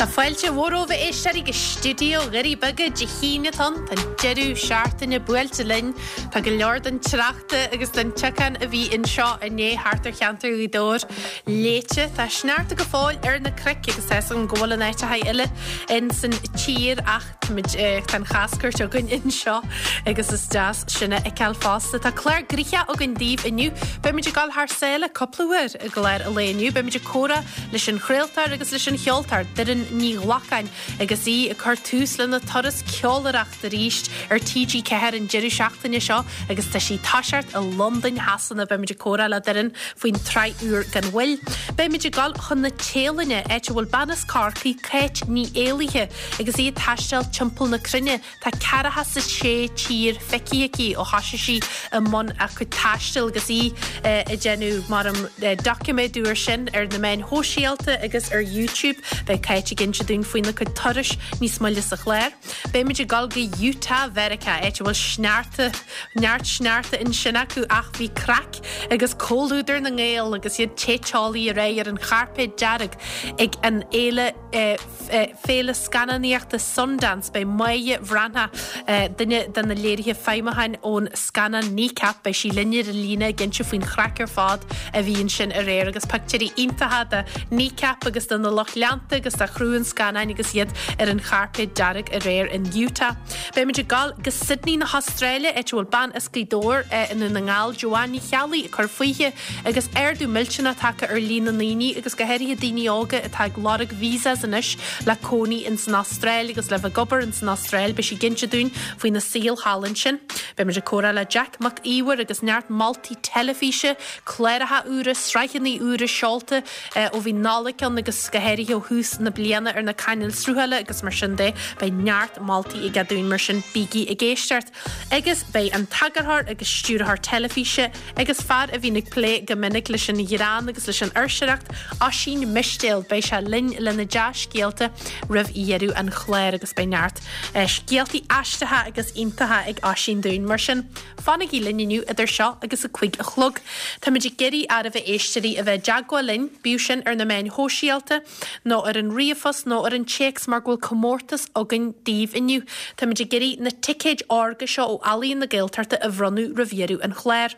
Tá fáilte mhór romhaibh a éisteoirí go stiúideo Dhoirí Beaga Dé hAoine atá ann. Tá an deireadh seachtaine buailte linn. Tá go leor den tsneachta agus den tiocán a bhí anseo inné thart ar cheantar Ghaoth Dobhair léite. Tá sneachta go fóill ar na cnoic agus tá 'fhios agam go bhfuil in áiteacha eile in san tír ach táimid, tá an chaschuairt againn anseo agus is deas sin a fheiceáil fosta. Tá clár gnoitheach againn daoibh inniu. Beimid ag dul thar sáile cúpla uair i gclár an lae inniu. Beimid ag comhrá leis an chraoltóir agus leis an cheoltóir, Doireann Ní Ghlacáin, agus í ag cur tús lena turas ceolaireachta arís ar TG4 an deireadh seachtaine seo agus tá sí ag toiseacht i Londain Shasana. Beimid ag comhrá le Doireann faoin tsraith úr gan mhoill. Beimid ag dul chun na Téalainne, áit a bhfuil bean as Corcaigh, Cáit Ní Éalaithe, agus í ag taisteal timpeall na cruinne. Tá 46 tír feicthe aici ó thosaigh sí i mbun a cuid taistil agus í ag déanamh mar an doiciméadú air sin ar na meáin shóisialta agus ar YouTube. Beidh Cáit ag inse dúinn faoina cuid turais níos moille sa chlár. Beimid ag dul go Utah Mheiriceá, áit a bhfuil sneachta, neart sneachta ansin acu ach bhí craic agus comhluadar na nGael agus iad te teolaí aréir ar an chairpéad dearg ag an fhéile Féile Scannánaíochta Sundance, beidh Máire Bhreathnach, duine de na léirithe feidhmiúcháin ón scannán Kneecap, beidh sí linn ar an líne ag inse faoin chraic ar fad a bhí ansin aréir agus pictiúirí iontacha de Kneecap agus de na lucht leanta agus de chriú an scannáin agus iad ar an chairpéad dearg aréir in Utah. Beimid ag dul go Sydney na hAstráile, áit a bhfuil bean as Gaoth Dobhair i nDún na nGall, Joanne Ní Cheallaigh, ag cur fúithi. Agus ardú millteanach tagtha ar líon na ndaoine, agus go háirithe daoine óga, atá ag lorg visas anois le cónaí ins an Astráil agus le bheith ag obair ins an Astráil, beidh sí ag inse dúinn faoina saol thall ansin. Beimid ag comhrá le Jack Mac Íomhair agus neart moltaí teilifíse, cláracha úra, sraitheanna úra seolta ó bhí Nollaig ann agus go háirithe ó thús na bliana ar na cainéil sruthála agus mar sin de, beidh neart moltaí aige dúinn mar sin bígí ag éisteacht. Agus beidh an t-eagarthóir agus stiúrthóir teilifíse agus fear a bhíonn ag plé go minic leis an ghreann agus leis an fhuirseoireacht, Oisín Mistéil, beidh sé linn lena dea-scéalta roimh dheireadh an chláir agus beidh neart scéaltaí aisteacha agus iontacha ag Oisín dúinn. Mar sin, fanaigí linn inniu idir seo agus a 5 a chlog. Táimid ag iarraidh oraibh a éisteoirí a bheith i dteagmháil linn, bíodh sin ar na meáin shóisialta, nó ar an ríomhphost nó ar an téacs mar go bhfuil comórtas againn daoibh inniu. Táimid ag iarraidh na ticéid órga seo ó Ealaíon na Gaeltachta a bhronnadh roimh dheireadh an chláir.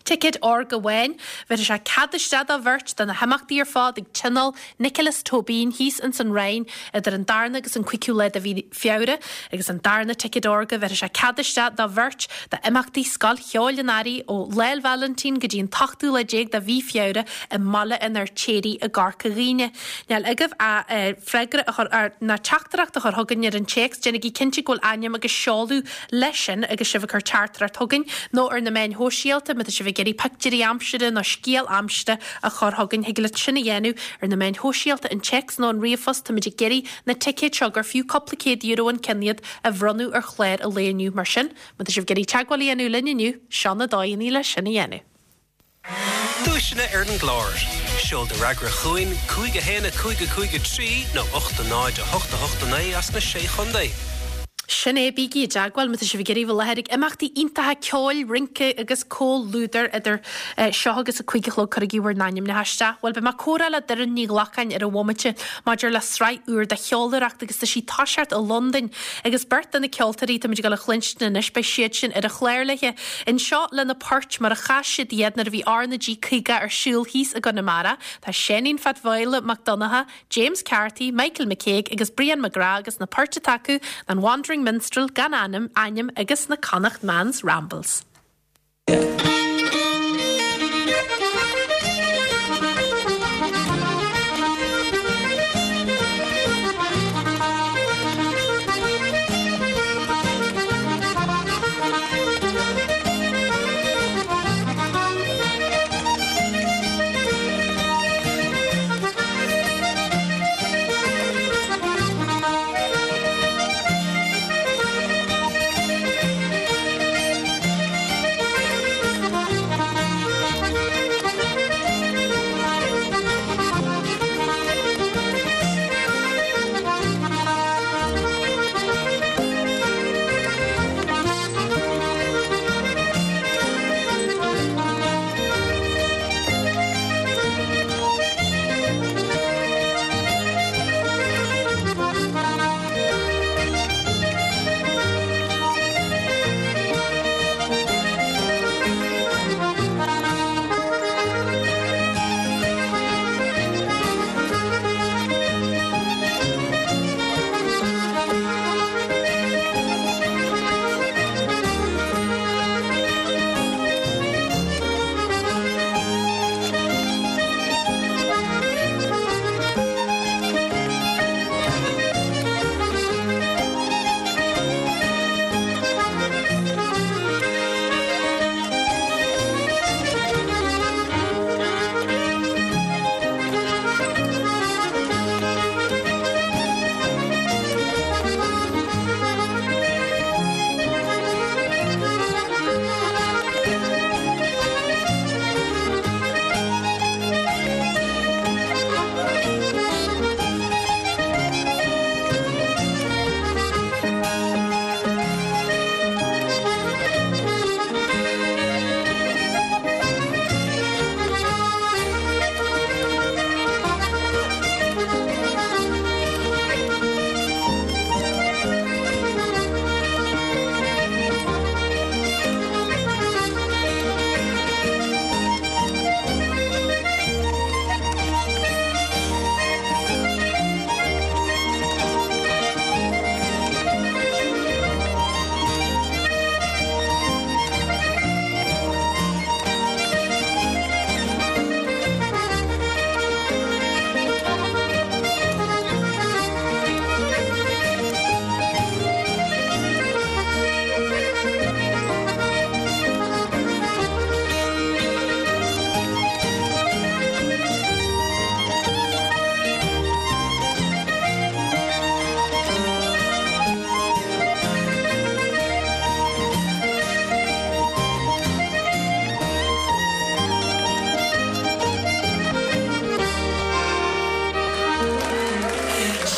Ticéad órga amháin, bhéarfaidh sé cead isteach do bheirt do na himeachtaí ar fad ag Tionól Nioclás Tóibín thíos ins an Rinn idir an darna agus an cúigiú lá de mhí Feabhra agus an darna ticéad órga, bhéarfaidh sé cead isteach do bheirt d'imeachtaí Scoil Cheoil an Earraigh ó Lá 'le Vailintín go dtí an t-ochtú lá déag de mhí Feabhra i mBaile an Fheirtéaraigh i gCorca Dhuibhne. Níl agaibh ach freagra a chur ar, ná teachtaireacht a chur chugainn ar an téacs, déanaigí cinnte go bhfuil ainm agus seoladh leis sin agus sibh ag cur teachtaireacht chugainn, nó ar na meáin shóisialta má tá sibh ag iarraidh pictiúirí aimsire nó scéal aimsire a chur chugainn, thig leat sin a dhéanamh ar na meáin shóisialta, an téacs nó an ríomhphost. Táimid ag iarraidh na ticéid seo, gur fiú cúpla €100 an ceann iad, a bhronnadh ar chlár an lae inniu. Mar sin, má tá sibh ag iarraidh teagmháil a dhéanamh linn inniu, seo na dóigheanna le sin a dhéanamh. Duaiseanna ar an gclár. Seol do fhreagra chugainn, 5 1 5 5 3 nó 8 0 8 8 9 as na Sé Chontae. Sin é, bígí i dteagmháil má tá sibh ag iarraidh bheith i láthair ag imeachtaí iontacha ceoil, rince agus comhluadair idir seo agus a 5 a chlog cuirigí bhur n-ainmneacha isteach. Bhuel, beidh mé ag comhrá le Doireann Ní Ghlacáin ar an bhomaite maidir le sraith úr de cheolaireacht agus tá sí ag toiseacht i Londain agus beirt de na ceoltóirí táimid ag dul a chluinstin anois, beidh siad sin ar an chlár léi anseo lena poirt mar a chas siad iad nuair a bhí R na G 50 ar siúl thíos i gConamara. Tá Seáinín Phat Mhaola Mac Donncha, James Carthy, Michael McCague agus Brian McGrath agus na poirt atá acu ná an Wandering Minstrel, Gan Ainm, Ainm agus na Connacht Man's Rambles.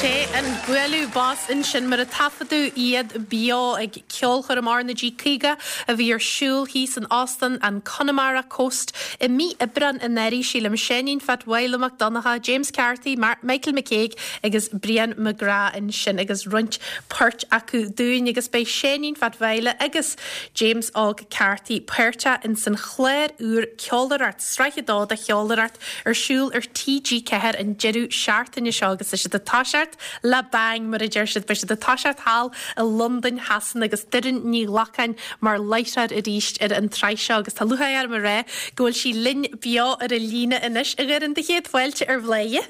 Sé an bualadh bos ansin mar a taifeadadh iad beo ag ceolchoirm RnaG 50 a bhí ar siúl thíos in Óstán an Connemara Coast i mí Aibreáin anuraidh, sílim. Seáinín Phat Mháille Mac Donncha, James Carthy, Michael McCague agus Brian McGrath ansin agus roinnt poirt acu dúinn agus beidh Seáinín Phat Mháille agus James Óg Carthy páirteach ins an chlár úr Ceolaireacht, Sraith 2 de Cheolaireacht ar siúl ar TG4 an deireadh seachtaine seo agus tá siad ag toiseacht le bang, mar a deir siad. Beidh siad ag toiseacht thall i Londain Shasana agus Doireann Ní Ghlacáin mar láithreoir arís ar an tsraith seo agus tá lúcháir orm a rá go bhfuil sí linn beo ar an líne anois. A Dhoireann, do chéad fáilte ar Bhláth.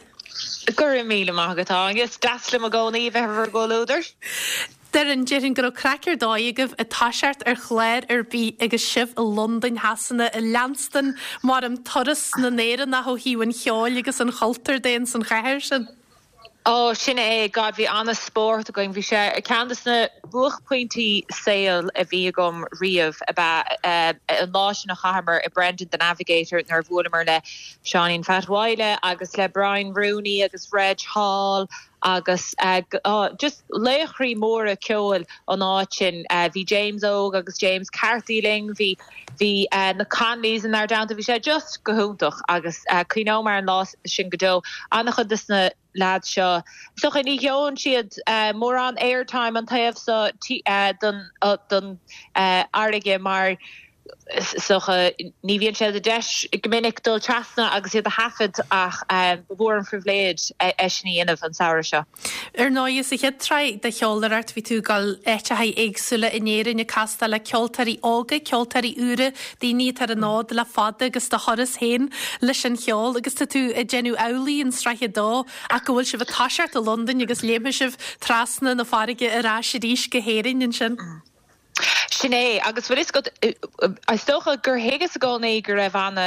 Go raibh míle maith agat, a Áine. Is deas liom i gcónaí a bheith ar bhur gcomhluadar. Doireann, déarfainn go raibh craic ar dóigh agaibh ag toiseacht ar chlár ar bith agus sibh i Londain Shasana ag leanstan maram turas na nÉireannach ó thaobh an cheoil agus an chultúir de ins an chathair sin. Ó, sin é, God, bhí an-spórt againn. Bhí sé ceann de na buaicphointí saoil a bhí agam riamh ab ea an lá sin a chaitheamar i Brendan the Navigator nuair a bhuaileamar le Seáinín Phat Mháille agus le Brian Rooney agus Reg Hall agus just laochraí móra ceoil an áit sin. Bhí James Óg agus James Carthy linn, bhí bhí na Connollys inár dteannta, bhí sé just go hiontach agus cuimhneoidh mé ar an lá sin go deo. An-chuid de na leaids seo, is dócha ní gheobhann siad mórán airtime an taobh so den fharraige mar Is dócha, ní bhíonn sé de deis go minic dul trasna agus iad a thaifead ach ba mhór an phribhléid é sin a dhéanamh an samhradh seo. Ar ndóigh, sa chéad tsraith de Cheolaireacht bhí tú ag dul áiteacha éagsúla in Éirinn ag castáil le ceoltóirí óga, ceoltóirí úra, daoine atá ar an fhód le fada agus do thuras féin leis an cheol agus tá tú ag déanamh amhlaidh in sraith a dó ach go bhfuil sibh ag toiseacht i Londain agus léimfidh sibh trasna na farraige ar ais arís go hÉirinn ansin. Sin é, agus bhfuil fhios agat, is dócha gur thuigeas i gcónaí go raibh ana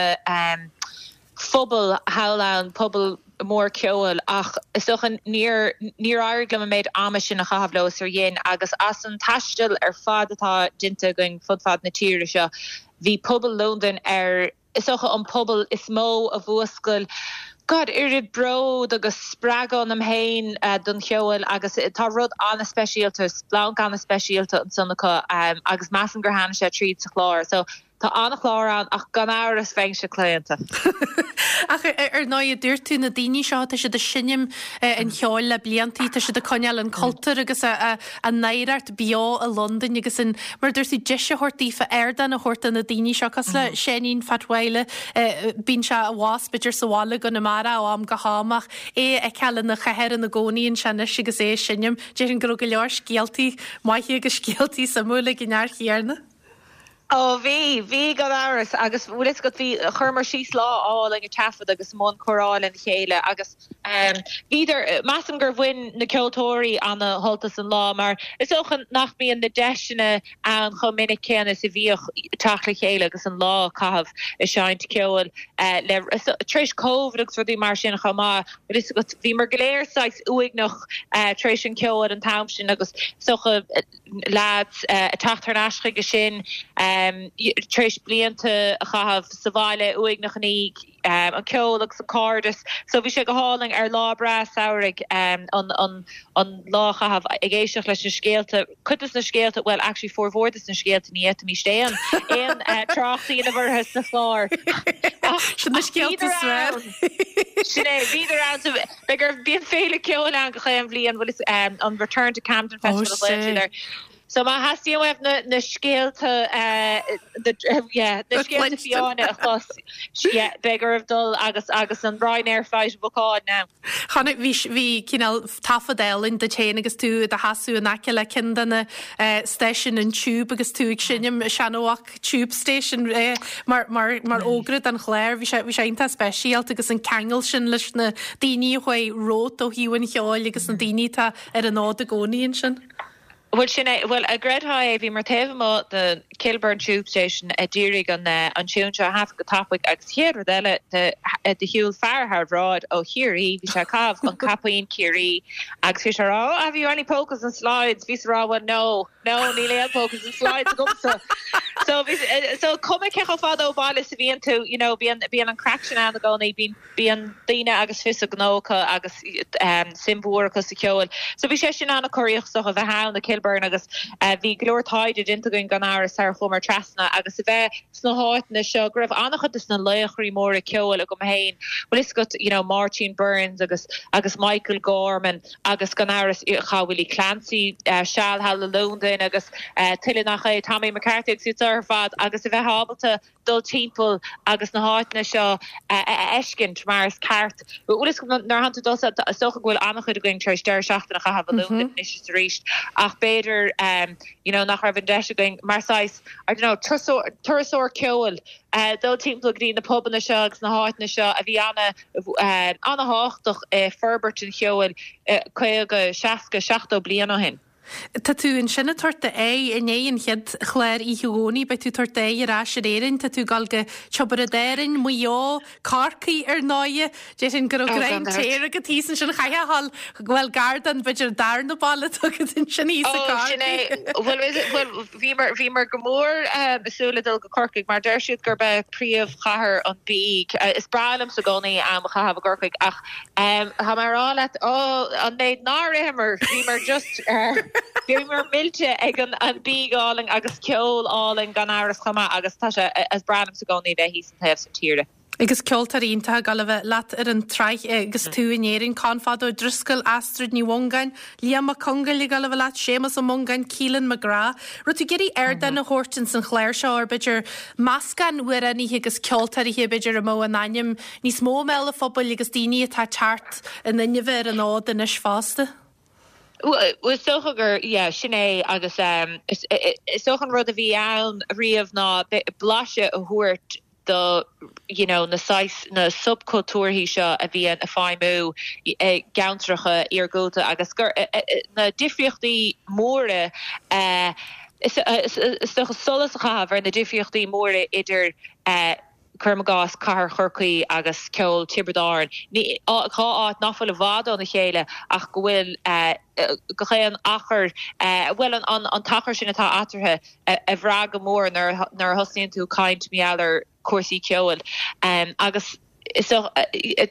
phobal thall ann, pobal mór ceoil, ach is dócha níor, níor éirigh liom an méid ama sin a chaitheamh leo is ar dhein, agus as an taisteal ar fad atá déanta againn fud fad na tíre seo, bhí pobal Londain ar. is dócha, an pobal is mó a mhúscail, God, oiread bród agus spreagadh ionam féin don cheol agus tá rud an-speisialta, splanc an-speisialta ansan acu agus measaim gur tháinig sé tríd sa chlár. So tá an-chlár ann ach gan amhras bheinnse claonta. Ach ar ndóigh, a dúirt tú, na daoine seo, tá siad ag seinm an cheoil le bliantaí, tá siad ag coinneáil an cultúr agus a n-oidhreacht beo i Londain agus an, mar a dúirt tú, deis a thabhairt daofa, ardán a thabhairt do na daoine seo, cosúil le Seáinín Phat Mháille, bíonn sé abhus b'fhéidir sa bhaile i gConamara ó am go ham ach é a fheiceáil ina chathair ina gcónaí anseo anois agus é ag seinm, déarfainn go raibh go leor scéaltaí maithe agus scéaltaí suimiúla ag an fhear chéanna. Ó bhí, bhí gan amhras agus bhfuil fhios agat bhí, chuireamar síos lá álainn ag taifead agus i mbun comhrá lena chéile agus bhíodar, measaim gur bhain na ceoltóirí ana shult as an lá mar is dócha nach mbíonn na deiseanna ann chomh minic céanna is a bhíodh teacht le chéile agus an lá a chaitheamh ag seinnt ceoil le, tar éis Covid agus rudaí mar sin chomh maith, bhfuil fhios agat, bhíomar go léir saghas uaigneach tar éis an cheoil an t-am sin agus is dócha, leaids ag teacht thar n-ais chuige sin tar éis blianta a chaitheamh sa bhaile uaigneach i ndiaidh an ceol agus an cairdeas. So bhí sé go hálainn ar lá breá samhraidh an an lá a chaitheamh ag éisteacht leis na scéalta, cuid des na scéalta, bhuel actually formhór des na scéalta ní fhéadfaimis aon aon trácht a dhéanamh orthu sa chlár. Sin na scéalta is fearr. Sin é, bhíodar ann. Beidh ar, bíonn féile ceoil ann gach aon bhliain, bhfuil fhios, an Return to Camden Festival a ghlaonn siad air. So má theastaíonn uaibh na, na scéalta, the, yeah, na scéalta fiáine a chlos, yeah, beidh oraibh dul agus, agus an Ryanair flight a bhookáil now. Chonaic, bhí, bhí cineál taifead álainn duit féin agus tú i do sheasamh in aice le ceann de na stáisiúin an Tube agus tú ag seinm Seanamhac Tube Station mar mar fhógra don chlár. Bhí sé bhí sé iontach speisialta agus an ceangal sin leis na daoine a chuaigh romhat ó thaobh an cheoil agus na daoine atá ar an fhód i gcónaí ansin. Bhuel sin é, bhuel an gcreidfeá é, bhíomar taobh amuigh de Kilburn Tube Station ag iarraidh an an tiún seo a thaifead go tapaidh agus chéad rud eile do do shiúil fear thar bhráid ó Chiarraí, bhí sé ag caitheamh an caipín Ciarraí agus bhí sé ag rá oh have you any polkas and slides? Bhíos ag rá well no. No, níl aon polkas and slides agamsa. So bhí, so cuma cé chomh fada ó bhaile is a bhíonn tú, you know, bíonn, bíonn an craic sin ann i gcónaí, bíonn, bíonn daoine agus fios a ngnó acu agus suim mhór acu sa cheol. So bhí sé sin an-chorraíoch is dócha a bheith ann i Kilburn agus bhí go leor taighde déanta againn gan amhras sar a chuamar trasna agus a bheith sna háiteanna seo go raibh an-chuid de na laochraí móra ceoil agam féin, bhfuil fhios agat, you know, Máirtín Byrnes agus agus Michael Gorman agus gan amhras chaith Willie Clancy seal thall i Londain agus tuilleadh nach é, Tommy McCarthy agus iad seo ar fad agus a bheith ábalta dul timpeall agus na háiteanna seo a fheiscint mar is ceart. Bhfuil fhios agat nuair atánn tú dul, is dócha go bhfuil an-chuid againn tar éis deireadh seachtaine a chaitheamh i Londain anois is arís ach b'fhéidir you know nach raibh an deis againn mar saghas, I don't know, turasóir ceoil dul timpeall go dtí na pubanna seo agus na háiteanna seo a bhí an-thábhachtach i forbairt an cheoil 50, 60, 70 bliain ó shin. Tá tú ansin ag tabhairt d'aghaidh i ndiaidh an chéad chlár oíche Dhomhnaigh, beidh tú ag tabhairt d'aghaidh ar ais ar Éirinn, tá tú ag dul go Tiobraid Árainn, Maigh Eo, Corcaigh ar ndóighe. Déarfainn go raibh greim téir agat thíos ansin, chaithfeá a dhul, bhuel gar don, b'fhéidir darna baile atá agat ansin thíos i Ó, sin é. gCorcaigh. Bhuel, is, bhuel, bhíomar, bhíomar go mór ag súil le dul go Corcaigh mar deir siad gurb é príomhchathair an bhídh. Is breá liomsa i gcónaí am a chaitheamh i gCorcaigh ach tá mé a rá leat, ó, an méid nár itheamar, bhíomar just, bhíomar millte ag an, an bídh álainn agus ceol álainn gan amhras chomh maith agus tá sé, is breá liomsa i gcónaí bheith thíos an taobh san tíre. Agus ceoltóirí iontacha ag dul a bheith leat ar an tsraith agus tú in Éirinn, Conn Fada Ó Drisceoil, Astrid Ní Mhongáin, Liam Mac Congáil ag dul a bheith leat, Séamus Ó Mongáin, Keelan McGrath. Raibh tú ag iarraidh ardán a thabhairt ins an chlár seo ar b'fhéidir meascán amhránaithe agus ceoltóirithe b'fhéidir a mbeadh a n-ainm níos mó i mbéal an phobail agus daoine atá ag teacht in inmhe ar an fhód anois fosta? Bhuel, is dócha gur, yeah, sin é agus is dócha an rud a bhí ann riamh ná blaiseadh a thabhairt do you know na saghas, na subchultúrthaí seo a bhíonn ag feidhmiú i gceantracha iargúlta agus gur na difríochtaí móra is dócha solas a chaitheamh ar na difríochtaí móra idir cuirim i gcás cathair Chorcaí agus ceol Tiobraid Árann, dhá áit nach bhfuil i bhfad óna chéile ach go bhfuil gach aon achar, bhuel an t-achar sin atá eatarthu a bhrath go mór nuair a thosnaíonn tú ag caint mar gheall ar chúrsaí ceoil agus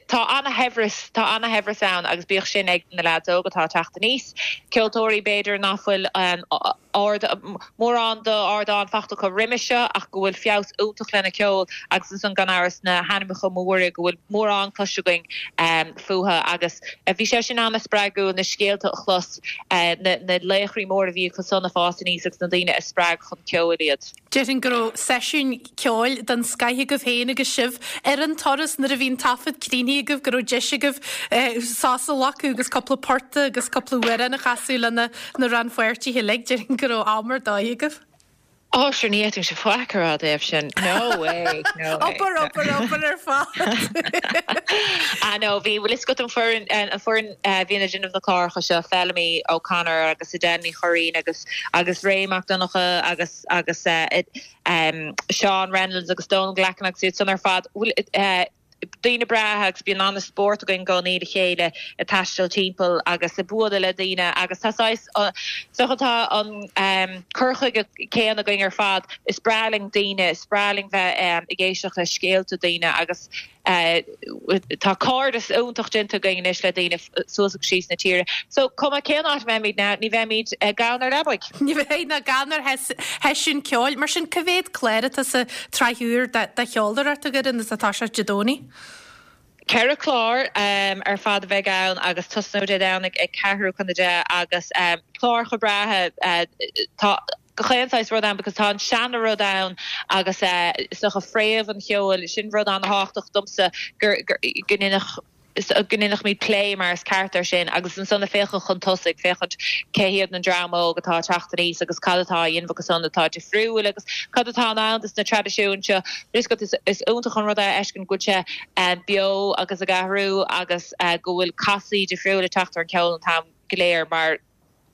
tá ana-shaibhreas, tá ana-shaibhreas ann agus bíodh sin ag na leaids óga atá ag teacht aníos, ceoltóirí b'fhéidir nach bhfuil ard, mórán d'ardán fachta acu roimis seo ach go bhfuil feabhas iontach lena ceol agus ansan gan amhras na hainmneacha móra go bhfuil mórán cloiste againn fúthu agus bhí sé sin ana-spreagúil na scéalta a chlos, na laochraí móra a bhí acu san ag fás aníos agus na daoine a spreag chun ceoil iad. Déarfainn go raibh seisiún ceoil den scoith agaibh féin agus sibh ar an turas nuair a bhí an taifead críochnaithe agaibh, go raibh deis agaibh sos a ghlacadh agus cúpla port agus cúpla amhrán a chasadh le na rannpháirtithe uilig. Déarfainn go raibh am ar dóigh agaibh. Ó, sure, ní fhéadfainnse faic a rá i dtaobh sin. No way, no way. Obair, obair, obair ar fad. Ah no, bhí, bhfuil fhios agat an foireann, an foireann a bhíonn ag déanamh na cláracha seo, Feilimí O'Connor agus Edel Ní Churraoin agus, agus Ray Mac Donncha agus agus Seán Reynolds agus Donal Glackin agus iad san ar fad, bhuel daoine breátha agus bíonn an-spórt againn i gcónaí le chéile ag taisteal timpeall agus ag bualadh le daoine agus tá saghas, is dócha tá an cur chuige céanna againn ar fad, is breá linn daoine, is breá linn bheith ag éisteacht le scéalta daoine agus Tá cairdeas iontach déanta againn anois le daoine suas agus síos na tíre. So, cuma cén áit a mbeimid now, ní bheimid gann ar leabaidh. Ní bheidh ná gann ar sheisiún ceoil. Mar sin, cá mhéad clár atá sa tsraith úr de cheolaireacht a Dhoireann is atá sé Dé Domhnaigh? Ceithre chlár ar fad a bheidh ann agus tosnóidh Dé Domhnaigh ag ceathrú chun a deich agus cláracha breátha. Tá. gach aon saghas rud ann because tá an seana rud ann agus is dócha fréamh an cheoil, sin rud an-thábhachtach domsa gur go ndéanfadh go ndéanfaimid plé mar is ceart air sin agus ansan ag féachaint chun tosaigh, féachaint cé hiad an dream óg atá ag teacht aníos agus cad atá á dhéanamh acu san atá difriúil agus cad atá ann dos na traidisiúin seo. Is is iontach an rud é a fheiscint go bhfuil sé beo agus ag athrú agus go bhfuil casadh difriúil ag teacht ar an cheol an t-am go léir mar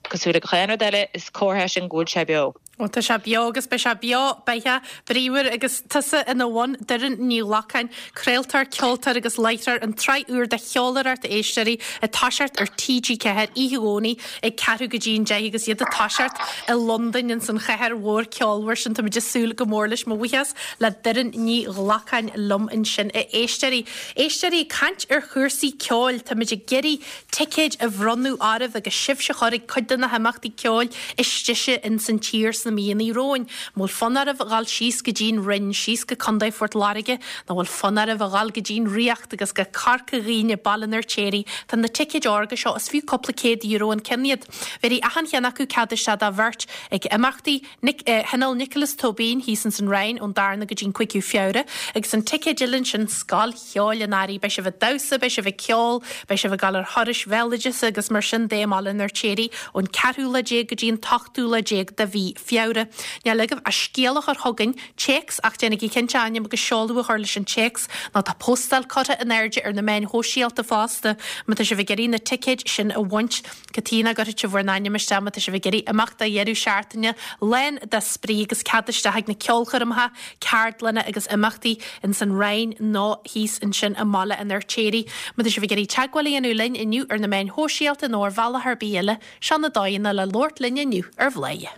Cosúil le gach aon rud eile, is comhartha é sin go bhfuil sé beo. Ó tá sé beo agus beidh sé beo beatha bríomhar agus tusa ina bhun, Doireann Ní Ghlacáin, craoltóir, ceoltóir agus láithreoir, an tsraith úr de Cheoláireacht a éisteoirí ag toiseacht ar TG4 oíche Dhomhnaigh ag ceathrú go dtí an 10 agus iad ag toiseacht i Londain ins an chathair mhór ceolmhar sin. Táimid ag súil go mór leis. Mo bhuíochas le Doireann Ní Ghlacáin liom ansin a éisteoirí. Éisteoirí, ag caint ar chúrsaí ceoil, táimid ag iarraidh ticéid a bhronnadh oraibh agus sibhse a chur ag cuid de na himeachtaí ceoil is deise ins an tír sna míonna romhainn. An bhfuil fonn oraibh a dhul síos go dtí'n Rinn, síos go Contae Phort Láirge, nó bhfuil fonn oraibh a dhul go dtí'n Ríocht agus go Corca Dhuibhne, Baile an Fheirtéaraigh? Tá na ticéid órga seo, is fiú cúpla €100 an ceann iad. Bhéarfaidh achan cheann acu cead isteach do bheirt ag imeachtaí Nic, Thionól Nioclás Tóibín thíos ins an Rinn ón darna go dtí'n cúigiú Feabhra agus an ticéad eile ansin Scoil Cheoil an Earraigh. Beidh sibh ag damhsa, beidh sibh ag ceol, beidh sibh ag dul ar thurais bhéaloideasa agus mar sin de i mBaile an Fheirtéaraigh ón ceathrú lá déag go dtí an t-ochtú lá déag de mhí Feabhra. Níl agaibh ach scéal a chur chugainn, téacs, ach déanaigí cinnte ainm agus seoladh a chur leis an téacs nó tá postáil curtha in airde ar na meáin shóisialta fosta má tá sibh ag iarraidh na ticéid sin a bhaint. Cad chuige nach gcuirfidh sibh bhur n-ainm isteach má tá sibh ag iarraidh imeacht do dheireadh seachtaine lán de spraoi agus cead isteach ag na ceolchoirmeacha, ceardlanna agus imeachtaí ins an Rinn nó thíos ansin i mBaile an Fheirtéaraigh. Má tá sibh ag iarraidh teagmháil a dhéanamh linn inniu ar na meáin shóisialta nó ar bhealach ar bith eile, seo na dóigheanna le labhairt linn inniu ar Bhladhaire.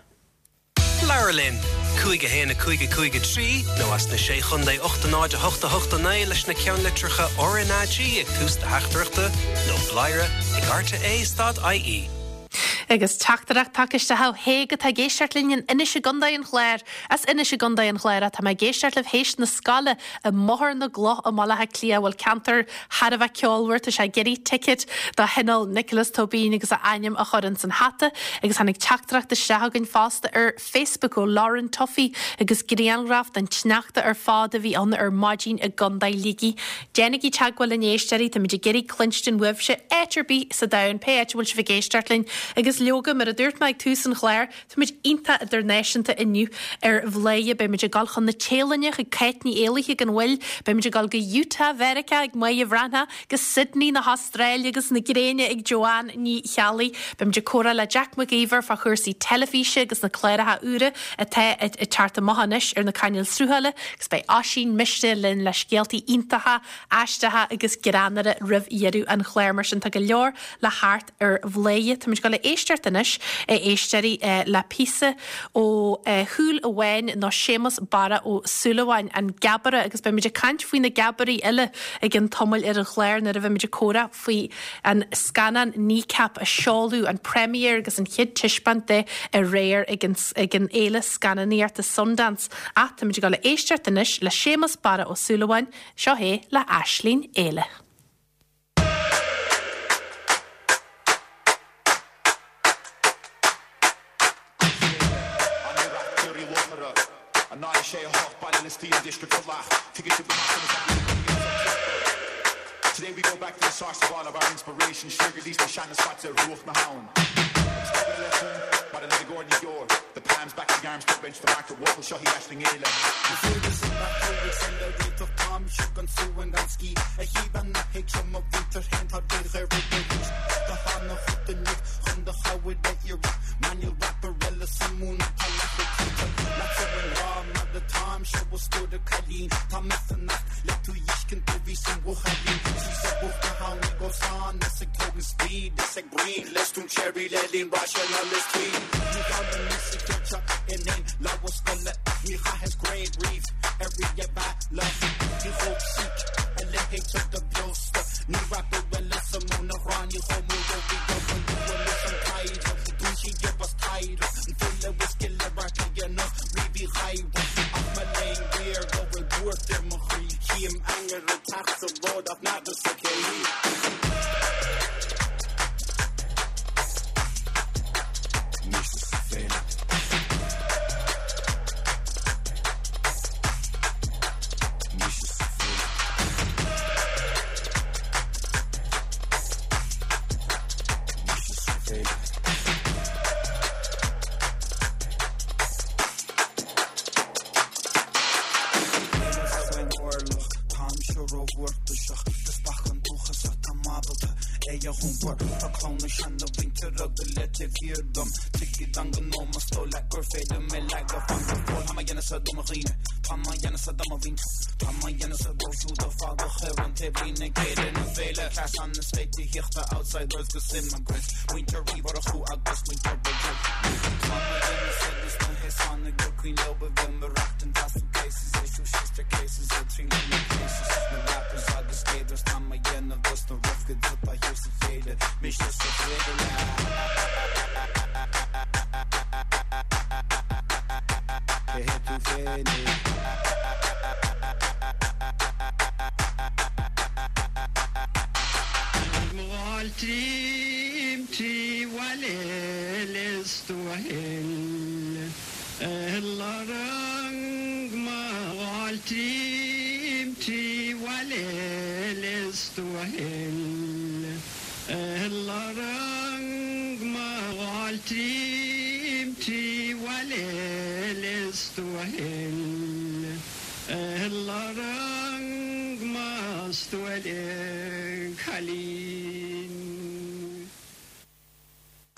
Labhair linn! 5 1 5 5 3 nó as na Sé Chontae 8 0 8 8 9 leis na ceannlitreacha RnaG ag tús do theachtaireachta nó bladhaire ag rte stad ie. Agus teachtaireacht tagtha isteach ó Thaidhg atá ag éisteacht linn in Inis i gContae an Chláir. As Inis i gContae an Chláir atá mé ag éisteacht libh théis na scoile i mBóthar na gCloch i mBaile Átha Cliath. Bhuel ceantar thar a bheith ceolmhar, tá sé ag iarraidh ticket do Thionól Nioclás Tóibín agus a ainm a chur ins an hata. Agus tháinig teachtaireacht isteach againn fosta ar Facebook ó Lauren Tuffy agus grianghraf den tsneachta ar fad a bhí ann ar maidin i gContae Shligigh. Déanaigí teagmháil linn a éisteoirí, táimid ag iarraidh cluinstin uaibhse áit ar bith sa domhan, pé áit a bhfuil sibh ag éisteacht linn. Agus leoga, mar a dúirt mé ag tús an chláir, Táimid iontach idirnáisiúnta inniu ar Bhladhaire. Beimid ag dul chun na Téalainne chuig Cáit Ní Éalaithe gan mhoill. Beimid ag dul go Utah Mheiriceá ag Máire Bhreathnach, go Sydney na hAstráile agus na gréine ag Joanne Ní Cheallaigh. Beimid ag comhrá le Jack Mac Íomhair fá chúrsaí teilifíse agus na cláracha úra atá ag teacht amach anois ar na cainéil sruthála agus beidh Oisín Mistéil linn le scéaltaí iontacha, aisteacha agus greannmhara roimh dheireadh an chláir. Mar sin tá go leor le theacht ar Bhladhaire. Táimid ag dul a éisteacht anois, a éisteoirí, le píosa ó Shúil Amháin nó Séamus Barra Ó Súilleabháin, An Geabaire, agus beimid ag caint faoi na geabairí eile i gcionn tamaill ar an chlár nuair a bheimid ag comhrá faoi an scannán Kneecap a seoladh, an premiere agus an chéad taispeáint de aréir ag an ag an fhéile scannánaíochta Sundance. Ach táimid ag dul a éisteacht anois le Séamus Barra Ó Súilleabháin, seo é le Aisling Éile. luachmhar Tá clann na seana-mhuintire go léir taobh thiar dom Tuigid an gnó más dóigh leat gur féidir mé leagadh fan go fóill Tá mé dhéanamh sa do mo dhaoine Tá mé dhéanamh sa do mo mhuintir Tá mé dhéanamh sa dóibh siúd a fágadh ar an taobhlíne ag Féile na Féile Cleas na sléibhte outsiders 'gus immigrants Muintir Uí Mhurchú agus muintir Bhridget Tá mé dhéanamh sa dos na haosánaigh gur cuimhin leo a bheith ag maireachtaint as suitcases Issue sister cases ag triail na cases Na rappers agus skaters Tá mé dhéanamh dos na rough kids atá thiar sa chéile Mise sa chéile Cé hé tú féinig? Fáiltím trí bhaile Lios Tuathail Fáiltím trí bhaile Lios Tuathail Fáiltím trí bhaile Lios Tuathail Cailín.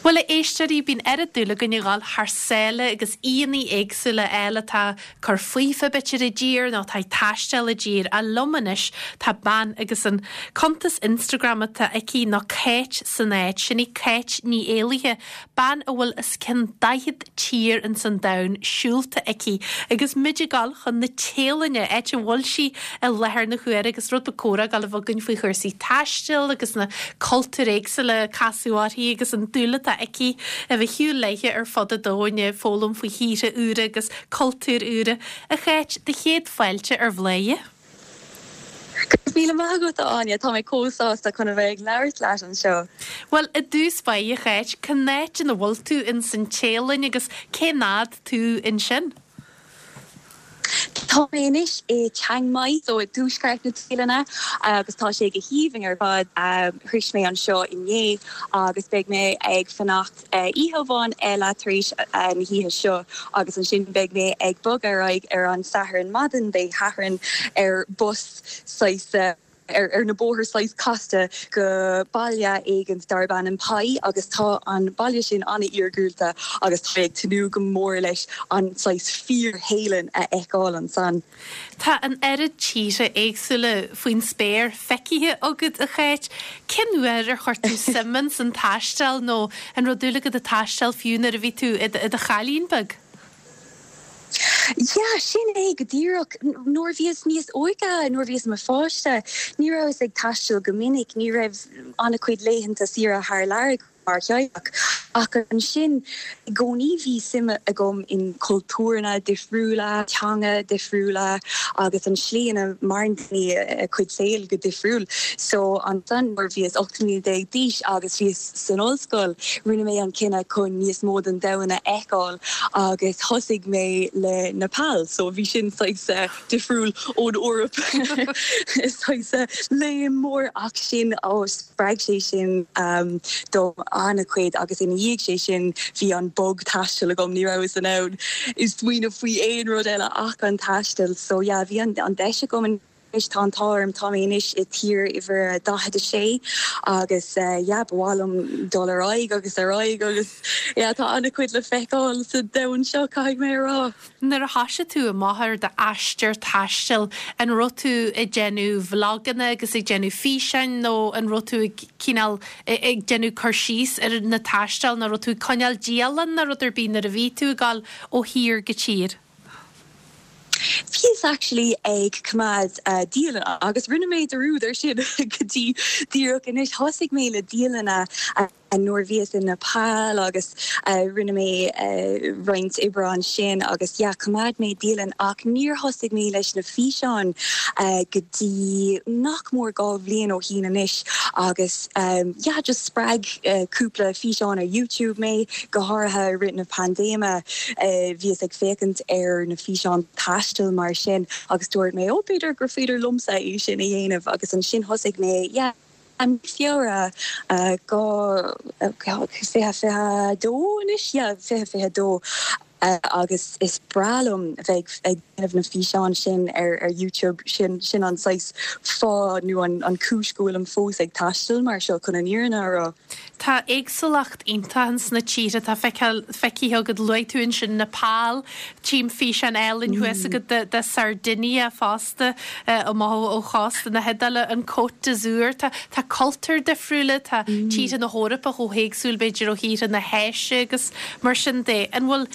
Bhuel, a éisteoirí, bíonn oiread dúil againn a dhul thar sáile agus aíonna éagsúla a fháil atá ag cur faofa b'fhéidir i dtír nó atá ag taisteal i dtír. Ach liom anois tá bean agus an cuntas Instagram atá aici ná Cáit san Áit. Sin í Cáit Ní Éalaithe, bean a bhfuil os cionn 40 tír ins an domhan siúlta aici agus muid ag dul chun na Téalainne, áit a bhfuil sí i láthair na huaire agus rud beag comhrá ag dul a bheith againn faoi chúrsaí taistil agus na cultúir éagsúla a casadh uirthi agus an dúil atá aici a bheith ag siúl léithe ar fud an domhain ag foghlaim faoi thíortha úra agus cultúir úra. A Cháit, do chéad fáilte ar Bhladhaire. Go raibh míle maith agat, a Áine. Tá mé chomh sásta chun a bheith ag labhairt leat anseo. Bhuel, i dtús báire, a Cháit, cén áit ina bhfuil tú ins an Téalainn agus cén fhad tú ansin? Tá mé anois i Chiang Mai, so i dtuaisceart na Téalainne, agus tá sé go haoibhinn ar fad. Shroich mé anseo inné agus beidh mé ag fanacht Oíche amháin eile tar éis na hoíche seo agus ansin beidh mé ag bogadh ar aghaidh ar an Satharn maidin Dé Sathairn ar bus saghas ar na bóithre saghas casta go baile éigint darb ainm Pai agus tá an baile sin an-iargúlta agus tá mé ag tnúth go mór leis an saghas fíor-Théalainn a fheiceáil ansan. Tá an oiread tíortha éagsúla faoin spéir feicthe agat, a Cháit. Cén uair ar chuir tú suim ins an taisteal nó an raibh dúil agat ag taisteal fiú nuair a bhí tú i do chailín beag? Yeah, sin é go díreach. Nuair a bhíos níos óige, nuair a bhíos i mo pháiste, ní rabhas ag taisteal go minic, ní raibh an-chuid laethanta saoire thar lear agam. mar theaghlach. Ach ansin, i gcónaí bhí suim agam in cultúranna difriúla, teanga difriúla agus an slí ina maireann daoine a cuid saoil go difriúil. So ansan nuair a bhíos 18 mbliana d'aois agus bhíos san ollscoil, rinne mé an cinneadh chun níos mó den domhan a fheiceáil agus thosaigh mé le Nepal. So bhí sin saghas difriúil ón Eoraip, saghas léim mór ach sin, oh, Spreag sé sin dom an-chuid agus ina dhiaidh sé sin bhí an bug taistil agam, ní rabhas in ann smaoineamh faoi aon rud eile ach an taisteal. So yeah, bhí an deis agam anois, tá an t-ádh orm, tá mé anois i tír uimhir a 46 agus yeah, ba mhaith liom dul ar aghaidh agus ar aghaidh agus yeah, tá an-chuid le feiceáil sa domhan seo, caithfidh mé a rá. Nuair a thoisigh tú amach ar d'aistear taistil, an raibh tú ag déanamh vloganna agus ag déanamh físeáin nó an raibh tú ag cineál ag déanamh cur síos ar na taisteal nó raibh tú ag coinneáil dialann nó rud ar bith nuair a bhí tú ag dul ó thír go tír? Bhíos actually ag coimeád dialann agus rinne mé dearúd ar sin go dtí díreach anois. Thosaigh mé le dialanna nuair a bhíos i Nepal agus rinne mé roinnt oibre ansin agus yeah choimeád mé dialann ach níor thosaigh mé leis na físeáin go dtí nach mór 2 bhliain ó shín anois agus yeah just spreag cúpla físeán ar YouTube mé, go háirithe i rith na paindéime bhíos ag féachaint ar na físeáin taistil mar sin agus dúirt mé oh b'fhéidir gur féidir liomsa é sin a dhéanamh agus ansin thosaigh mé yeah I mí Feabhra 2022 anois, yeah, 2022. Agus is breá liom bheith ag déanamh na físeáin sin ar ar YouTube, sin sin an saghas fáth nó an an cúis go bhfuilim fós ag taisteal mar seo chun an fhírinne a rá. Tá éagsúlacht iontach ins na tíortha atá feiceáil feicthe agat, luaigh tú ansin Nepal, tchím físeán álainn thuas agat de de Sardinia fosta amach ó chósta na hIodáile, an Côte d'Azur, tá tá cultúir difriúla, tá tíortha na hEorpa chomh héagsúil b'fhéidir ó thíortha na hÁise agus Mar sin de, an bhfuil,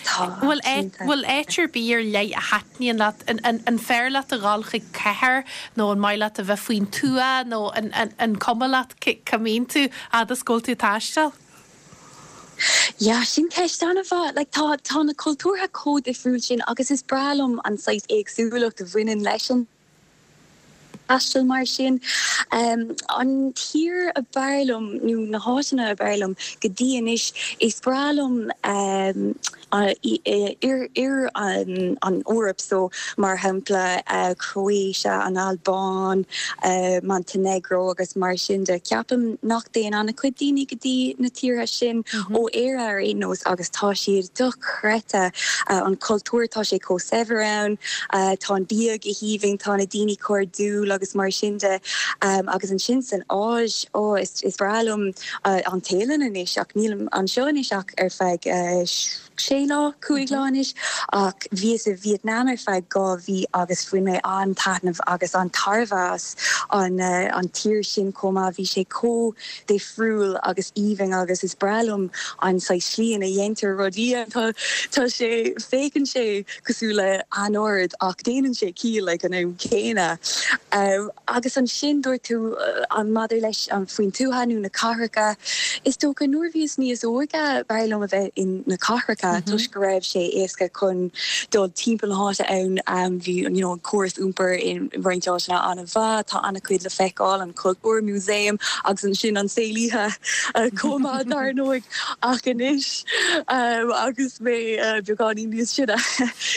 bhfuil áit, bhfuil áit ar bith ar leith a thaitníonn leat? An, an, an fearr leat a dhul chuig cathair nó an maith leat a bheith faoin tuath nó an, an, an cuma leat cá mbíonn tú fhad is go bhfuil tú ag taisteal? Yeah, sin ceist an-mhaith. Like, tá, tá na cultúrtha chomh difriúil sin agus is breá liom an saghas éagsúlacht a bhaineann leis an. taisteal mar sin. An tír a b'fhearr liom, nó na háiteanna a b'fhearr liom go dtí anois, is breá liom oirthear an Eoraip, so mar shampla Croatia, an Albáin, Montenegro agus mar sin de. Ceapaim nach dtéann an-chuid daoine go dtí na tíortha sin ó Éire ar aon nós agus tá siad dochreidte, an cultúr, tá sé chomh saibhir ann. Tá an bia go haoibhinn, tá na daoine cairdiúil agus mar sin de. Agus ansin san Áis, ó, is breá liom an Téalainn anois ach nílim anseo anois ach ar feadh sé lá, 5 lá anois. Ach bhíos i Vietnam ar feadh 2 mhí agus bhain mé an-taitneamh agus an-tairbhe as an tír sin chomh maith. Bhí sé chomh difriúil agus aoibhinn agus is breá liom an saghas slí ina dhéantar rudaí. Tá, tá sé, féachann sé cosúil le anord ach déanann sé ciall ag an am céanna. Agus ansin dúirt tú an maidir leis an faoin tuath nó na cathracha, is dócha nuair a bhíos níos óige b'fhearr liom a bheith in na cathracha toisc go raibh sé éasca chun dul timpeall na háite ann, bhí you know an córas iompair i roinnt áiteanna an-mhaith, tá an-chuid le feiceáil, an cultúr, músaem agus ansin an saol oíche chomh maith dar ndóigh. Ach anois agus mé beagáinín níos sine,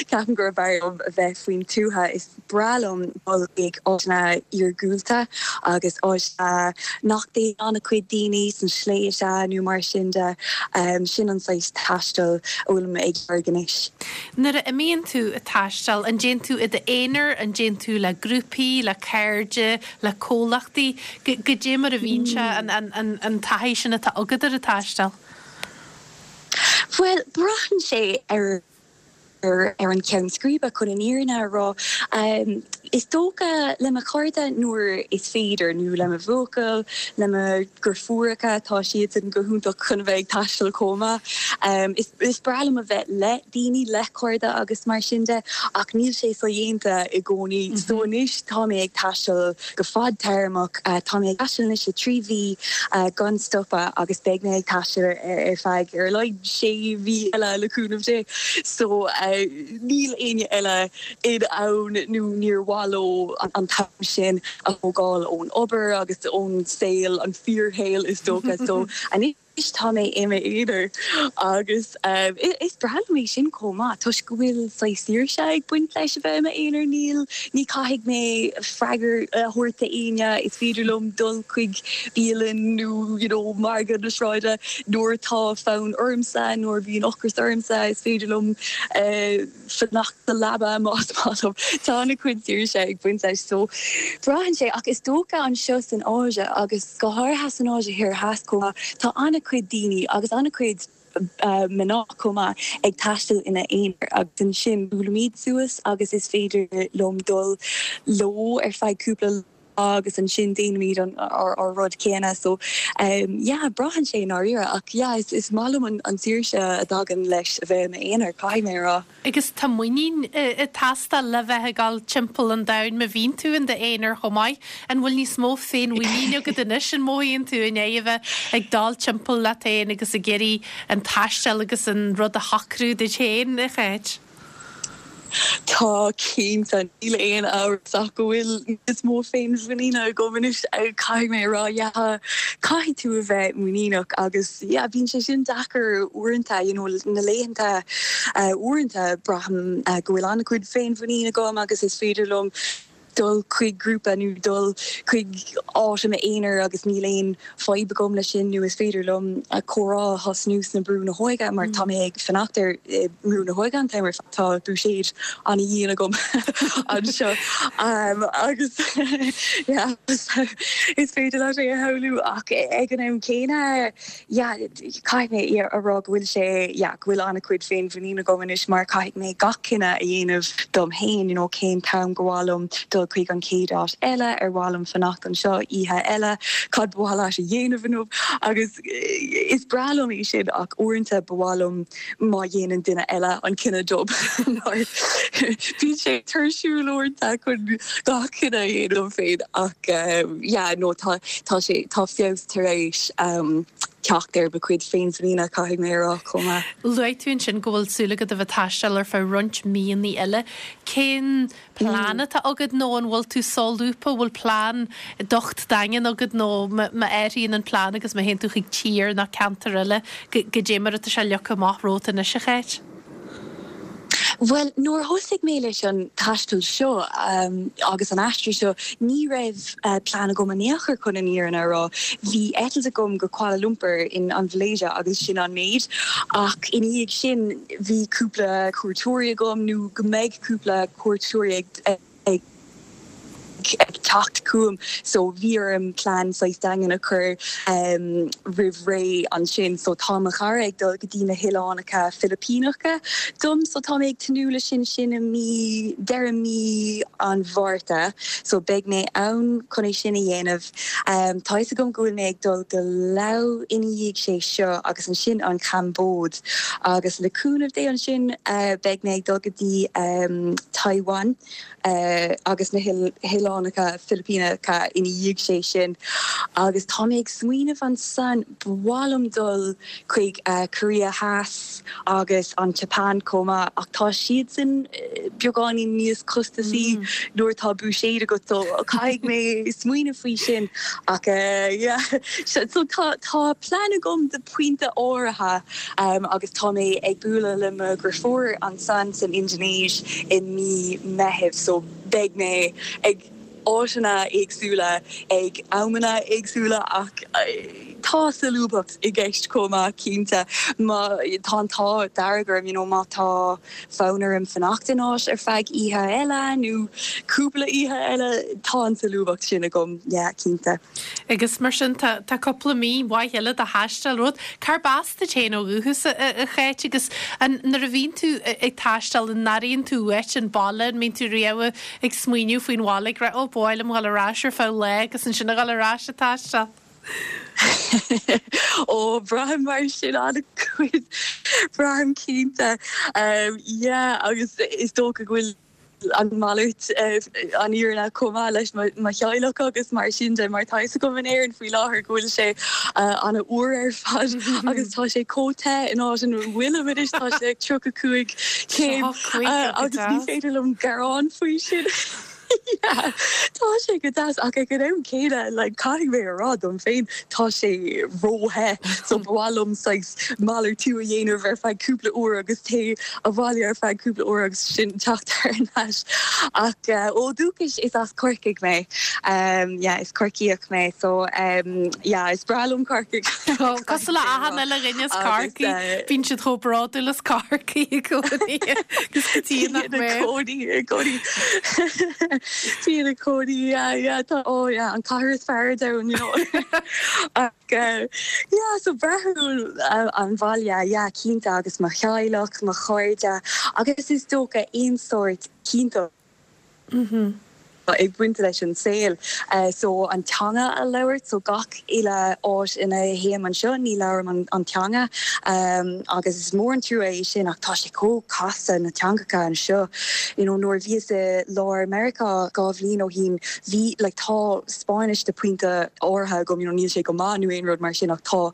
ceapaim gurb fhearr liom a bheith faoin tuath. Is breá liom dul chuig áiteanna iargúlta agus áiteanna nach dtéann an-chuid daoine, sna sléibhte nó mar sin de. Sin an saghas taistil a bhfuilim ag lorg anois. Nuair a imíonn tú ag taisteal, an dtéann tú i d'aonar, an dtéann tú le grúpaí, le cairde, le comhlachtaí? Goidé mar a bhíonn sé, an taithí sin atá agat ar an taisteal? Bhuel, braitheann sé ar ar an cheann scríbe, chun an fhírinne a rá. Is dócha le mo chairde nuair is féidir, nó le mo bhuachaill, le mo dheirfiúracha, tá siadsan go hiontach chun a bheith ag taisteal chomh maith. Is breá liom a bheith le daoine, le cairde agus mar sin de, ach níl sé sodhéanta i gcónaí. So anois tá mé ag taisteal go fadtéarmach. Tá mé ag taisteal anois le 3 mhí gan stopadh agus beidh mé ag taisteal ar feadh ar a laghad sé mhí eile le cúnamh Dé. So níl éinne eile in ann nó níor mhaith leo an t-am sin a thógáil ón obair agus ón saol, an fíorshaol is dócha. So anois. Tá mé i m'aonar agus is breá liom é sin chomh maith toisc go bhfuil saghas saoirse ag baint leis a bheith i m'aonar. Níl, ní caithfidh mé freagra a thabhairt d'éinne, is féidir liom dul chuig bialann nó you know margadh na sráide nuair atá fonn ormsa, nuair a bhíonn ocras ormsa, is féidir liom fanacht sa leaba más maith liom. Tá an-chuid saoirse ag baint leis so braitheann sé ach is dócha anseo san Áise agus go háirithe san Áise Thoir Theas chomh maith tá an-chuid daoine agus an-chuid mná chomh maith ag taisteal ina n-aonar agus ansin buailimid suas agus is féidir liom dul leo ar feadh cúpla lá agus ansin déanaimid an ár rud céanna so yeah braitheann sé i ndáiríre ach yeah is is maith liom an saoirse a dtagann leis a bheith i m'aonar caithfidh mé a rá. Agus tá muinín ag teastáil le bheith ag dul timpeall an domhain má bhíonn tú in d'aonar chomh maith. An bhfuil níos mó féinmhuinín agat anois an mothaíonn tú i ndiaidh a bheith ag dul timpeall leat féin agus ag iarraidh an taisteal agus an rud a shocrú duit féin, a Cháit? Tá, cinnte. Níl aon amhras ach go bhfuil níos mó féinmhuiníne agam anois, caithfidh mé a rá. Yeah, caithfidh tú a bheith muiníneach agus yeah, bíonn sé sin deacair uaireanta, you know, na laethanta uaireanta braithim go bhfuil an-chuid féinmhuinín agam agus is féidir liom. dul chuig grúpa nó dul chuig áit i m'aonar agus níl aon fadhb agam leis sin nó is féidir liom comhrá a thosnú sna Brú na hÓige mar tá mé ag fanacht ar i mBrú na hÓige an t-am ar fad, tá buiséad ana-dhian agam anseo agus yeah is féidir leat é a shamhlú ach ag an am céanna yeah caithfidh mé a rá go bhfuil sé yeah go bhfuil an-chuid féinmhuinín agam anois mar caithfidh mé gach cinneadh a dhéanamh dom féin you know cén t-am gur mhaith liom dul chuig an chéad áit eile, ar mhaith liom fanacht anseo oíche eile, cad ba mhaith leat a dhéanamh inniu agus is breá liom é sin ach uaireanta ba mhaith liom má dhéanann duine eile an cinneadh dom mar bíonn sé tuirsiúil uaireanta chun gach cinneadh a dhéanamh dom féin ach yeah no tá tá sé tá feabhas tar éis teacht ar mo chuid féinmhuiníne caithfidh mé a rá chomh maith. Luaigh tú ansin go bhfuil súil agat a bheith ag taisteal ar feadh roinnt míonna eile. Cén plean atá agat nó an bhfuil tú solúbtha, bhfuil plean docht daingean agat nó má athraíonn an plean agus má théann tú chuig tír nó ceantar eile, goidé mar atá sé leagtha amach romhat anois, a Cháit? Bhuel, nuair a thosaigh mé leis an taisteal seo agus an aistriú seo, ní raibh plean agam in aon chor chun an fhírinne a rá. Bhí eitilt agam go Kuala Lumpur in an Mhalaeisia agus sin an méid. Ach ina dhiaidh sin, bhí cúpla cuairteoirí agam nó go mbeidh cúpla cuairteoirí ag teacht chugam so bhí orm plean saghas daingean a chur roimh ré ansin. So tá mo chara ag dul go dtí na hOileánacha Filipíneacha dom so tá mé ag tnúth leis sin, sin i mí, deireadh mí an Mhárta so beidh mé ann chun é sin a dhéanamh. Tá fhios agam go bhfuil mé ag dul go Laos ina dhiaidh sé seo agus ansin an Chambóid agus le cúnamh Dé ansin beidh mé ag dul go dtí Taiwan agus na hOileánacha Filipíneacha ina dhiaidh sé sin agus tá mé ag smaoineamh ansan ba mhaith liom dul chuig Korea Theas agus an tSeapáin chomh maith ach tá siadsan beagáinín níos costasaí nuair atá buiséad agat so caithfidh mé smaoineamh faoi sin ach yeah so tá tá plean agam do pointe áirithe agus tá mé ag bualadh le mo dheirfiúr ansan san Indinéis i mí Meithimh so beidh mé ag áiteanna éagsúla ag amanna éagsúla ach tá solúbthacht i gceist chomh maith cinnte. Má tá an t-ádh dearg orm you know má tá fonn orm fanacht in áit ar feadh oíche eile nó cúpla oíche eile tá an tsolúbthacht sin agam yeah cinnte. Agus mar sin tá tá cúpla mí mhaith eile de thaisteal romhat. Cárb as duit féin ó dhúchas, a Cháit, agus an nuair a bhíonn tú ag taisteal an airíonn tú uait an baile, an mbíonn tú riamh ag smaoineamh faoin bhaile ag rá 'Ó, ba mhaith liom dhul ar ais ar feadh lá agus ansin a dhul ar ais ag taisteal'? Ó, braithim mar sin an-chuid, braithim cinnte. Yeah, agus is dócha go bhfuil an mhalairt an fhírinne chomh maith leis mo theaghlach agus mar sin de, mar tá fhios agam in Éirinn faoi láthair go bhfuil sé an-fhuar ar fad agus tá sé chomh te in áit ina bhfuilim anois, tá sé ag 35 céim agus ní féidir liom gearán faoi sin. Yeah, tá sé go deas ach ag an am céanna like caithfidh mé a rá dom féin tá sé ró-the so ba mhaith liom saghas malartú a dhéanamh ar feadh cúpla uair agus téigh abhaile ar feadh cúpla uair agus sin teacht thar n-ais. Ach ó dhúchas is as Corcaigh mé. Yeah, is Corcaíoch mé so yeah, is breá liom Corcaigh. Cosúil le achan uile dhuine as Corcaigh, bíonn siad chomh bródúil as Corcaigh i gcónaí agus go dtí nach mbeadh. Bíonn i gcónaí, i gcónaí. Bíonn i gcónaí, yeah, yeah, tá, oh yeah, an cathair is fearr ar domhan, you know. Ach yeah, so braithim an bhaile, yeah, cinnte, agus mo theaghlach, mo chairde, agus is dócha aon sórt cinnteacht ag baint leis an saol. So an teanga a labhairt, so gach uile áit ina théim anseo ní labhraim an teanga agus is mór an trua é sin ach tá sé chomh casta na teangacha anseo. You know nuair a bhíos i lár Meiriceá 2 bhliain ó shin bhí like tá Spáinnis de pointe áirithe agam, you know níl sé go maith nó aon rud mar sin ach tá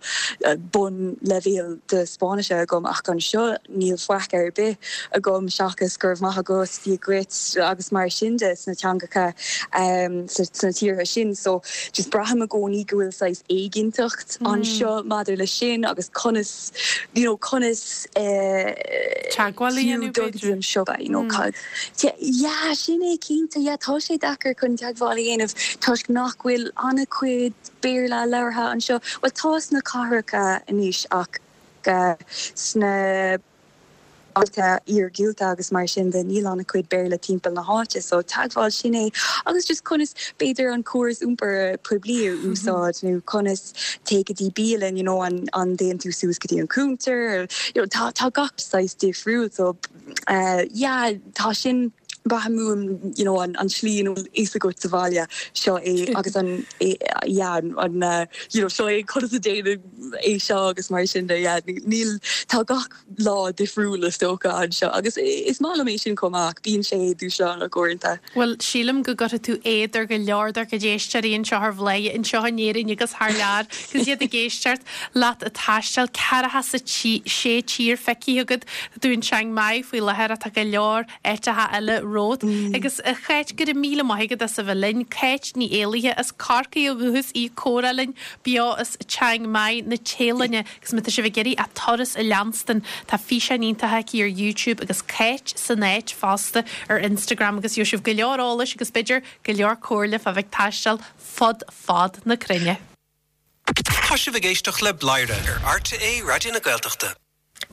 bun leibhéal de Spáinnise agam ach anseo níl faic ar bith agam seachas go raibh maith agat, Dia dhuit agus mar sin de sna teangacha. cathracha sna tíortha sin so just braithim i gcónaí go bhfuil saghas éiginnteacht anseo maidir leis sin agus conas you know conas Teagmháil a dhéanamh dul go dtí b'fhéidir. an siopa you know cad yeah sin é cinnte yeah tá sé deacair chun teagmháil a dhéanamh toisc nach bhfuil an-chuid Béarla labhartha anseo bhuel tá sna cathracha anois ach sna bailte iargúlta agus mar sin de, níl an-chuid Béarla timpeall na háite so teagmháil, sin é agus just conas b'fhéidir an córas iompair poiblí a úsáid nó conas téigh go dtí bialann you know an an dtéann tú suas go dtí an cuntar you know tá tá gach saghas difriúil so yeah tá sin braithim uaim you know an an tslí ina bhfuil fhios agat sa bhaile seo é agus an yeah an an you know seo é conas a déanann é seo agus mar sin de yeah níl tá gach lá difriúil is dócha anseo agus is maith liom é sin chomh maith ach bíonn sé dúshlánach uaireanta. Bhuel, sílim go gcuirfidh tú éad ar go leor dár gcuid éisteoirí anseo ar Bhladhaire, anseo in Éirinn agus thar lear, agus iad ag éisteacht leat ag taisteal, ceathracha is a sé tír feicthe agat, tá tú in Chiang Mai faoi láthair ach tá go leor áiteacha eile romhat. Agus a Cháit, go raibh míle maith agat as a bheith linn. Cáit Ní Éalaithe as Corcaigh ó dhúchas í ag comhrá linn beo as Chiang Mai na Téalainne. Agus má tá sibh ag iarraidh a turas a leanstan, tá físeáin iontacha aici ar YouTube agus Cáit san áit fosta ar Instagram agus gheobhaidh sibh go leor eolais agus b'fhéidir go leor comhairle fá bheith ag taisteal fud fad na cruinne. Tá sibh ag éisteacht le Bladhaire ar RTÉ Raidió na Gaeltachta.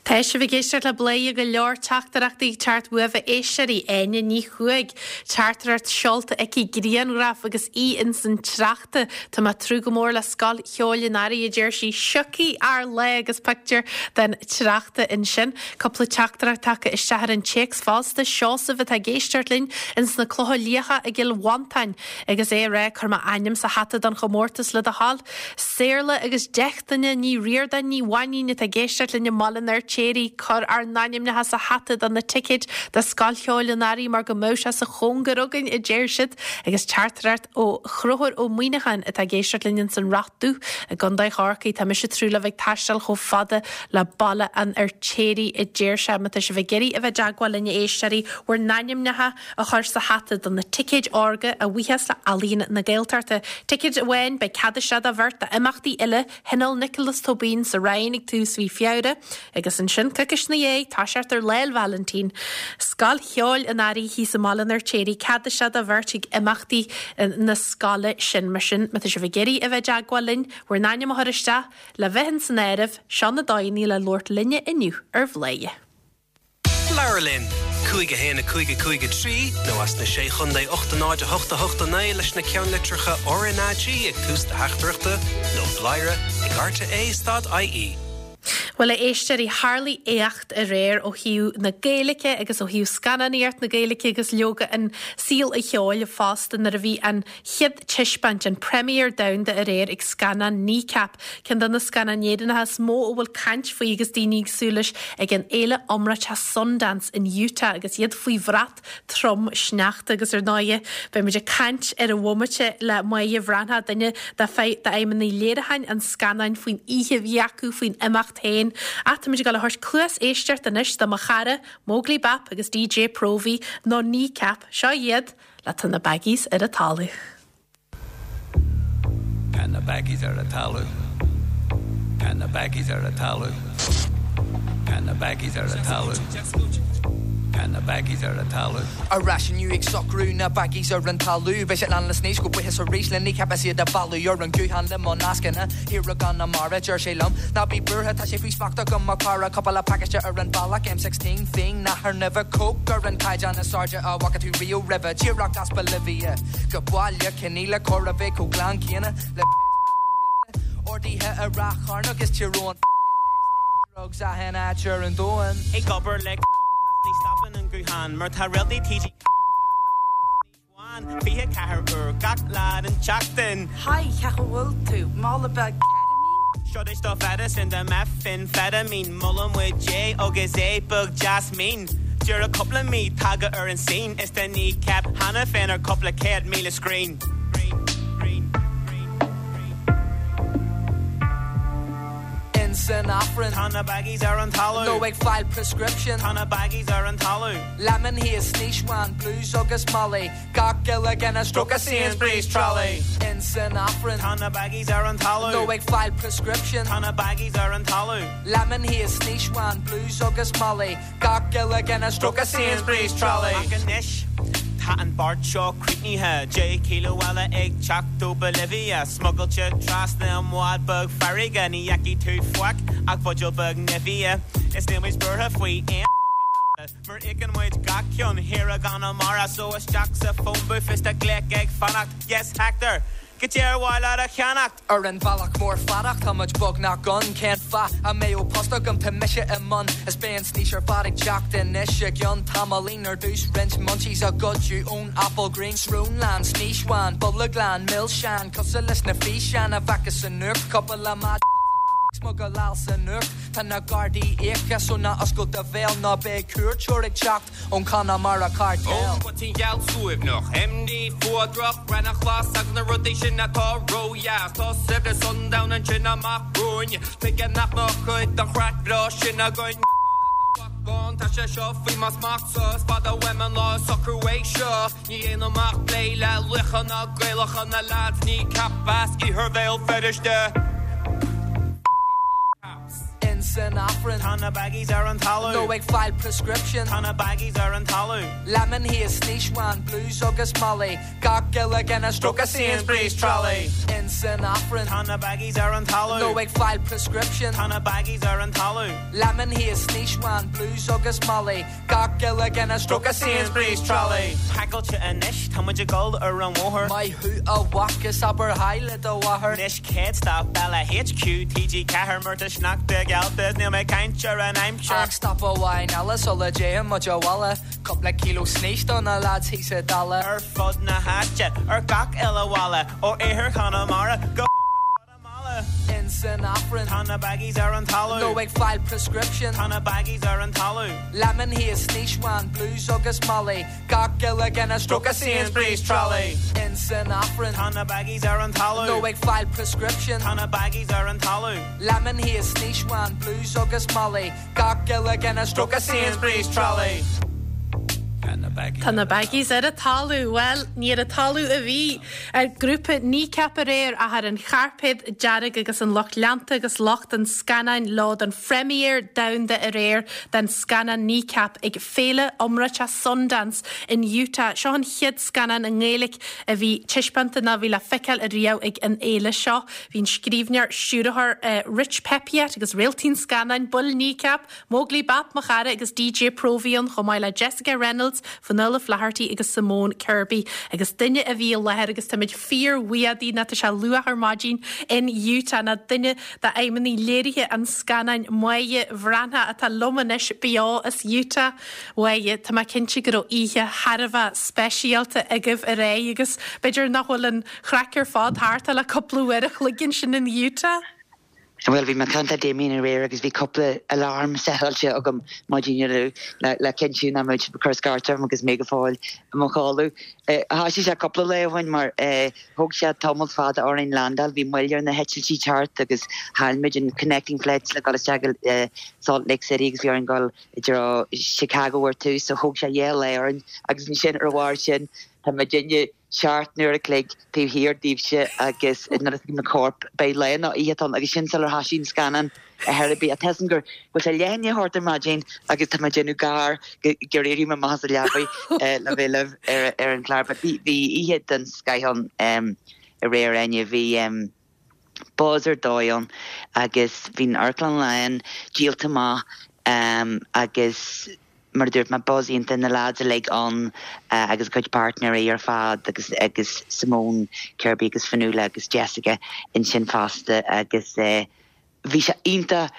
Tá sibh ag éisteacht le Bladhaire, go leor teachtaireachtaí ag teacht uaibh a éisteoirí. Áine Ní Chuaig, teachtaireacht seolta aici, grianghraf agus í ins an tsneachta. Tá mé ag tnúth go mór le Scoil Cheoil an Earraigh, a deir sí. Siocfaidh ár lá agus pictiúr den tsneachta ansin. Cúpla teachtaireacht tagtha isteach ar an téacs fosta. Seosamh atá ag éisteacht linn ins na Clocha Liatha i gCill Mhantáin agus é ag rá, Cuir m'ainm sa hata don chomórtas le do thoil. Saorla agus Deichtine Ní Ríordáin Ní Mhainín atá ag éisteacht linn i mBaile an Fheirtéaraigh, cuir ár n-ainmneacha sa hata do na ticéid do Scoil Cheoil an Earraigh mar go mbeadh sé sa chóngar againn, a deir siad. Agus teachtaireacht ó Chonchúr Ó Muíneacháin atá ag éisteacht linn ins an Rath Dubh i gContae Chorcaí. Tá mise ag tnúth le bheith ag taisteal chomh fada le Baile an Fheirtéaraigh, a deir sé. Má tá sibh ag iarraidh a bheith i dteagmháil linn, a éisteoirí, bhur n-ainmneacha a chur sa hata do na ticéid órga a bhuíochas le Ealaín na Gaeltachta. Ticéad amháin, beidh cead isteach do bheirt d'imeachtaí uile Thionól Nioclás Tóibín sa Rinn ag tús mhí Feabhra agus ansin, coicís ina dhiaidh, toiseacht ar Lá 'le Vailintín, Scoil Cheoil an Earraigh thíos i mBaile an Fheirtéaraigh, cead isteach do bheirt ag imeachtaí na scoile sin. Mar sin, má tá sibh ag iarraidh a bheith i dteagmháil linn, bhur n-ainm a chur isteach le bheith ins an áireamh, seo na dóigheanna le labhairt linne inniu ar Bhladhaire. Labhair linn! 5 1 5 5 3 nó as na Sé Chontae 8 0 8 8 9 leis na ceannlitreacha RnaG ag tús do theachtaireachta nó bladhaire ag rte stad ie. Bhuel, a éisteoirí, tharlaigh éacht aréir ó thaobh na Gaeilge agus ó thaobh scannánaíocht na Gaeilge agus leoga an saol an cheoil fosta nuair a bhí an chéad taispeáint, an premiere domhanda aréir ag scannán Kneecap, ceann de na scannáin Éireannacha is mó a bhfuil caint faoi agus daoine ag súil leis ag an fhéile iomráiteach Sundance in Utah agus iad faoi bhrat trom sneachta agus ar ndóighe beidh muid ag caint ar an bhomaite le Máire Bhreathnach, duine d'fheidhmeannaigh léiriúcháin an scannáin faoin oíche a bhí acu, faoin imeacht féin. Ach tá muid ag dul a thabhairt cluas éisteachta anois do mo chara, Móglaí Bap agus DJ Próvaí, nó Kneecap, seo iad! Le tá na baggies ar an talamh. Tá na baggies ar an talamh. Tá na baggies ar an talamh. Tá na baggies ar an talamh. Tá na baggies ar an talamh. Ar ais inniu ag socrú na baggies ar an talamh. Beidh siad lán le snaois go buíochas arís le Kneecap is iad a mhealladh ar an guthán le mo nascanna thiar i gConamara. Deir sé liom, Ná bí buartha, tá sé faoi smacht agam mo chara. Cúpla pacáiste ar an bhealach, M16 fíon, nathair nimhe, coke ar an caighdeán is airde a bhfaca tú riamh roimhe. Díreach as Bolivia go baile Cionaola, chóir a bheith chomh glan céanna le peit bean rialta. Orduithe i Ráth Chairn agus Tír Eoghain fucking next day drugs achan áit ar an domhan. Ag obair le is ní stopann an guthán mar tá réaltaí TG4 flat down ar an snaois bhán 24 uair gach lá den tseachtain. Hi, cén chaoi a bhfuil tú? Mála beag ketamine? Seo duit do mheidicín de methamphetamine Molann muid é agus é beag deas mín Díreach cúpla mí tagtha ar an scene Is tá Kneecap cheana féin ar cúpla 100,000 screen. In. In san Aifreann. Tá na baggies ar an talamh. Nó ag fáil prescription. Tá na baggies ar an talamh. Lemon haze, snaois bhán, blues agus molly. Gach uile dhuine stróicthe Sainsbury's trolley. In san Aifreann. Tá na baggies ar an talamh. Nó ag fáil prescription. Tá na baggies ar an talamh. Lemon haze, snaois bhán, blues agus molly. Gach uile dhuine stróicthe Sainsbury's trolley. Ach anois tá an beart seo críochnaithe, 10 kilo eile ag teacht ó Bolivia, smugailte trasna i mbád beag farraige, ní fheicfidh tú faic ach buidéal beag Nivea. Is níl muid buartha faoi aon fucking Garda, mar íocann muid gach ceann thiar i gConamara, so isteach sa phone booth is tá glaoch ag fanacht, yes Hector! Cad é ar mhaith leat a cheannacht? Ar an bhealach mór fada tá muid beagnach ann Cén fáth a mbeadh post agam tá mise i mbun Is beidh an snaois ar fad ag teacht anois i gceann tamaillín Ar dtús roinnt munchies a goideadh ón Applegreen Srón lán, snaois bhán, bolg lán, milseáin Cosúil leis na físeáin a bhfeicfeá sa nuacht Cúpla maide ag smugaláil san uacht Tá na Gardaí íoctha so ná oscail do bhéal Ná beidh cuairteoir ag teacht ón Conamara Cartel. Ón bpoitín gheal suaimhneach, MD fuadrach, raithneach ghlas agus na rudaí sin atá ródheas. Tá saibhreas an domhain ansin amach romhainn, tuige nach mbeadh cuid den chraic bhreá sin againn? Bán, tá sé seo faoi mo smachtsa, is fada uaim an lá a socrú é seo. Ní dhéanaim ach plé le laochra Gaelacha na leaids Kneecap as iarthar Bhéal Feirste. In san Aifreann. Tá na baggies ar an talamh. Nó ag fáil prescription. Tá na baggies ar an talamh. Lemon haze, snaois bhán, blues agus molly. Gach uile dhuine stróicthe Sainsbury's trolley. In san Aifreann. Tá na baggies ar an talamh. Nó ag fáil prescription. Tá na baggies ar an talamh. Lemon haze, snaois bhán, blues agus molly. Gach uile dhuine stróicthe Sainsbury's trolley. Pacáilte anois, tá muid ag dul ar an bhóthar. Maith thú a mhac is abair haigh le do mháthair. Anois céad stop eile HQ TG4 mar tá sneachta geallta is níl mé ag caint ar an aimsir. Ach stop amháin eile sula dtéann muid abhaile. Cúpla kilo snaois do na lads thíos sa Dalla. Ar fud na háite, ar gach uile bhalla, ó iarthar Chonamara go Guatamala. In san Aifreann. Tá na baggies ar an talamh. Nó ag fáil prescription. Tá na baggies ar an talamh. Lemon haze, snaois bhán, blues agus molly. Gach uile dhuine stróicthe Sainsbury's trolley. In san Aifreann. Tá na baggies ar an talamh. Nó ag fáil prescription. Tá na baggies ar an talamh. Lemon haze, snaois bhán, blues agus molly. Gach uile dhuine stróicthe Sainsbury's trolley. Tá na baggies ar an talamh. Bhuel, ní ar an talamh a bhí ar grúpa Kneecap aréir ach ar an chairpéad dearg agus an lucht leanta agus lucht an scannáin leo don phrémière domhanda aréir den scannán Kneecap ag féile iomráiteach Sundance in Utah. Seo an chéad scannán i nGaeilge a bhí taispeánta nó a bhí le feiceáil ariamh ag an fhéile seo. Bhí an scríbhneoir, stiúrthóir Rich Peppiatt agus réaltaí an scannáin, baill Kneecap, Móglaí Bap, mo chara, agus DJ Próvaí ann chomh maith le Jessica Reynolds, Fionnuala Flaherty agus Simone Kirby. Agus duine a bhí i láthair agus táimid fíorbhuíoch di nó tá sé luath ar maidin in Utah ná duine d'fheidhmeannaigh léirithe an scannáin Máire Bhreathnach atá liom anois beo as Utah. Mháire, tá mé cinnte go raibh oíche thar a bheith speisialta agaibh aréir agus b'fhéidir nach bhfuil an chraic ar fad thart ach le cúpla uair a chloig ansin in Utah. Bhuel, bhí mé ag caint le Damien aréir agus bhí cúpla alarm setáilte agam maidin inniu le cinntiú nach mbeadh siad ag cur scairt orm agus mé go fóill i mo chodladh. Thoisigh sé cúpla lá ó shin mar thóg sé tamall fada orainn landáil, bhí moill ar na heitiltí teacht agus chaill muid an connecting flight le dul isteach go Salt Lake City agus bhí orainn dul i dtreo Chicago ar tús so thóg sé dhá lá orainn agus ansin ar a bharr sin tá muidinne seacht n-uair a chloig taobh thiar daoibhse agus nuair a thuigim na coirp, beidh lá nó oíche ann agus sin sular thoisigh an scannán ar chor ar bith. Tá a fhios agam go bhfuil sé leath i ndiaidh a hocht ar maidin agus tá mé ag déanamh gar gur éirigh mé amach as an leabaidh le bheith libh ar an chlár. But bhí oíche den scoith ann aréir, Áine. Bhí buzz ar dóigh ann agus bhí an amharclann lán, díolta amach agus mar a dúirt mé, buzz iontach, na lads uilig ann agus a gcuid páirtnéirí ar fad agus agus Simone Kirby agus Fionnuala agus Jessica ansin fosta agus bhí sé iontach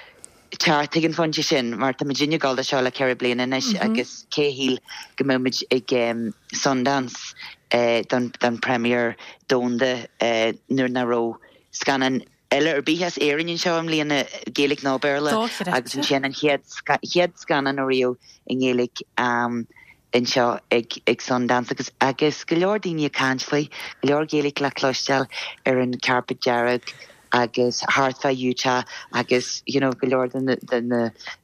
teacht ag an phointe sin mar tá muidinne ag dul do seo le ceithre bliana anois agus cé a shíl go mbeadh muid ag Sundance don don premiere domhanda nuair nach raibh scannán eile ar bith as Éirinn anseo i mbliana, Gaeilge nó Béarla, agus ansin an chéad chéad scannán ariamh i nGaeilge anseo ag ag Sundance agus agus go leor daoine ag caint faoi, go leor Gaeilge le cloisteáil ar an carpet dearg. agus thart fá Utah agus you know go leor de na de na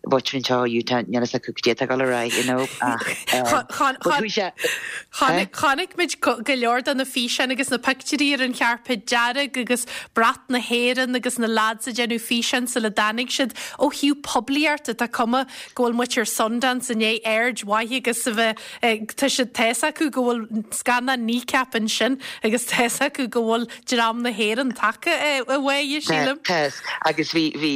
mhuintir anseo i Utah níl fhios acu cad é atá ag dul ar aghaidh you know ach but chuaigh sé eh? Chonaic muid go leor de na físeáin agus na pictiúirí ar an chairpéad dearg agus brat na hÉireann agus na lads ag déanamh físeáin sula dtáinig siad. Ó thaobh poiblíochta, tá cuma go bhfuil muintir Sundance i ndiaidh aird mhaith agus a bheith Tá siad, tá fhios acu go bhfuil scannán Kneecap ansin agus tá fhios acu go bhfuil dream na hÉireann tagtha uaidh, sílim. Tá, agus bhí, bhí,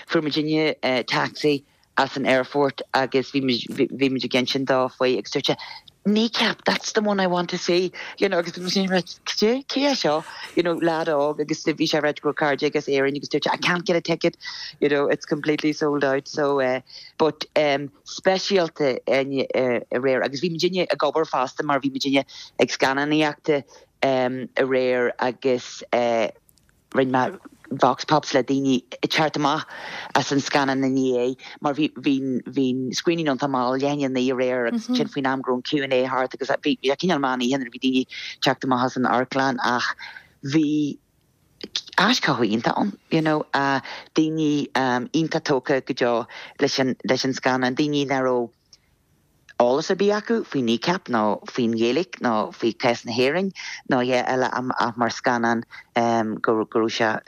fuair muidinne taxi as an airport agus bhí muid, bhí muid ag insint dó faoi agus dúirt sé, Kneecap, that's the one I want to see, you know, agus bhí muid ag rá, cad é, cé é seo, you know, lad óg agus bhí sé ag rá go raibh cairde aige as Éirinn agus dúirt sé, I can't get a ticket, you know, it's completely sold out, so, but, speisialta aréir agus bhí muidinne ag obair fosta mar bhí muidinne ag scannánaíochta aréir agus rinne mé vox pops le daoine ag teacht amach as an scannán inné mar bhí bhí bhí screening iontach mall leath i ndiaidh a 9 aréir agus ansin faoin am go raibh an Q&A thart agus bhí sé cineál meán oíche nuair a bhí daoine ag teacht amach as an amharclann ach bhí aischothú iontach ann, you know, daoine iontach tógtha go deo leis an, leis an scannán, daoine nach raibh eolas ar bith acu faoi Kneecap nó faoin Ghaeilge nó faoi chás na hÉireann nó a dhath eile ach mar scannán go raibh sé,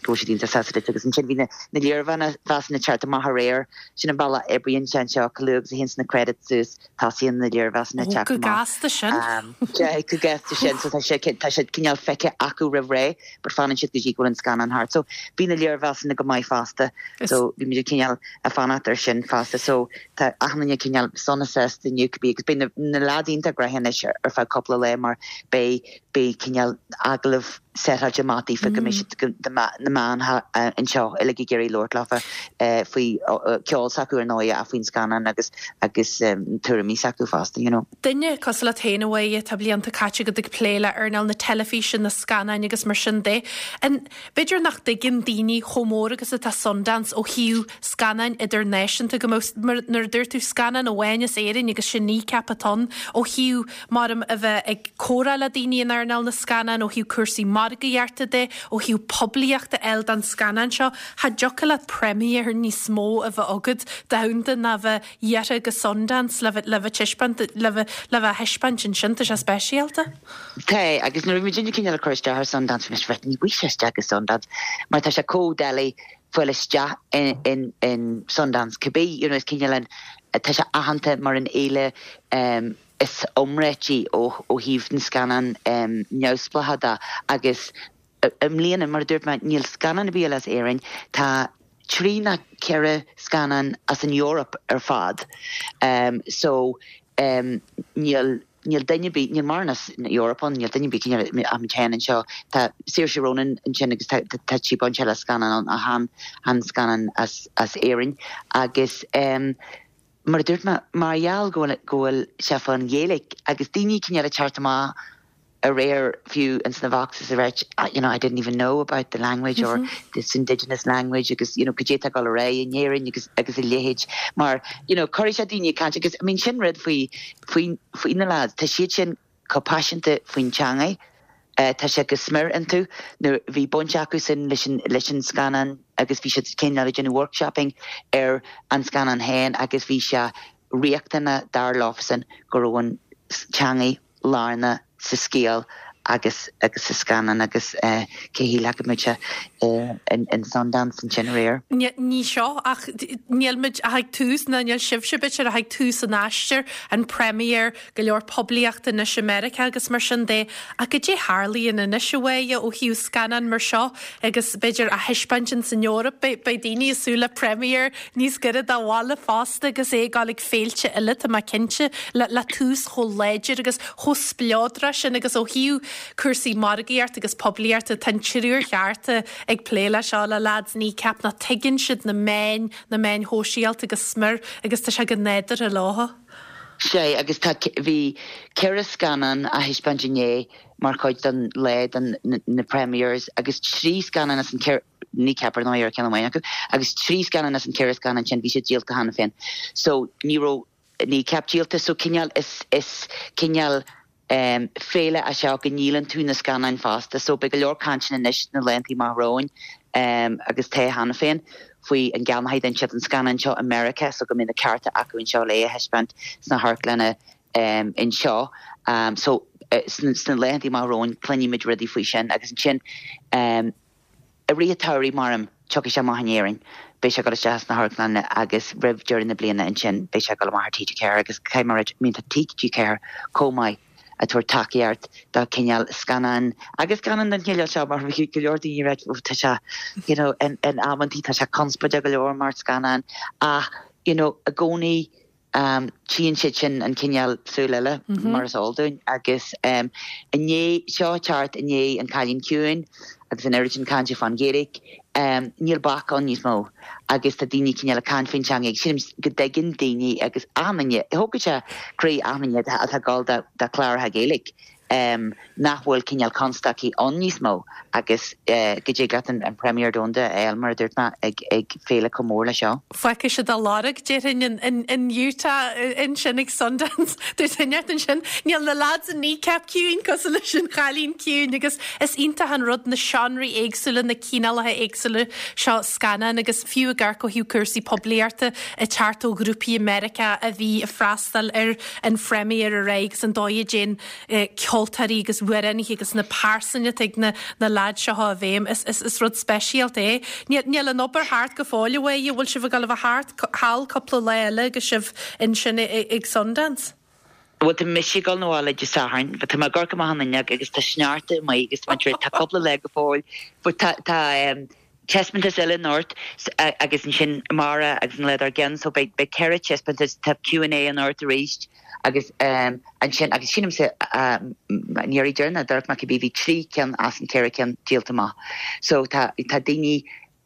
go raibh siad iontach sásta leis agus ansin bhí na, na léirmheasanna ag teacht amach aréir, sin an bealach a oibríonn sé anseo, chomh luath agus a théanns na credits suas. Tosaíonn na léirmheasanna ag teacht amach. Go gasta sin. Go gasta sin. So tá sé tá siad cineál feicthe acu roimh ré, but fanann siad go dtí go bhfuil an scannán thart. So bhí na léirmheasanna go maith fosta. So bhí muid cineál ag fanacht ar sin fosta. So tá achan duine cineál sona sásta inniu cibé agus beidh na na lads iontach gnoitheach anois ar feadh cúpla lá mar beidh beidh cineál agallamh seitáilte amach daofa go mbeidh siad na meáin anseo uilig ag iarraidh labhairt leofa faoi ceol s'acu ar ndóigh ach faoin scannán agus agus tuairimí s'acu fosta, you know. Duine cosúil leat féin a Mháire, tá blianta caite agat ag plé le earnáil na teilifíse, na scannáin agus mar sin de. An, b'fhéidir nach dtuigeann daoine chomh mór agus atá Sundance ó thaobh scannáin idirnáisiúnta go mbeadh, mar nuair a dúirt tú scannán amháin as Éirinn agus sin Kneecap atá ann ó thaobh maram a bheith ag comhrá le daoine in earnáil na scannán ó thaobh cúrsaí margaíochta de, ó thaobh poiblíochta a fháil don scannán seo. Cha dtiocfadh leat premiere níos mó a bheith agat domhanda ná bheith iarrtha go Sundance le bheith le bheith taispeáint le bheith le bheith á thaispeáint ansin. Tá sé speisialta. Tá, agus nuair a bhí muidinne cineál ag cur isteach ar Sundance bhí mise right ní bhfaighidh sé isteach go Sundance mar tá sé chomh doiligh fáil isteach in in Sundance cibé you know is cineál an tá sé aitheanta mar an fhéile is iomráití ó thaobh na scannán neamhspleácha de agus i mbliana, mar a dúirt mé, níl scannán ar bith eile as Éirinn, tá trí nó ceithre scannán as an Eoraip ar fad so níl níl duine ar bith, níl mórán as an Eoraip ann, níl duine ar bith cineál ach muid féin anseo. Tá Saoirse Ronan ansin agus tá tá sí bainte le scannán ann ach chan chan scannán as as Éirinn agus Mar a dúirt mé, mar gheall go bhfuil, go bhfuil sé fán Ghaeilge agus daoine cineál ag teacht amach aréir fiú ins na voxes ag ráit you know I didn't even know about the language or this indigenous language agus you know cad é atá ag dul ar aghaidh in Éirinn agus agus a leithéid mar you know cuirfidh sé daoine ag caint agus I mean sin rud faoi faoi faoi na lads tá siad sin chomh paiseanta faoin teangaidh. Tá sé go smior iontu. Nuair bhí baint acusan leis an leis an scannán agus bhí siad cineál ag déanamh workshopping ar an scannán féin agus bhí sé riachtanach dar leofasan go raibh an teangaidh lárnach sa scéal agus agus sa scannán agus cé a shílfeadh go mbeadh sé in Sundance ansin aréir. Ní seo ach níl muid ach ag tús ná níl sibhse b'fhéidir ach ag tús an aistir, an premiere, go leor poiblíochta anois i Meiriceá agus mar sin de. Ach cad é tharlaíonn anois a Mháire ó thaobh scannán mar seo agus b'fhéidir á thaispeáint ins an Eoraip, beidh daoine ag súil le premiere níos gaire do bhaile fosta agus é ag dul ag féilte eile, tá mé cinnte, le tús chomh láidir agus chomh spleodrach sin agus ó thaobh cúrsaí margaíochta agus poiblíochta, tá an triúr cheart ag plé leis seo, le lads Kneecap, nó tuigeann siad na meáin, na meáin shóisialta go smior agus tá sé go nádúrtha leo. Sea, agus tá, bhí ceithre scannán á thaispeáint inné mar chuid den lá, den, na premieres, agus trí scannán as an ceithre, Kneecap ar ndóigh ar ceann amháin acu, agus trí scannán as an ceithre scannán sin, bhí siad díolta cheana féin. So, ní raibh Kneecap díolta, so cineál, is, is cineál. Féile é seo go ndíolann tú na scannáin fosta so beidh go leor cainteanna anois sna laethanta amach romhainn agus tá cheana féin faoi an gceannóidh siad an scannán seo i Meiriceá so go mbeidh na cearta acu anseo le é a thaispeáint sna hamharclanna anseo. So sna laethanta amach romhainn cluinfimid rudaí faoi sin agus ansin I rith an tsamhraidh, measaim, tiocfaidh sé amach in Éirinn, beidh sé ag dul isteach sna hamharclanna agus roimh deireadh na bliana ansin beidh sé ag dul amach ar TG4 agus caithfidh mé a rá, I mean tá TG4 chomh maith ag tabhairt tacaíocht do chineál scannán agus scannán den chineál seo mar bhí go leor daoine ag rá tá sé you know in amantaí tá sé conspóideach go leor mar scannán ach you know i gcónaí Tchíonn siad sin an cineál súil eile, mar is eol dúinn, agus i ndiaidh seo teacht i ndiaidh An Cailín Ciúin agus an oiread sin cainte fán Ghaeilge, níl bac ann níos mó agus tá daoine cineál ag caint faoin teanga agus sílim go dtuigeann daoine agus achan duine, thógfadh sé croí achan duine atá ag dul do chláracha Gaeilge. nach bhfuil cineál constaicí ann níos mó agus go dtig leat an premiere domhanda a fháil, mar a dúirt mé, ag féile chomh mór leis seo. Fágfaidh siad a lorg, déarfainn, in Utah ansin ag Sundance. Dúirt duine ansin, níl na lads in Kneecap ciúin cosúil leis an Chailín Ciúin agus is iontach an rud na seánraí éagsúla, na cineálacha éagsúla seo scannán agus fiú ag amharc ó thaobh cúrsaí poiblíochta ag teacht ó ghrúpaí i Meiriceá a bhí ag freastal ar an phréimír aréir agus an dóigh a dtéann ceoltóirí agus amhránaithe agus na pearsain atá ag na na leaids seo i bhfeidhm. Is is is rud speisialta é. Níl níl an obair thart go fóill a Mháire, bhfuil sibh ag dul a bheith thart thall cúpla lá eile agus sibh ansin ag Sundance? Bhuel tá mise ag dul 'na bhaile Dé Sathairn, but tá mé ag amharc amach an fhuinneog agus tá sneachta amuigh agus tá tá cúpla lá go fóill but tá tá taispeántas eile anocht agus ansin amárach agus an lá dár gcionn so beidh beidh 4 taispeántas, tá Q and A anocht arís agus ansin agus sílimse an iarraidh deireanach a d'amharc mé cibé bhí 3 ceann as an 4 ceann díolta amach so tá tá daoine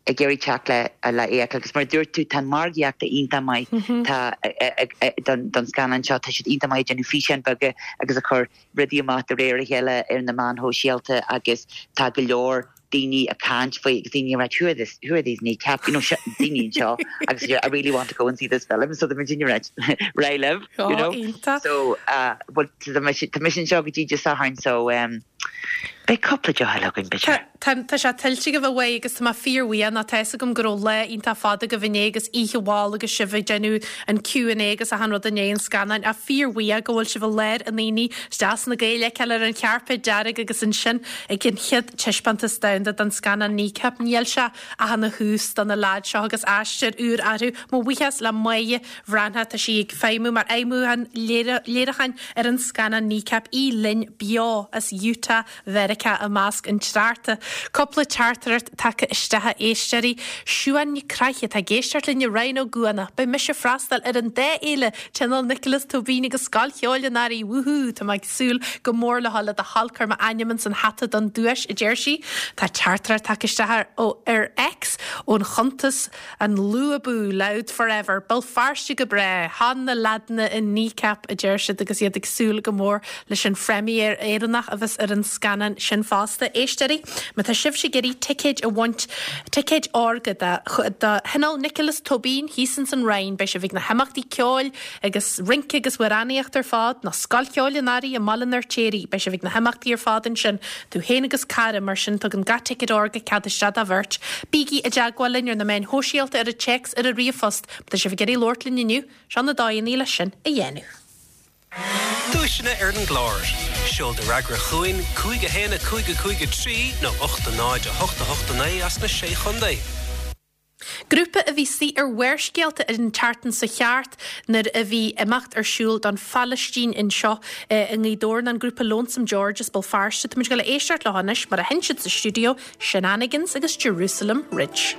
ag iarraidh teacht le le é a fheiceáil agus mar a dúirt tú tá an margaíocht iontach maith tá don don scannán seo tá siad iontach maith ag déanamh físeáin beaga agus ag cur rudaí amach de réir a chéile ar na meáin shóisialta agus tá go leor daoine ag caint faoi agus daoine ag rá who are this who are these kneecap you know daoine anseo agus I really want to go and see this film so tá muid ag rá right libh you know so uh, well tá mise tá mise anseo go dtí Dé Sathairn so um, beidh cúpla deoch eile againn b'fhéidir. Tá tá sé tuillte agaibh a Mháire agus tá mé fíorbhuíoch nó tá fhios agam go raibh lá iontach fada agaibh inné agus oíche mhall agus sibh ag déanamh an Q and A agus achan rud i ndiaidh an scannáin ach fíorbhuíoch go bhfuil sibh i lár an aonaigh is deas na Gaeil a fheiceáil ar an chairpéad dearg agus ansin ag an chéad taispeántas domhanda den scannán Kneecap. Níl sé ach ina thús do na leaids seo agus aistear úr orthu. Mo bhuíochas le Máire Bhreathnach, tá sí ag feidhmiú mar fheidhmiúchán léiriúcháin ar an scannán Kneecap, í linn beo as Utah Mheiriceá i measc an tsneachta. Cúpla teachtaireacht tagtha isteach a éisteoirí. Siúan Nic Craith atá ag éisteacht linn i Rinn Ó gCuanach. Beidh mise ag freastal ar an dá fhéile, Tionól Nioclás Tóibín agus Scoil Cheoil an Earraigh. Wúhú! Tá mé ag súil go mór le dhul le do thoil cuir m'ainm ins an hata don duais, a deir sí. Tá teachtaireacht tagtha isteach ar ar X ón chuntas An Lú Abú, Louth Forever, Béal Feirste go breá, Chan na leaideanna in Kneecap, a deir siad agus iad ag súil go mór leis an phréimír Éireannach a bheas ar an scannán sin fosta. Éisteoirí, má tá sibhse ag iarraidh ticéid a bhaint, ticéid órga do do Thionól Nioclás Tóibín thíos ins an Rinn, beidh sibh ag na himeachtaí ceoil agus rince agus amhránaíocht ar fad, nó Scoil Cheoil an Earraigh i mBaile an Fheirtéaraigh, beidh sibh ag na himeachtaí ar fad ansin. Tú féin agus cara, mar sin tugann gach ticéad órga cead isteach do bheirt. Bígí i dteagmháil linn ar na meáin shóisialta, ar an téacs, ar an ríomhphost. Má tá sibh ag iarraidh labhairt linn inniu, seo na dóigheanna le sin a dhéanamh. Duaiseanna ar an gclár. Seol do fhreagra chugainn, 5 1 5 5 3 nó 8 0 8 8 9 as na Sé Chontae. Grúpa a bhí istigh ar Bharrscéalta an tseachtain seo thart nuair a bhí imeacht ar siúl don Phalaistín anseo i nGaoth Dobhair ná an grúpa Lonesome George as Béal Feirste. Táimid ag dul a éisteacht leo anois mar a sheinn siad sa stiúideo, Shenanigans agus Jerusalem Ridge.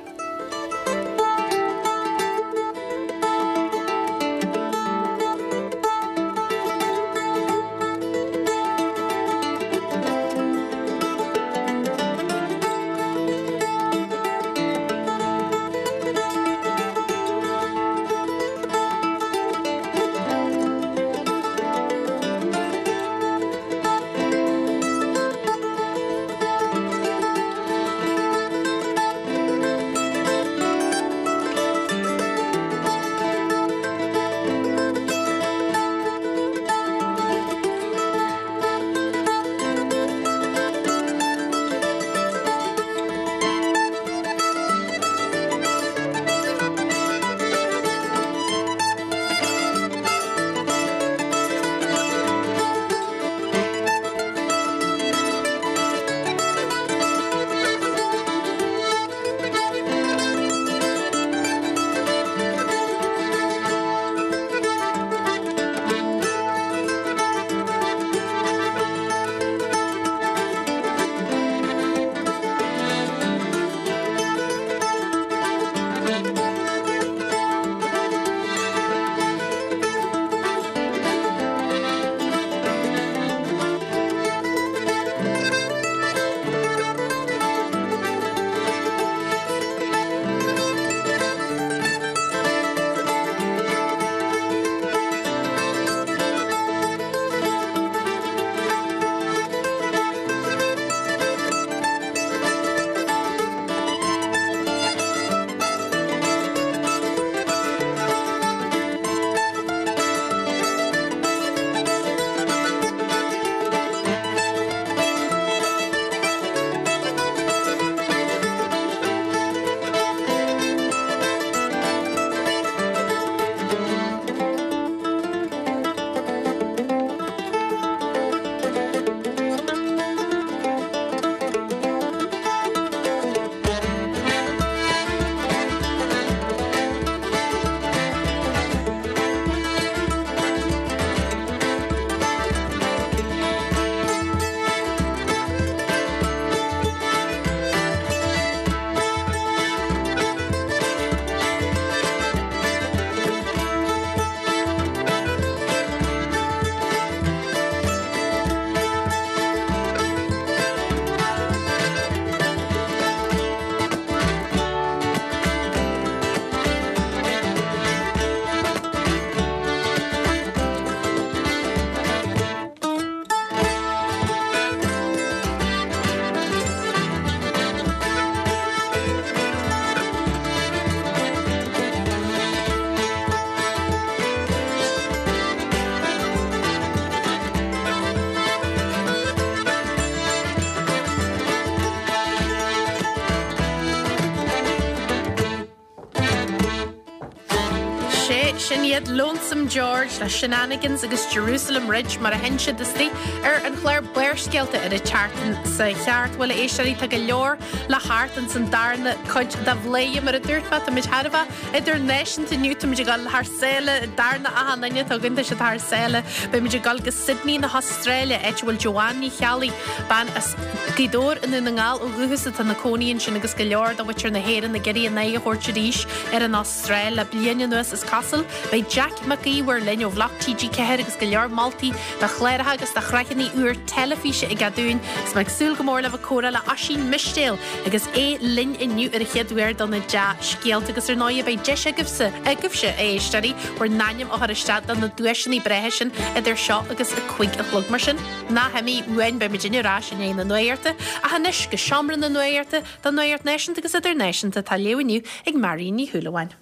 Sea, sin iad Lonesome George le Shenanigans agus Jerusalem Ridge mar a sheinn siad istigh ar an chlár Barrscéalta ar an tseachtain seo cheart. Bhuel, a éisteoirí, tá go leor le theacht ins an darna cuid de Bhladhaire, mar a dúirt mé, táimid thar a bheith idirnáisiúnta inniu, táimid ag dul thar sáile, darna achan duine atá againn, tá siad thar sáile. Beimid ag dul go Sydney na hAstráile, áit a bhfuil Joanne Ní Cheallaigh, bean as Gaoth Dobhair i nDún na nGall ó dhúchas atá ina cónaí ansin agus go leor de mhuintir na hÉireann ag iarraidh a n-aghaidh a thabhairt arís ar an Astráil le bliain anuas is cosúil. Beidh Jack Mac Íomhair linn ó Bhloc TG4 agus go leor moltaí do chláracha agus do shraitheanna úr teilifíse aige dúinn agus mé ag súil go mór le bheith ag comhrá le Oisín Mistéil agus é linn inniu ar an chéad uair do na dea-scéalta agus ar ndóigh beidh deis agaibhse, agaibhse a éisteoirí, bhur n-ainm a chur isteach do na duaiseanna breátha sin idir seo agus a 5 a chlog. Mar sin, ná himigh uainn, beidh muidinne ar ais i ndiaidh na nuachta, ach anois go seomra na nuachta don nuacht náisiúnta agus idirnáisiúnta atá á léamh inniu ag Marion Ní Shúilleabháin.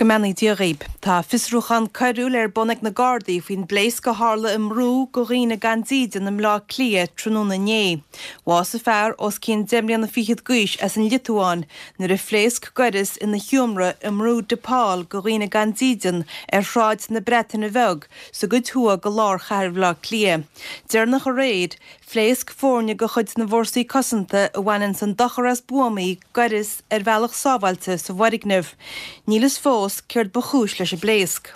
Go mbeannaí Dia dhaoib. Tá fiosrúchán coiriúil ar bun ag na Gardaí faoin bpléasc a tharla i mbrú do dhaoine gan dídean i mBleá Cliath tráthnóna inné. Bhásaigh fear os cionn deich mbliana fichead d'aois as an Liotuáin nuair a phléasc gaireas ina sheomra i mbrú De Paul do dhaoine gan dídean ar Shráid na Breataine Bheag sa gcuid thuaidh de lár chathair Bhaile Átha Cliath. Deireanach aréir, phléasc foirne de chuid na bhFórsaí Cosanta a bhaineanns an dochar as buamaí gaireas ar bhealach sábháilte sa bhfoirgneamh. Níl fhios fós céard ba chúis leis an bpléasc.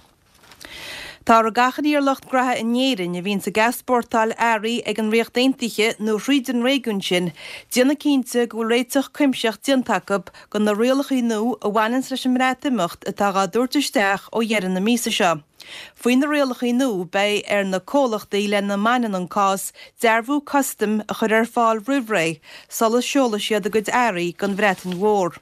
Táthar ag achainí ar lucht graithe in Éirinn a bhíonns ag easpórtáil earraí ag an Ríocht Aontaithe nó thríd an réigiún sin déanamh cinnte go bhfuil réiteach cuimsitheach déanta acu go na rialacha nua a bhaineanns leis an mBreatimeacht atá dhá dtabhairt isteach ó dheireadh na míosa seo. Faoi na rialacha nua beidh ar na comhlachtaí lena mbaineann an cás dearbhú custaim a chur ar fáil roimh ré sula seolfaidh siad a gcuid earraí don Bhreatain Mhór.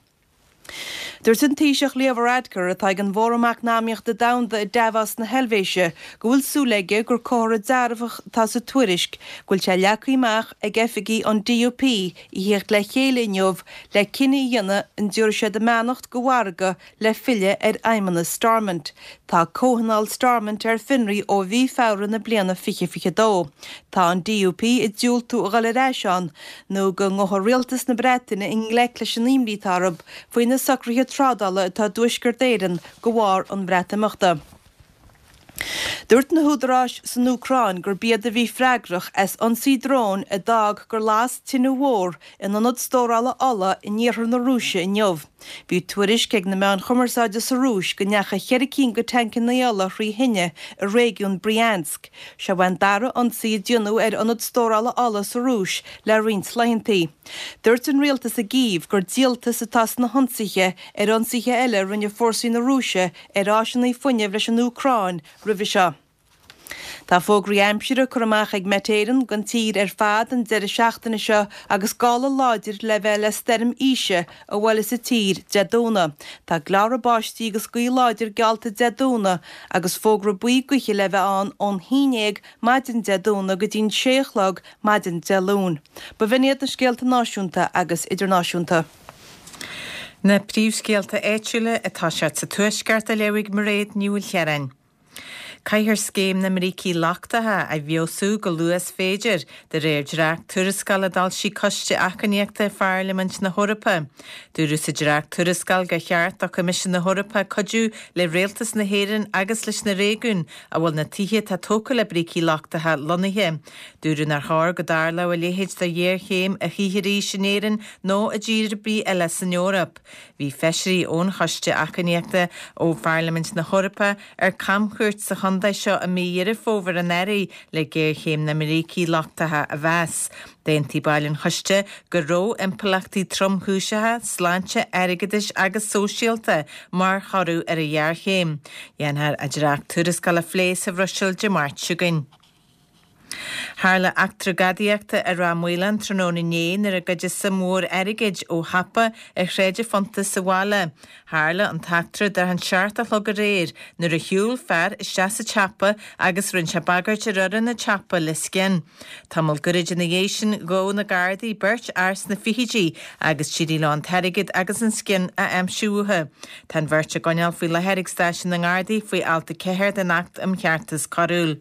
Dúirt an Taoiseach Leo Varadkar, atá ag an bhFóram Eacnamaíochta Domhanda i Davos na hEilvéise, go bhfuil súil aige gur comhartha dearfach atá sa tuairisc go bhfuil sé leagtha amach ag oifigigh an DUP a thíocht le chéile inniu le cinneadh a dhéanamh an dtabharfaidh siad a mbeannacht do mhargadh le filleadh ar fheidhmeannas Stormont. Tá Comhthionól Stormont ar fionraí ó mhí Feabhra na bliana 2022. Tá an DUP ag diúltú a dhul ar ais ann nó go ngabhfaidh rialtas na Breataine i ngleic leis an imní atá orthu faoi na socruithe trádála atá i dTuaisceart Éireann de bharr an Bhreatimeachta. Dúirt na húdaráis san Úcráin gurb iad a bhí freagrach as ionsaí dróin a d'fhág gur las tine mhór in ionad stórála ola in iarthar na Rúise inniu. Bhí tuairisc ag na meáin chumarsáide sa Rúis go ndeachaigh cheithre cinn de tancanna ola thrí thine i réigiún Bryansk. Seo é an dara ionsaí a déanadh ar ionad stórála ola sa Rúis le roinnt laethanta. Dúirt an rialtas i gCív gur díoltas atá sna hionsaithe ar ionsaithe eile a rinne fórsaí na Rúise ar áiseanna fuinnimh leis an Úcráin roimhe seo. Tá fógraí aimsire curtha amach ag Met Éireann don tír ar fad an deireadh seachtaine seo agus gála láidir le bheith le stoirm Isha a bhuailfeas an tír Dé Domhnaigh. Tá gleáradh báistí agus gaoth láidir geallta Dé Domhnaigh agus fógra buí gaoithe le bheith ann ón haon dhéag maidin Dé Domhnaigh go dtí'n sé a chlog maidin Dé Luain. B'in iad na scéalta náisiúnta agus idirnáisiúnta. Na príomhscéalta áitiúla atá siad sa Tuaisceart á léamh ag Mairéad Ní Mhaoilchiaráin. Caithfear scéim na mbrící lochtacha a fheabhsú go luath is féidir, de réir dréacht-tuarascáil a d'fhoilsigh Coiste Achainíochta Pharlaimint na hEorpa. Dúradh sa dréacht-tuarascáil gur cheart do Choimisiún na hEorpa cuidiú le Rialtas na hÉireann agus leis na réigiúin a bhfuil na tithe atá tógtha le brící lochtacha lonnaithe. Dúradh nár chóir go dtarlódh a leithéid de ghéarchéim a choíche arís in Éirinn nó i dtír ar bith eile san Eoraip. Bhí feisirí ón Choiste Achainíochta ó Pharlaimint na hEorpa ar camchuairt sa chontae seo i mí Dheireadh Fómhair anuraidh le géarchéim na mbrící lochtacha a mheas. D'aontaigh baill an choiste go raibh impleachtaí tromchúiseacha sláinte, airgeadais agus sóisialta mar thoradh ar an ghéarchéim. Dhéanfar an dréacht-tuarascáil a phlé sa Bhruiséil Dé Máirt seo chugainn. Tharla eachtra gadaíochta i Ráth Maoláin tráthnóna inné nuair a goideadh suim mhór airgid ó shiopa ar Shráid an Phunta sa bhaile. Tharla an t-eachtra thart an 7 a chlog aréir nuair a shiúil fear isteach sa tsiopa agus rinne sé bagairt ar fhoireann an tsiopa le scian. Tamall gairid ina dhiaidh sin ghabh na Gardaí beirt fhear sna fichidí agus d'éirigh leo an t-airgead agus an scian a aimsiú uathu. Tá an bheirt á gcoinneáil faoi láthair ag stáisiún na nGardaí faoi alt 4 den Acht um Cheartas Coiriúil.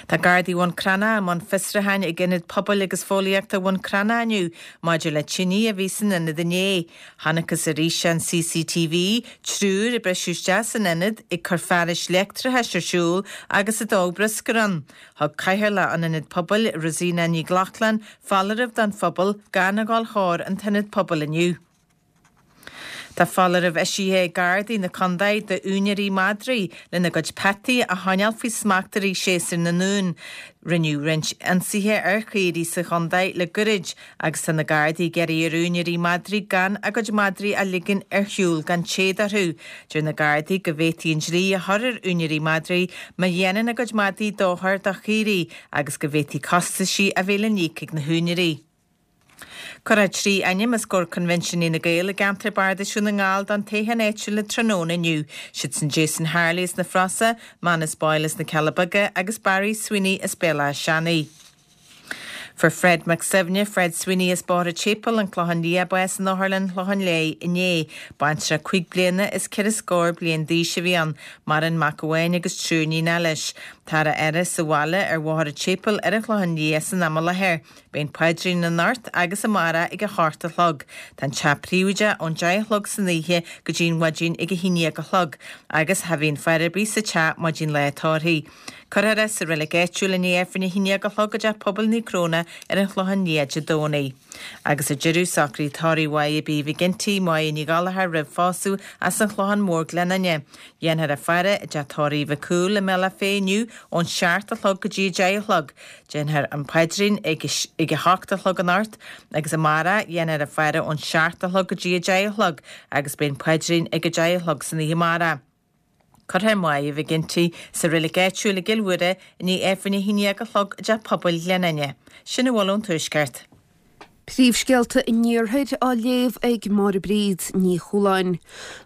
Tá Gardaí Bhun Cranncha i mbun fiosrúcháin ag Ionad Pobail agus Fóillíochta Bhun Cranncha inniu maidir le tine a bhí san ionad inné. Chonacthas ar fhíseán CCTV triúr ag briseadh isteach san ionad ag cur fearais leictreachais ar siúl agus ag dó bruscair ann. Thug Cathaoirleach an Ionaid Pobail, Rosina Nic Lochlainn, foláireamh don phobal gan a dhul chóir an t-ionad pobail inniu. Tá foláireamh eisithe ag Gardaí na Condae d'úinéirí madraí lena gcuid peataí a choinneáil faoi smacht i rith séasúr na n-uan. Rinneadh roinnt ionsaithe ar chaoirigh sa chondae le goirid agus tá na Gardaí ag iarraidh ar úinéirí madraí gan a gcuid madraí a ligean ar shiúl gan téad orthu. Deir na Gardaí go bhféadfaí an dlí a chur ar úinéirí madraí má dhéanann a gcuid madaí dochar do chaoirigh agus go bhféadfaí costaisí a bheith le n-íoc ag na húinéirí. Cuirfear 3 ainm os comhair Coinbhinsiúnaí na Gael i gceantar Bardais Dhún na nGall don toghchán áitiúil tráthnóna inniu. Siad sin Jason Harley as na Frosa, Manus Boyle as na Cealla Beaga agus Barry Sweeney as Béal Átha Seanaidh. Fuair Fred Mac Suibhne, Fred Sweeney as Bóthar an tSéipéil, an Clochán Liath, bás in Otharlann Clochán Léith inné. Baintreach 5 bliana is ceithre scór bliain d'aois a bhí ann. Maireann mac amháin agus triúr níonacha leis. Táthar á fhaire sa bhaile ar Bhóthar an tSéipéil ar an Chlochán Liath san am i láthair. Beidh an paidrín anocht agus amárach ag a hocht a chlog. Tá an teach príobháideach ón deich a chlog san oíche go dtí an mhaidin ag a haon dhéag a chlog agus cha bhíonn faire ar bith sa teach maidin lá tórraimh. Cuirfear é sa reilig áitiúil i ndiaidh Aifreann a haon dhéag a chlog i dTeach Pobail Naomh Cróna ar an Chlochán Liath Dé Domhnaigh. Agus ar deireadh, socruithe tórraimh Mháire B. McGinty, Máire Ní Ghallchóir roimh phósadh as an Chlochán Mór Gleann Fhinne. Dhéanfar a faire i dteach tórraimh Mhic Cumhaill i mBealach Féich inniu ón seacht a chlog go dtí a deich a chlog. Déanfar an paidrín ag a hocht a chlog anocht agus amárach dhéanfar a faire ón seacht a chlog go dtí a deich a chlog agus beidh an paidrín ag a deich a chlog san oíche amárach. Cuirfear Máire McGinty sa reilig áitiúil i gCill Mhuire i ndiaidh Aifreann a haon dhéag a chlog i dTeach Pobail Ghleann Fhinne. Sin a bhfuil ón Tuaisceart. Príomhscéalta an Iarthair á léamh ag Máire Bríd Ní Chualáin.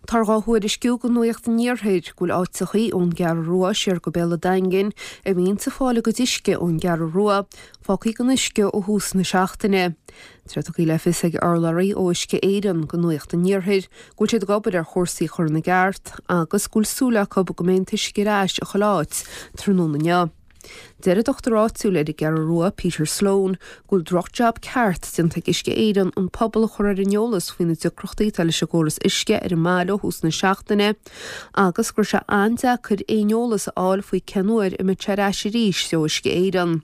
Táthar dhá thuairisciú go Nuacht an Iarthair go bhfuil áiteachaí ón gCeathrú Rua siar go Béal a' Daingin a bhíonns ag fáil a gcuid uisce ón gCeathrú Rua fágthaí gan uisce ó thús na seachtaine. Tá tugtha le fios ag urlabhraí ó Uisce Éireann go Nuacht an Iarthair go bhfuil siad ag obair ar chúrsaí a chur ina gceart agus go bhfuil súil acu go mbeidh an t-uisce ar ais i chuile áit tráthnóna inniu. Deir an dochtúir áitiúil ar an gCeathrú Rua, Peter Sloane, go bhfuil droch-jab ceart déanta ag Uisce Éireann an pobal a chur ar an eolas faoi na deacrachtaí atá leis an gcóras uisce ar an mbaile ó thús na seachtaine agus go raibh sé an-deacair aon eolas a fháil faoi cén uair a mbeidh sé ar ais arís ó Uisce Éireann.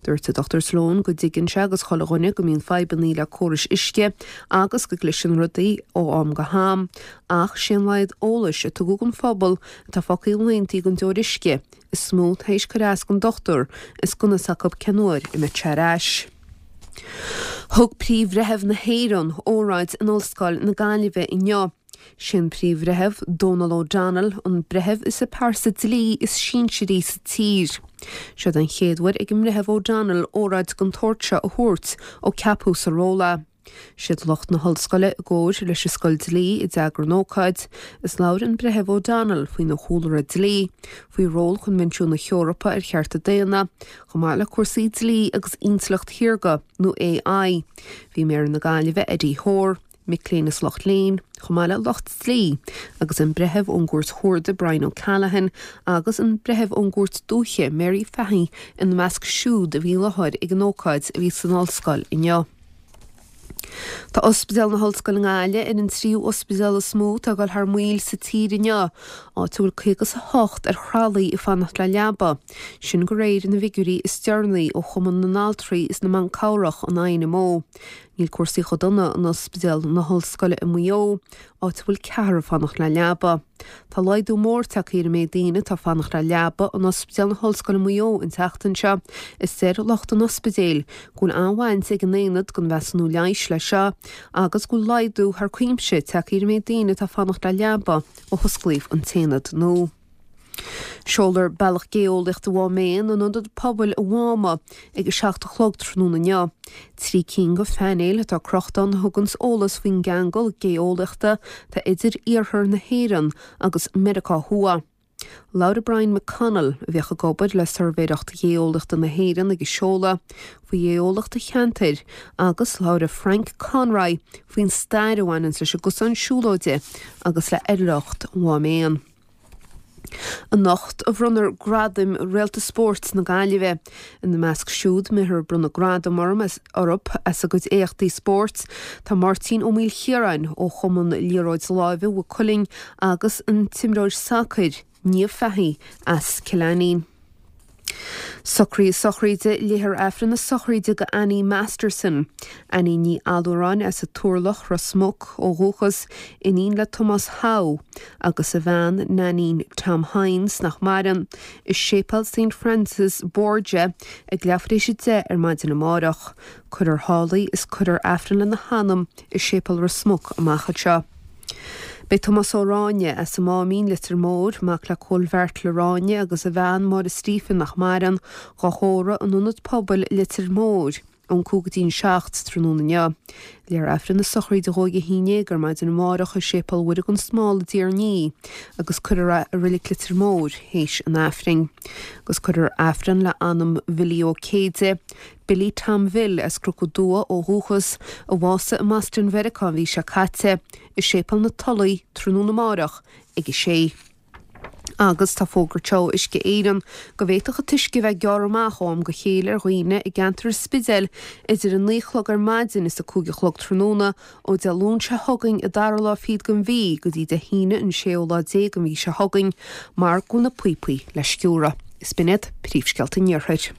Dúirt an Dr Sloane go dtuigeann sé agus chuile dhuine go mbíonn fadhbannaí le córais uisce agus go gcliseann rudaí ó am go ham ach sé an laghad eolais a tugadh don phobal atá fágtha laethantaí gan deoir uisce is mó tar éis cur as don dochtúir is gan fhios acu cén uair a mbeidh sé ar ais. Thug Príomh-Bhreitheamh na hÉireann óráid in Ollscoil na Gaillimhe inniu. Sé an Príomh-Bhreitheamh, Donal O'Donnell, an breitheamh is an pearsa dlí is sinsearaí sa tír. Seo den chéad uair ag an mBreitheamh O'Donnell óráid den tsórt seo a thabhairt ó ceapadh sa ról é. Siad lucht na hollscoile i gcomhair leis an Scoil Dlí a d'eagraigh an ócáid, is labhair an Breitheamh O'Donnell faoina chúlra dlí, faoi ról Choinbhinsiún na hEorpa ar Chearta Daonna, chomh maith le cúrsaí dlí agus intleacht shaorga, nó AI. Bhí Méara na Gaillimhe Eddie Hoare, mic léinn is lucht léinn, chomh maith le lucht dlí, agus an Breitheamh ón gCúirt Chuarda Brian O'Callaghan agus an Breitheamh ón gCúirt Dúiche Mary Fahy ina measc siúd a bhí i láthair ag an ócáid a bhí san ollscoil inniu. Tá Ospidéal na hOllscoile i nGaillimh ar an tríú ospidéal is mó atá ag dul thar maoil sa tír inniu, áit a bhfuil 58 ar thralaí ag fanacht le leaba, sin de réir na bhfigiúirí is deireanaí ó Chumann na nAltraí is na mBan Cabhrach, an INMO. Níl cúrsaí chomh dona in Ospidéal na hOllscoile i Maigh Eo, áit a bhfuil ceathrar ag fanacht le leaba. Tá laghdú mór tagtha ar an méid daoine atá ag fanacht le leaba in Ospidéal na hOllscoile Maigh Eo an tseachtain seo is deir lucht an ospidéil go bhfuil an-bhaint ag an Aonad don Mheasúnú Leighis leis seo agus go bhfuil laghdú thar cuimse tagtha ar an méid daoine atá ag fanacht le leaba ó hosclaíodh an t-aonad nua. Seolfar Bealach Gé-eolaíochta Mhám Éan in Ionad Pobail an Mháma ag a 7 a chlog tráthnóna inniu. 3 cinn de phainéil atá crochta ann a thuganns eolas faoin gceangal gé-eolaíochta atá idir iarthar na hÉireann agus Meiriceá Thuaidh. Labhair Brian McConnell, a bhíodh ag obair le Suirbhéireacht Ghéeolaíochta na hÉireann ag an seoladh, faoi ghéeolaíocht an cheantair agus labhair Frank Conroy faoin stair a bhaineanns leis an gcosán siúlóide agus le hoidhreacht Mhám Éan. Anocht a bhronnfar gradaim Réalta Spóirt na Gaillimhe. Ina measc siúd a mbeifear ag bronnadh gradam orthu as a gcuid éachtaí spóirt tá Máirtín Ó Maoilchiaráin ó Chumann Liathróid Láimhe Mhaigh Cuilinn agus an t-imreoir sacair, Niamh Fahey as Cill Ainnín. Socruithe sochraide Léifear Aifreann na sochraide do Annie Masterson, Annie Ní Allúráin as an Turlach, Ros Muc, ó dhúchas, iníon le Tomás Howe agus a bhean Nainín Tom Hynes, nach maireann, i Séipéal St Francis Borgia ag leathuair tar éis 10 ar maidin amárach. Cuirfear thall í is cuirfear Aifreann lena hanam i Séipéal Ros Muc amach anseo. Beidh Tomás Ó Ráinne, as an Máimín, Leitir Móir, mac le Cóil Bheairtle Ráinne agus a bhean Máire Stephen nach maireann, dhá thórramh in Ionad Pobail Leitir Móir ón 5 go dtí an 7 tráthnóna inniu. Léifear Aifreann na sochraide dhó ag a 11 ar maidin amárach i Séipéal Mhuire gan Smál i dTír an Fhia agus cuirfear é i Reilig Leitir Móir théis an Aifrinn. Agus cuirfear Aifreann le anam Bhilly Ó Céide, Billy Tom Bhill as Cnoc an Dua ó dhúchas, a bhásaigh i mBoston Mheiriceá an mhí seo caite, i Séipéal na Tulaí tráthnóna amárach ag a sé. Agus tá fógartha ag Uisce Éireann go bhféadfadh an t-uisce a bheith gearrtha amach ó am go chéile ar dhaoine i gceantar an Spidéil idir a 9 a chlog ar maidin is a 5 a chlog tráthnóna ó Dé Luain seo chugainn an dara lá fichead den mhí go dtí Dé hAoine an séú lá déag den mhí seo chugainn mar go bhfuil na píopaí le sciúradh. Is b'in iad príomhscéalta an Iarthair.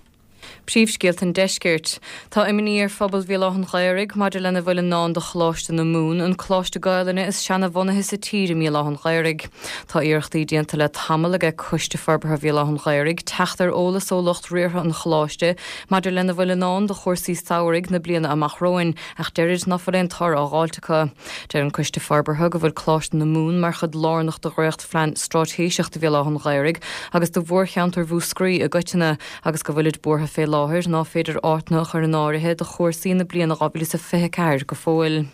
Príomhscéalta an Deiscirt. Tá imní ar phobal Bhéal Átha an Ghaorthaidh maidir lena bhfuil i ndán do Choláiste na Mumhan, an coláiste Gaelainne is seana-bhunaithe sa tír i mBéal Átha an Ghaorthaidh. Tá iarrachtaí déanta le tamall aige Coiste Forbartha Bhéal Átha an Ghaorthaidh teacht ar eolas ó lucht riartha an choláiste maidir lena bhfuil i ndán do chúrsaí samhraidh na bliana amach romhainn ach deirid ná fuil aon toradh á dh'fháilt acu. Deir an Coiste Forbartha go bhfuil Coláiste na Mumhan mar chuid lárnach de dhréacht-phlean straitéiseach do Bhéal Átha an Ghaorthaidh agus do mhórcheantar Mhúscraí i gcoitinne agus go bhfuilid buartha fé láthair ná féidir áiteanna a chur in áirithe do chúrsaí na bliana 2024 go fóill.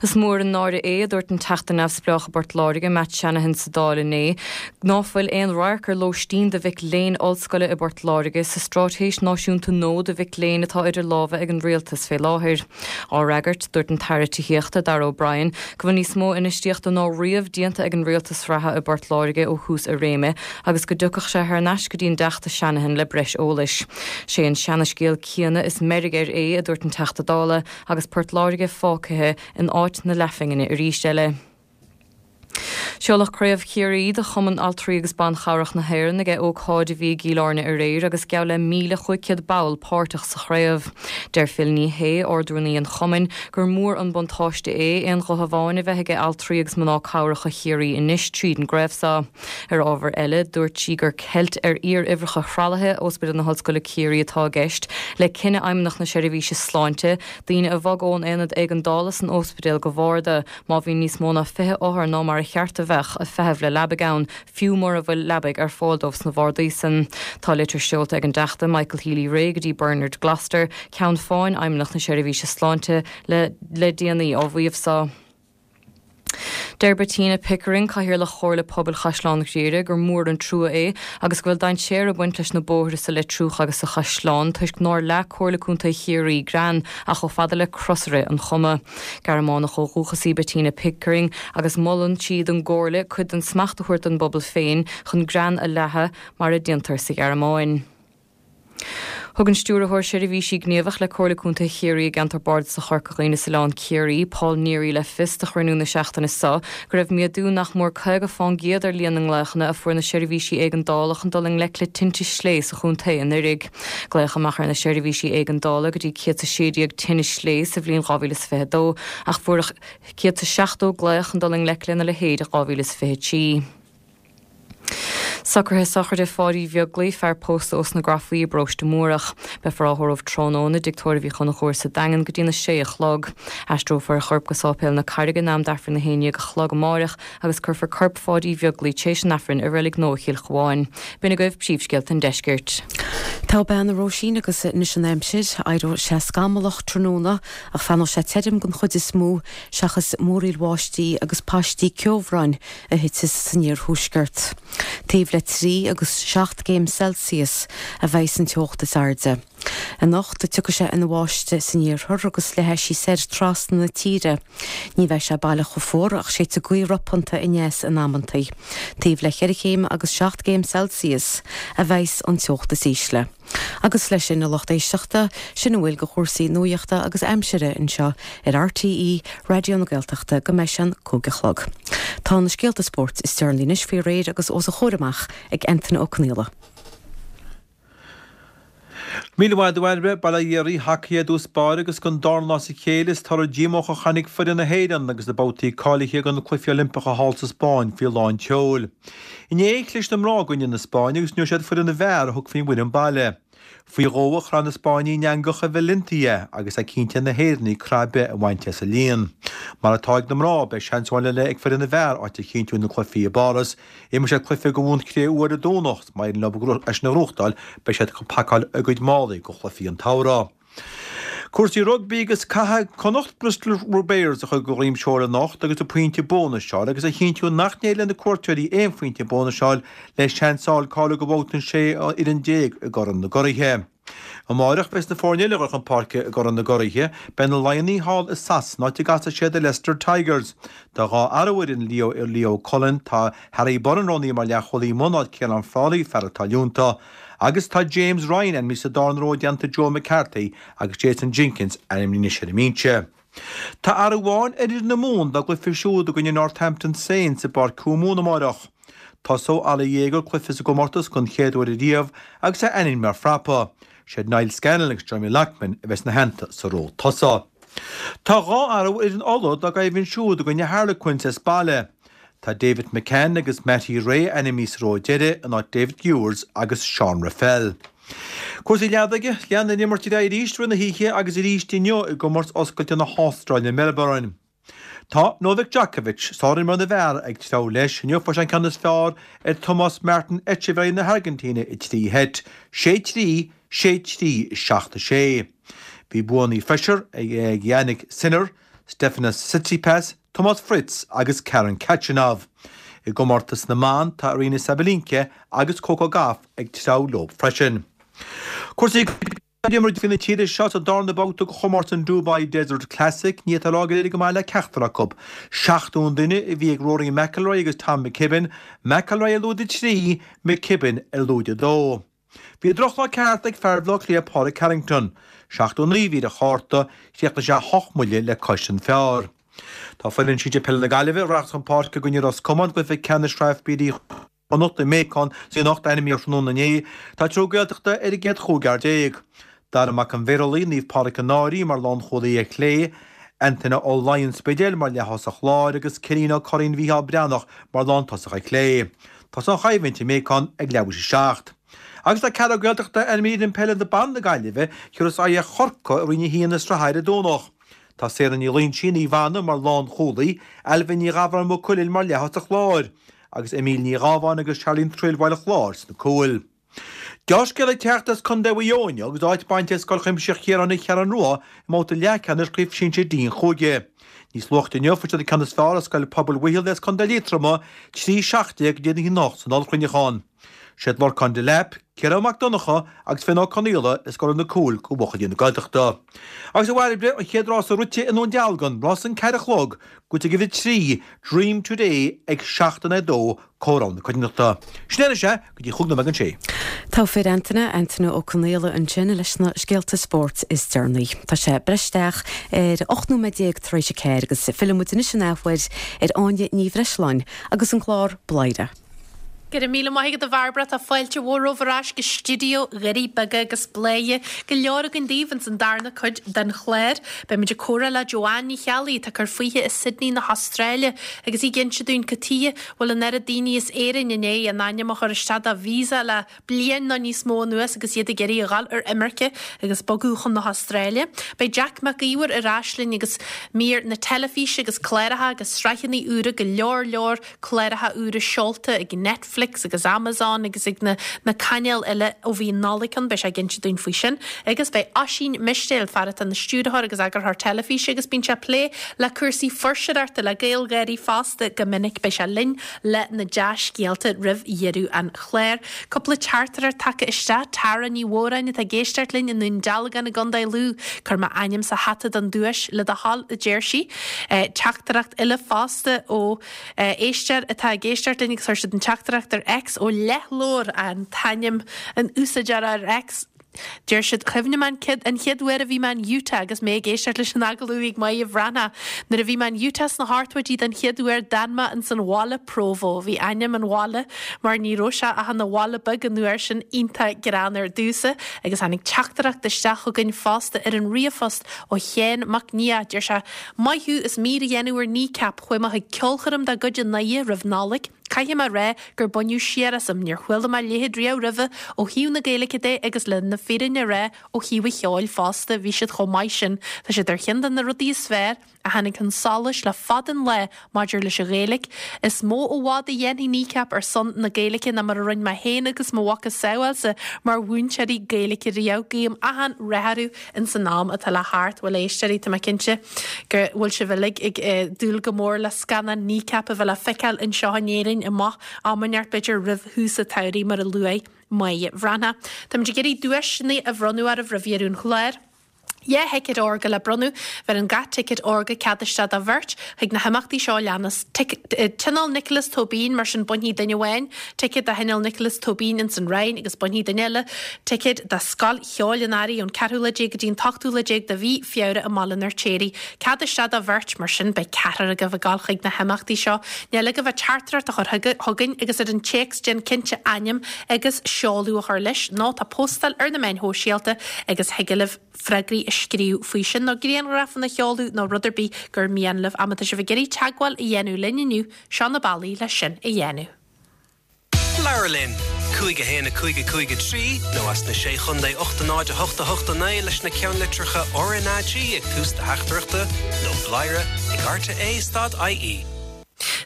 Is mór an náire é, a dúirt an Teachta Neamhspleách i bPort Láirge, Matt Shanahan sa Dáil inné, ná fuil aon radharc ar lóistín do mhic léinn ollscoile i bPort Láirge sa straitéis náisiúnta nua do mhic léinn atá idir lámha ag an Rialtas fé láthair. Á fhreagairt, dúirt an tAire Tithíochta, Darragh O'Brien, go bhfuil níos mó infheistíochta ná riamh déanta ag an Rialtas reatha i bPort Láirge ó thús a réime agus go dtiocfadh sé thar n-ais go dtí an dTeachta Shanahan le breis eolais. Sé an seana-scéal céanna is meirg air é, a dúirt an Teachta Dála, agus Port Láirge fágtha in áit na leathphingine arís eile. Seoladh Craobh Chiarraí de Chumann Altraí agus Ban Chabhrach na hÉireann ag ócáid a bhí i gCill Airne aréir agus geall le 1,500 ball páirteach sa chraobh. Deir Phil Ní Sheaghdha, Ard-Rúnaí an Chumainn, gur mór an buntáiste é aon ghuth amháin a bheith aige altraí agus mná cabhracha Chiarraí anois tríd an gcraobh seo. Ar ábhar eile, dúirt sí gur ceilt ar fhíoruimhreacha thralaithe Ospidéal na hOllscoile Ciarraí atá i gceist le cinneadh Fheidhmeannacht na Seirbhíse Sláinte daoine a bhogadh ón aonad éigeandála san ospidéal go bharda má bhíonn níos mó ná 20 othar ná mar a cheart a bheadh ag feitheamh le leabaidh ann, fiú mura bhfuil leabaidh ar fáil dóibh sna bhardaí san. Tá litir seolta ag an dTeachta Michael Healy-Rae go dtí Bernard Gloster, Ceann Fáin Fheidhmeannacht na Seirbhíse Sláinte, le le déanaí á mhaíomh so. Deir Bettina Pickering, Cathaoirleach Chomhairle Pobail Chaisleán Ghriaire, gur mór an trua é agus go bhfuil dainséar ag baint leis na bóithre sa Leitriúch agus sa Chaisleán toisc nár leath Comhairle Contae Chiarraí grean ach chomh fada le crosaire an Choma. Gearmánach ó dhúchas í Bettina Pickering agus molann sí don gComhairle cuid den smacht a thabhairt don bpobal féin chun grean a leathadh mar a déantar sa Ghearmáin. Thug an Stiúrthóir Seirbhísí Gníomhach le Comhairle Contae Chiarraí i gceantar Bardasach Chorca Dhuibhne is Oileán Ciarraí, Paul Neary le fios do chruinniú na seachtaine seo go raibh méadú nach mór 50 fán gcéad ar líon na nglaochanna a fuair na seirbhísí éigeandála chun dul i ngleic le tinte slé sa chontae anuiridh. Glaodh amach ar na seirbhísí éigeandála go dtí 116 tine slé sa bhliain 2022 ach fuaireadh 170 glaoch chun dul i ngleic lena leithéid i 2023. Socruithe sochraide Pháidí Bheaglaoich, fear pósta ós na Grafaí i bParóiste Múrach. Beifear á thórramh tráthnóna i dTigh Tórraimh Uí Chonchúir sa Daingean go dtína sé a chlog. Aistreofar a chorp go Sáipéal na Carraige in am d'Aifreann a haon dhéag a chlog amáireach agus cuirfear corp Pháidí Bheaglaoich tréis an Aifrinn i Reilig Nua Chill Chabháin. B'in agaibh príomhscéalta an deiscirt. Togha bean a Róisín agus anois an aimsir. Éireoidh sé scamallach tráthnóna ach fanóidh sé tirim den chuid is mó seachas múraíl bháistí agus paistí ceobhráin a thitfeas san iarthuaisceart. Taobh le 3 agus 7 gcéim Celsius a bheidh san teocht is airde. Anocht, tiocfaidh sé ina bháisteach san iarthar agus leathfaidh sí soir trasna na tíre. Ní bheidh sé baileach chomh fuar ach séidfidh gaoth ropánta aneas in amantaí. Taobh le cheithre chéim agus 7 gcéim Celsius a bheas an teocht is ísle. Agus leis sin, a lucht éisteachta, sin a bhfuil de chúrsaí nuachta agus aimsire anseo ar RTÉ Raidió na Gaeltachta go mbeidh sé an 5 a chlog. Tá na scéalta spóirt is deireanaí anois faoi réir agus os a chomhair amach ag Antaine Ó Conaola. Míle maith agat a Bhairbre, bail ó Dhia oraibh, hacaí i dtús báire agus don darna lá as a chéile is toradh díomách a chonaic foireann na hÉireann agus na babhtaí cáilithe do na Cluichí Oilimpeacha thall sa Spáinn faoi lán tseoil. Inné, chlis na mná i gcoinne na Spáinne agus inniu siad foireann na bhfear a thug faoin bhfoireann baile. Faoi dhó a chraith na Spáinnigh an eangach i Valencia agus é cinnte ag na hÉireannaigh craith ar bith a bhaint as an líon. Mar atá ag na mná, beidh seans amháin eile ag foireann na bhfear áit a chinntiú ina cluichí i bPáras. Imreoidh siad cluiche de bhun cré-umha ar an Domhnach is má éiríonn leo é sin a ghnóthachtáil, beidh siad ag pacáil a gcuid málaí do chluichí an tsamhraidh. Cúrsaí rugbaí agus caithfidh Connacht Bristol Bears a chur de dhroim seoil anocht agus an pointe bónais a fháil agus a chinntiú nach n-éireoidh le na cuairteoirí aon phointe bónais a fháil le seans a fháil cáiliú do bhabhta an 16 fhoireann i gCorn na gCuraithe. Amáireach beidh na foirne eile a dhul chun páirce i gCorn na gCuraithe, beidh na Laighnigh thall i Sasana áit a gcasfaidh siad ar Leicester Tigers. Tá 2 athrú ar fhoireann Leo Leo Cullen, tá Harry Burren roghnaithe mar leathchúlaí amuigh in áit Ciarán Frawley, fear atá leonta. Agus tá James Ryan ainmnithe sa darna ró i dteannta Joe McCarthy agus Jason Jenkins ainmnithe anois ar an mbinse. Tá athrú amháin ar fhoireann na Mumhan dá gcluiche siúd i gcoinne Northampton Saints i bPáirc Thuamumhan amárach. Tosóidh Oli Jager cluiche sa gcomórtas don chéad uair ariamh agus é ainmnithe mar phrapa. Siad Niall Scannell agus Jeremy Loughman a bheas ina theannta sa ró tosaigh. Tá 2 athrú ar fhoireann Uladh dá gcoimhlint siúd i gcoinne Harlequins as baile. Tá David McCann agus Matty Ray ainmnithe sa ró deiridh in áit David Ewers agus Sean Reffell. Cúrsaí leadóige, Lean an imirt ar aghaidh arís i rith na hoíche agus arís inniu i gcomórtas oscailte na hAstráile i Melbourne. Tá Novak Djokovic, sárimreoir na bhfear, ag treabhadh leis. Inniu fuair sé an ceann is fearr ar Tomás Martin Etcheverry na hAirgintíne i dtrí sheit, 6-3, 6-3, 7-6. Bhí buanna freisin ag Jannik Sinner, Stefanos Tsitsipas, Tomás Fritz agus Karen Khachanov. I gcomórtas na mban, tá Aryna Sabalenka agus Coco Gauff ag treabhadh leo freisin. Cúrsaí D'imir fir na tíre seo sa darna babhta de chomórtas an Dubai Desert Classic. Ní fhéadfá a rá gur éirigh go maith le ceachtar acu. 70 an duine a bhí ag Rory McIlroy agus Tom McKibbin, McIlroy ar lúide 3, McKibbin ar lúide 2. Bhí drochlá ceart ag fear Bhaile Átha Cliath Pádraig Harrington. 79 a bhí ar a chárta, chríochnaigh sé 8 mbuille le cois an phar. Tá foireann sinsir peile na Gaillimhe a rachas chun páirce i gcoinne Ros Comáin i gcluiche ceannais Shraith FBD Chonnacht i Macon anocht ainmnithe tráthnóna inné. Tá triúr Gaeltachta ar an gcéad chúigear. Dara Mac an Bhéarlaí, Naomh Pádraig an Fhairche mar lánchúlaí ar chlé, Antaine Ó Laighin, An Spidéal mar leath-thosach láir agus Cillian Ó Curraoin Mhícheál Breathnach mar lántosach ar chlé. Tosóidh an choimhlint i Macon ag leathuair théis a 7. Agus tá ceathrar Gaeltachta ainmnithe ar fhoireann peile na ban na Gaillimhe, a thabharfas aghaidh ar Chorcaigh i Roinn 1 na sraithe ar an Domhnach. Tá Sarah Ní Loingsigh, Naomh Anna, mar lánchúlaí, Ailbhe Ní Ghabhráin Maigh Cuilinn mar leath-thosach láir, agus Emile Ní Ghabháin agus Charlene Trill Bhaile Chláir sna cúil. Deá-scéala ag teacht as Contae Mhaigh Eo inniu agus áit bainte ag Scoil Chuimsitheach Chiaráin an Cheathrú Rua i mbabhta leathcheannais Chraobh Shinsir D an chúige. Níos luaithe inniu fuair siad an ceann is fearr ar Scoil Pobail Mhaothail as Contae Liatroma, 3 17 in aghaidh 1 8 san ollchruinneachán. Siad Lorcán Delap, Ciarán Mac Donncha agus Finn Ó Conaola a scóráil na cúil do bhuachaillí na Gaeltachta. Agus a Bhairbre, an chéad rása rite i nDún Dealgan, rás an 4 a chlog, Gnóthaithe ag uimhir 3, Dream Today ag 7 in aghaidh 2, comhaireamh na coitiantachta. Sin é anois é, go dtí chúig nóiméad don sé. Togha fir Antaine, Antaine Ó Conaola ansin leis na scéalta spóirt is deireanaí. Tá sé breis isteach ar 18 nóiméad tar éis a ceathair agus filleann muid anois an athuair ar Áine Ní Bhreisleáin agus an clár Bladhaire. Go raibh míle maith agat a Bhairbre, tá fáilte mhór romhaibh ar ais go stiúideo Dhoirí Beaga agus Bladhaire go leor againn daoibh ins an darna cuid den chlár. Beidh muid ag comhrá le Joanne Ní Cheallaigh atá ag cur fúithi i Sydney na hAstráile agus í ag inse dúinn cad tuighe bhfuil an oiread daoine as Éirinn i ndiaidh a n-ainm a chur isteach do visa le bliain nó níos mó anuas agus iad ag iarraidh a dhul ar imirce agus bogadh chun na hAstráile. Beidh Jack Mac Íomhair ar ais linn agus mír na teilifíse agus cláracha agus sraitheanna úra go leor leor cláracha úra seolta ag Netflix. Netflix agus Amazon agus ag na na cainéil eile ó bhí an Nollaig ann, beidh sé ag inse dúinn faoi sin. Agus beidh Oisín Mistéil, fear atá ina stiúrthóir agus eagarthóir teilifíse agus bíonn sé ag plé le cúrsaí fuirseoireachta, le GaelGÁIRÍ fosta go minic, beidh sé linn le na dea-scéalta roimh dheireadh an chláir. Cúpla teachtaireacht tagtha isteach, Tara Ní Mhóráin atá ag éisteacht linn i nDún Dealgan i gContae Lú. Cuir m'ainm sa hata don duais le do thoil, a deir sí. Teachtaireacht eile fosta ó éisteoir atá ag éisteacht linn agus chuir siad an teachtaireacht ar X ó Leathlobhair an t-ainm an úsáideora ar X. Deir siad, Cuimhním an an chéad uair a bhí mé in Utah agus mé ag éisteacht leis an agallamh a bhí ag Máire Bhreathnach. Nuair a bhí mé in Utah sna hochtóidí den chéad uair d'fhan mé ins an bhaile Provo. Bhí ainm an bhaile mar ní raibh sé ach ina bhaile beag an uair sin iontach greannmhar domhsa agus tháinig teachtaireacht isteach chugainn fosta ar an ríomhphost ó Sheán Mac Nia. Deir sé, Maith thú as mír a dhéanamh ar Kneecap. Chuaigh mé chuig ceolchoirm dá gcuid i nDoire roimh Nollaig. Caithfidh mé a rá gur baineadh siar asam, níor chuala mé a leithéid riamh roimhe ó thaobh na Gaeilge de agus le na fírinne a rá ó thaobh an cheoil fosta, bhí siad chomh maith sin. Tá siad ar cheann de na rudaí is fearr a tháinig chun solais le fada an lá maidir leis an Ghaeilge. Is mó i bhfad a dhéanfaidh Kneecap ar son na Gaeilge ná mar a rinne mé féin agus mo mhacasamhailsa mar mhúinteoirí Gaeilge riamh. Guím achan rath orthu ins an am atá le theacht. Bhuel, a éisteoirí, tá mé cinnte go bhfuil sibh uilig ag dúil go mór le scannán Kneecap a bheith le feiceáil anseo in Éirinn amach am inteacht, b'fhéidir roimh thús an tsamhraidh, mar a luaigh Máire Bhreathnach. Táimid ag iarraidh duaiseanna a bhronnadh oraibh roimh dheireadh an chláir. 2 thicéad órga le bronnadh. Bheireann gach ticéad órga cead isteach do bheirt chuig na himeachtaí seo a leanas, Tionól Nicholas Tóibín, mar sin bainfidh duine amháin ticéad do Thionól Nicholas Tóibín ins an Rinn agus bainfidh duine eile ticéad do Scoil Cheoil an Earraigh ón ceathrú lá déag go dtí an t-ochtú lá déag de mhí Feabhra i mBaile an Fheirtéaraigh. Cead isteach do bheirt, mar sin beidh ceathrar agaibh ag dul chuig na himeachtaí seo. Níl agaibh ach teachtaireacht a chur chugainn agus ar an téacs déan cinnte ainm agus seoladh a chur leis nó tá postáil ar na meáin shóisialta agus thig libh freagraí a scríobh faoi sin nó grianghrafanna a sheoladh nó rud ar bith gur mian libh. Má tá sibh ag iarraidh teagmháil a dhéanamh linn inniu, seo na bealaí leis sin a dhéanamh. Labhair linn! 5 1 5 5 3 nó as na Sé Chontae 8 0 8 8 9 leis na ceannlitreacha RnaG ag tús do theachtaireachta nó bladhaire ag rte stad ie.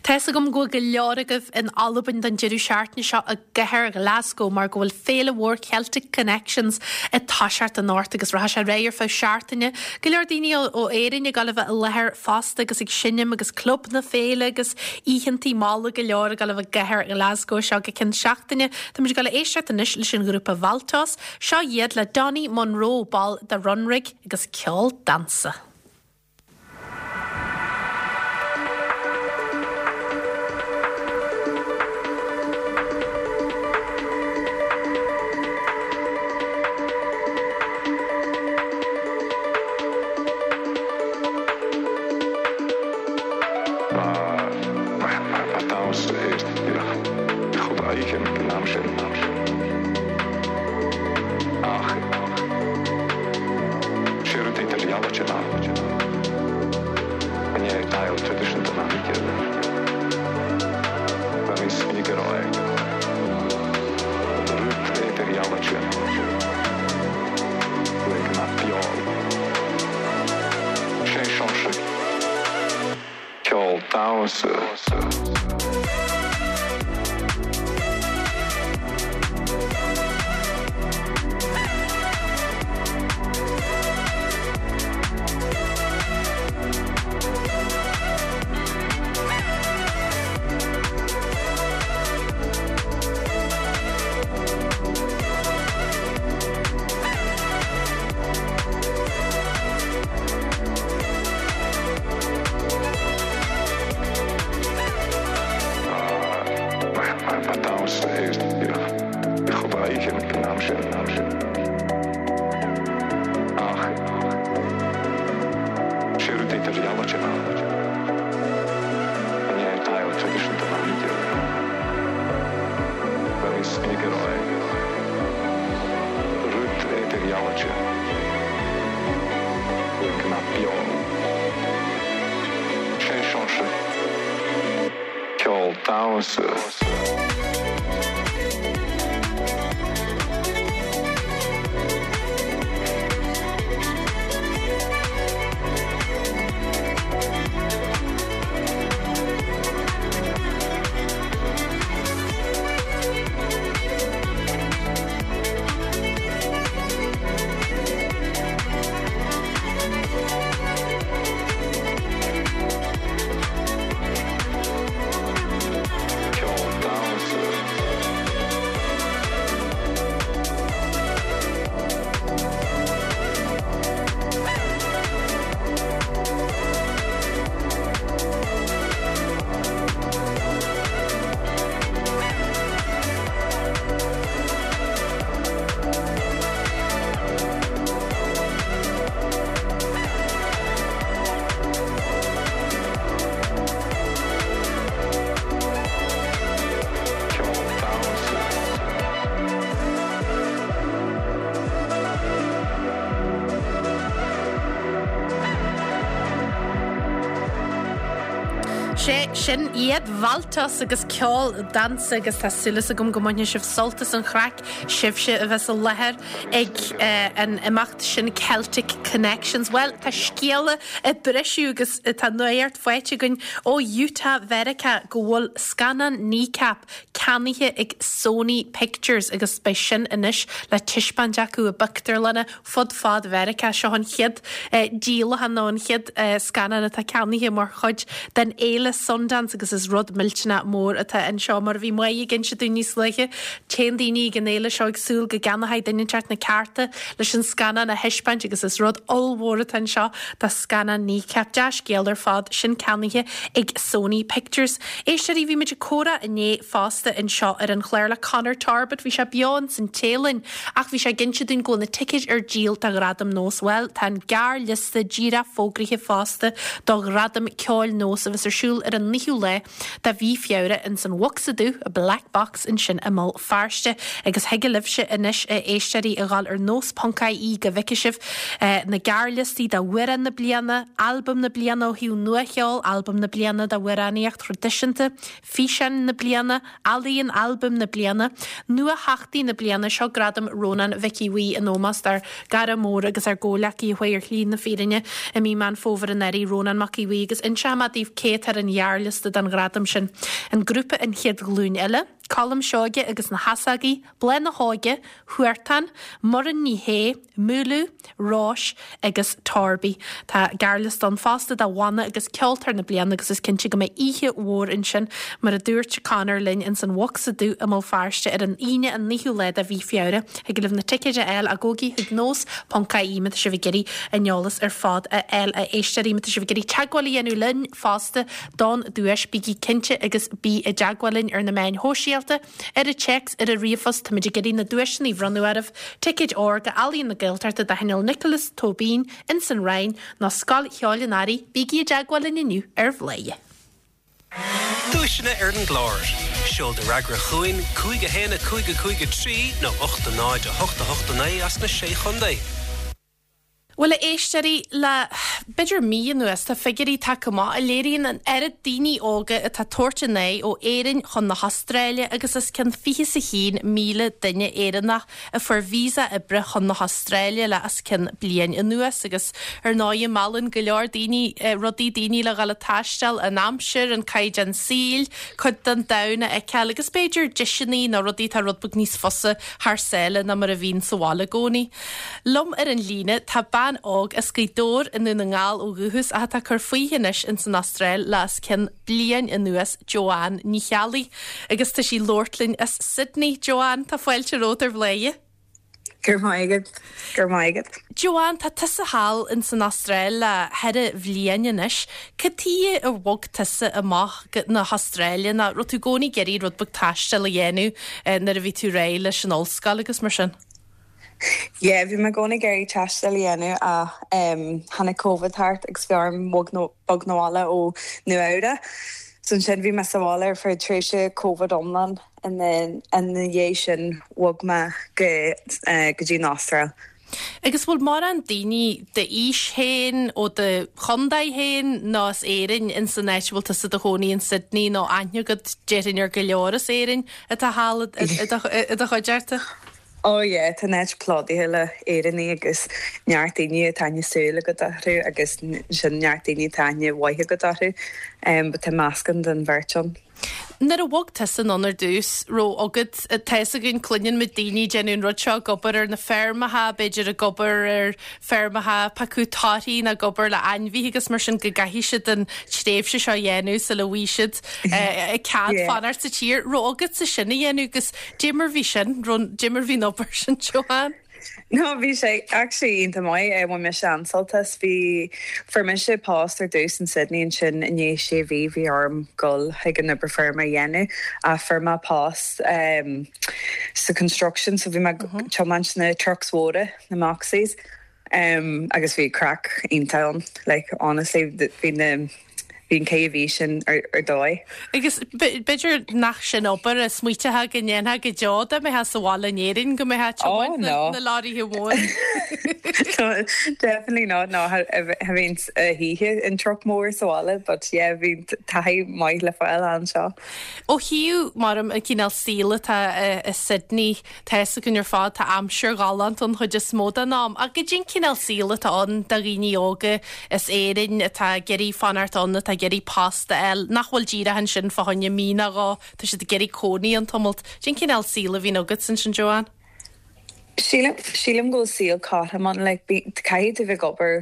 Tá fhios agam go bhfuil go leor agaibh in Albain don deireadh seachtaine seo i gcathair Ghlasgow mar go bhfuil féile mhór Celtic Connections ag toiseacht anocht agus rachaidh sé ar aghaidh ar feadh seachtaine. Go leor daoine ó Éirinn ag dul a bheith i láthair fosta agus ag seinm agus club na féile agus oícheantaí malla go leor ag dul a bheith i gcathair Ghlasgow seo go ceann seachtaine. Táimid ag dul a éisteacht anois leis an ghrúpa Valtos. Seo iad le Donny Munro, ball de Runrig agus ceol damhsa. Ba damhsa é chomh oíche an am sin. Ach sé rud idirdhealaithe ná i ndiaidh deighilt traidisiúnta na hoíche, ba níos minice a rá é, rud idirdhealaithe le go mbeadh beo. Sé seo ceol damhsa. Ba damhsa é chomh oíche an am sin. Ach sé rud idirdhealaithe ná i ndiaidh deighilt traidisiúnta na hoíche, ba níos minice a rá é. Rud idirdhealaithe le go mbeadh beo. Sé seo ceol damhsa. Sé sin iad Valtos agus ceol damhsa agus tá súil agam go mbainfidh sibh sult as an chraic, sibhse a bheas i láthair ag an imeacht sin Celtic Connections. Bhuel, tá scéala ag briseadh agus tá nuacht faighte againn ó Utah Mheiriceá go bhfuil scannán Kneecap ceannaithe ag Sony Pictures agus beidh sin anois le taispeáint acu i bpictiúrlanna fud fad Mheiriceá. Seo an chéad díolachán nó an chéad scannán atá ceannaithe mar chuid den fhéile Sundance agus is rud millteanach mór atá anseo. Mar a bhí Máire ag inse dúinn níos luaithe, téann daoine ag an fhéile seo ag súil go gceannóidh duine inteacht na cearta leis an scannán a thaispeáint agus is rud ollmhór atá anseo do scannán Kneecap. Dea-scéal ar fad, sin ceannaithe ag Sony Pictures. Éisteoirí, bhí muid ag comhrá inné fosta anseo ar an chlár le Conor Torbett, bhí sé beo ins an Téalainn Ach bhí sé ag inse dúinn go bhfuil na ticéid ar díol do Ghradaim Nós. Bhuel, tá an gearrliosta díreach fógraithe fosta do Ghradaim Ceoil Nós a bheas ar siúl ar an 9ú lá de mhí Feabhra ins an Bhocsa Dubh, Black Box, ansin i mBéal Feirste. Agus thig libhse anois, a éisteoirí, a ghabháil ar nós.ie go bhfeicfidh sibh na gearrliostaí d'Amhrán na Bliana, Albam na Bliana ó thaobh nuacheoil, Albam na Bliana d'amhránaíocht thraidisiúnta, Físeán na Bliana, Ealaíon Albam na Bliana, Nuatheachtaí na Bliana, seo Gradam Rónán Mhic Aodha Bhuí in ómós dár gcara mór agus ár gcomhleacaí a chuaigh ar shlí na fírinne i mí Meán Fómhair anuraidh, Rónán Mac Aodha Bhuí, agus inseoidh mé daoibh cé atá ar an ghearrliosta don ghradam sin, an grúpa An Chéad Ghlúin Eile, Colm Seoige agus na hEasógaí, Bláth na hÓige, Huartan, Muireann Ní Shé, Múlú, Róis agus Torby. Tá gearrliosta ann fosta do Bhanna agus Ceoltóir na Bliana agus is cinnte go mbeidh oíche mhór ansin, mar a dúirt Conor linn, ins an Bhocsa Dubh i mBéal Feirste ar an Aoine an 9ú lá de mhí Feabhra. Thig libh na ticéid a fháil ach gabhaigí chuig nós ponc ie má tá sibh ag iarraidh an eolas ar fad a fháil a éisteoirí. Má tá sibh ag iarraidh teagmháil a dhéanamh linn fosta don duais, bígí cinnte agus bí i dteagmháil linn ar na meáin shóisialta. Ar an téacs, ar an ríomhphost, táimid ag iarraidh na duaiseanna a bhronnadh oraibh, ticéid ór go Ealaíon na Gaeltachta do Thionól Nioclás Tóibín ins an Rinn nó Scoil Cheoil an Earraigh, bígí i dteagmháil linn inniu ar Bhladhaire. Duaiseanna ar an gclár. Seol do fhreagra chugainn, 5 1 5 5 3 nó 8 0 8 8 9 as na Sé Chontae. Bhuel, a éisteoirí, le b'fhéidir mí anuas, tá figiúirí tagtha amach a léiríonn an oiread daoine óga atá ag tabhairt a n-aghaidh ó Éirinn chun na hAstráile agus os cionn 21,000 duine Éireannach a fuair visa oibre chun na hAstráile le os cionn bliain anuas agus ar ndóigh meallann go leor daoine rudaí daoine le dhul ag taisteal, an aimsir, an caighdeán saoil, cuid den domhan a fheiceáil agus b'fhéidir deiseanna nó rudaí atá rud beag níos fusa thar sáile ná mar a bhíonn sa bhaile i gcónaí. Liom ar an líne tá bean óg as Gaoth Dobhair i nDún na nGall ó dhúchas ach atá ag cur fúithi anois ins an Astráil le os cionn bliain anuas, Joanne Ní Cheallaigh. Agus tá sí ag labhairt linn as Sydney. Joanne, tá fáilte romhat ar Bhladhaire. Go raibh maith agat. Go raibh maith agat. Joanne, tá tusa thall ins an Astráil le ceithre bhliain anois. Cad tuige ar bhog tusa amach go na hAstráile nó raibh tú i gcónaí ag iarraidh rud beag taistil a dhéanamh nuair a bhí tú réidh leis an ollscoil agus mar sin? Yeah, bhí mé i gcónaí ag iarraidh taisteal a dhéanamh ach tháinig Covid thart agus bhí orm bog 'na bhaile ó Nua Eabhrac. So ansin bhí mé sa bhaile ar feadh tréimhse Covid iomlán and then ina dhiaidh sin bhog mé go go dtí an Astráil. Agus bhfuil mórán daoine d'aois féin, ó do chontae féin nó as Éirinn ins an áit a bhfuil tusa i do chónaí in Sydney nó aithne agat déarfainn ar go leor as Éirinn atá thall i do chuideachta? Oh yeah, tá an áit plódaithe le Éireannaigh agus neart daoine atá aithne súl agat orthu agus ansin neart daoine atá aithne mhaith agat orthu. But tá meascán den bheirt ann. Nuair a bhog tusa anonn ar dtús, raibh agat, tá fhios againn, cluineann muid daoine ag déanamh an rud seo, ag obair ar na feirmeacha, b'fhéidir ag obair ar feirmeacha ag piocadh torthaí nó ag obair le ainmhithe agus mar sin go gcaithfidh siad an tréimhse seo a dhéanamh sula bhfaighidh siad cead fanacht sa tír. Raibh agatsa sin a dhéanamh agus Dé mar bhí sin, dé mar bhí an obair sin, Joanne? No, bhí sé actually iontach maith. Bhain mise an-sult as. Bhí, fuair mise post ar dtús in Sydney ansin i ndiaidh sé mhí bhí orm dul chuig an obair feirme a dhéanamh ach fuair mé post sa construction so bhí mé ag tiomáint na trucks mhóra, na Moxies. Agus bhí craic iontach ann, like honestly bhí na. Bhí an caitheamh bhí sin ar dóigh. Agus b'fhéidir nach sin obair a smaoiteofá go ndéanfá go deo dá mbeifeá sa bhaile in Éirinn, go mbeifeá ag tiomáint na leoraithe móra. Definitely not, no, cha bhíonn a hoíche in truck mór sa bhaile but yeah bhí taithí maith le fáil anseo. Ó thaobh, mar an cineál saoil atá i Sydney, Tá fhios againn ar fad, tá aimsir ghalánta an chuid is mó den am, ach goidé an cineál saoil atá ann do dhaoine óga as Éirinn atá ag iarraidh fanacht ann, atá ag iarraidh post a fháil, nach bhfuil díreach ansin fá choinne mí nó dhó, tá siad ag iarraidh cónaí ann tamalt. Cén cineál saoil a bhíonn agat ansin, Joanne? Sílim, sílim go bhfuil saol cothrom ann, like, caithfidh tú bheith ag obair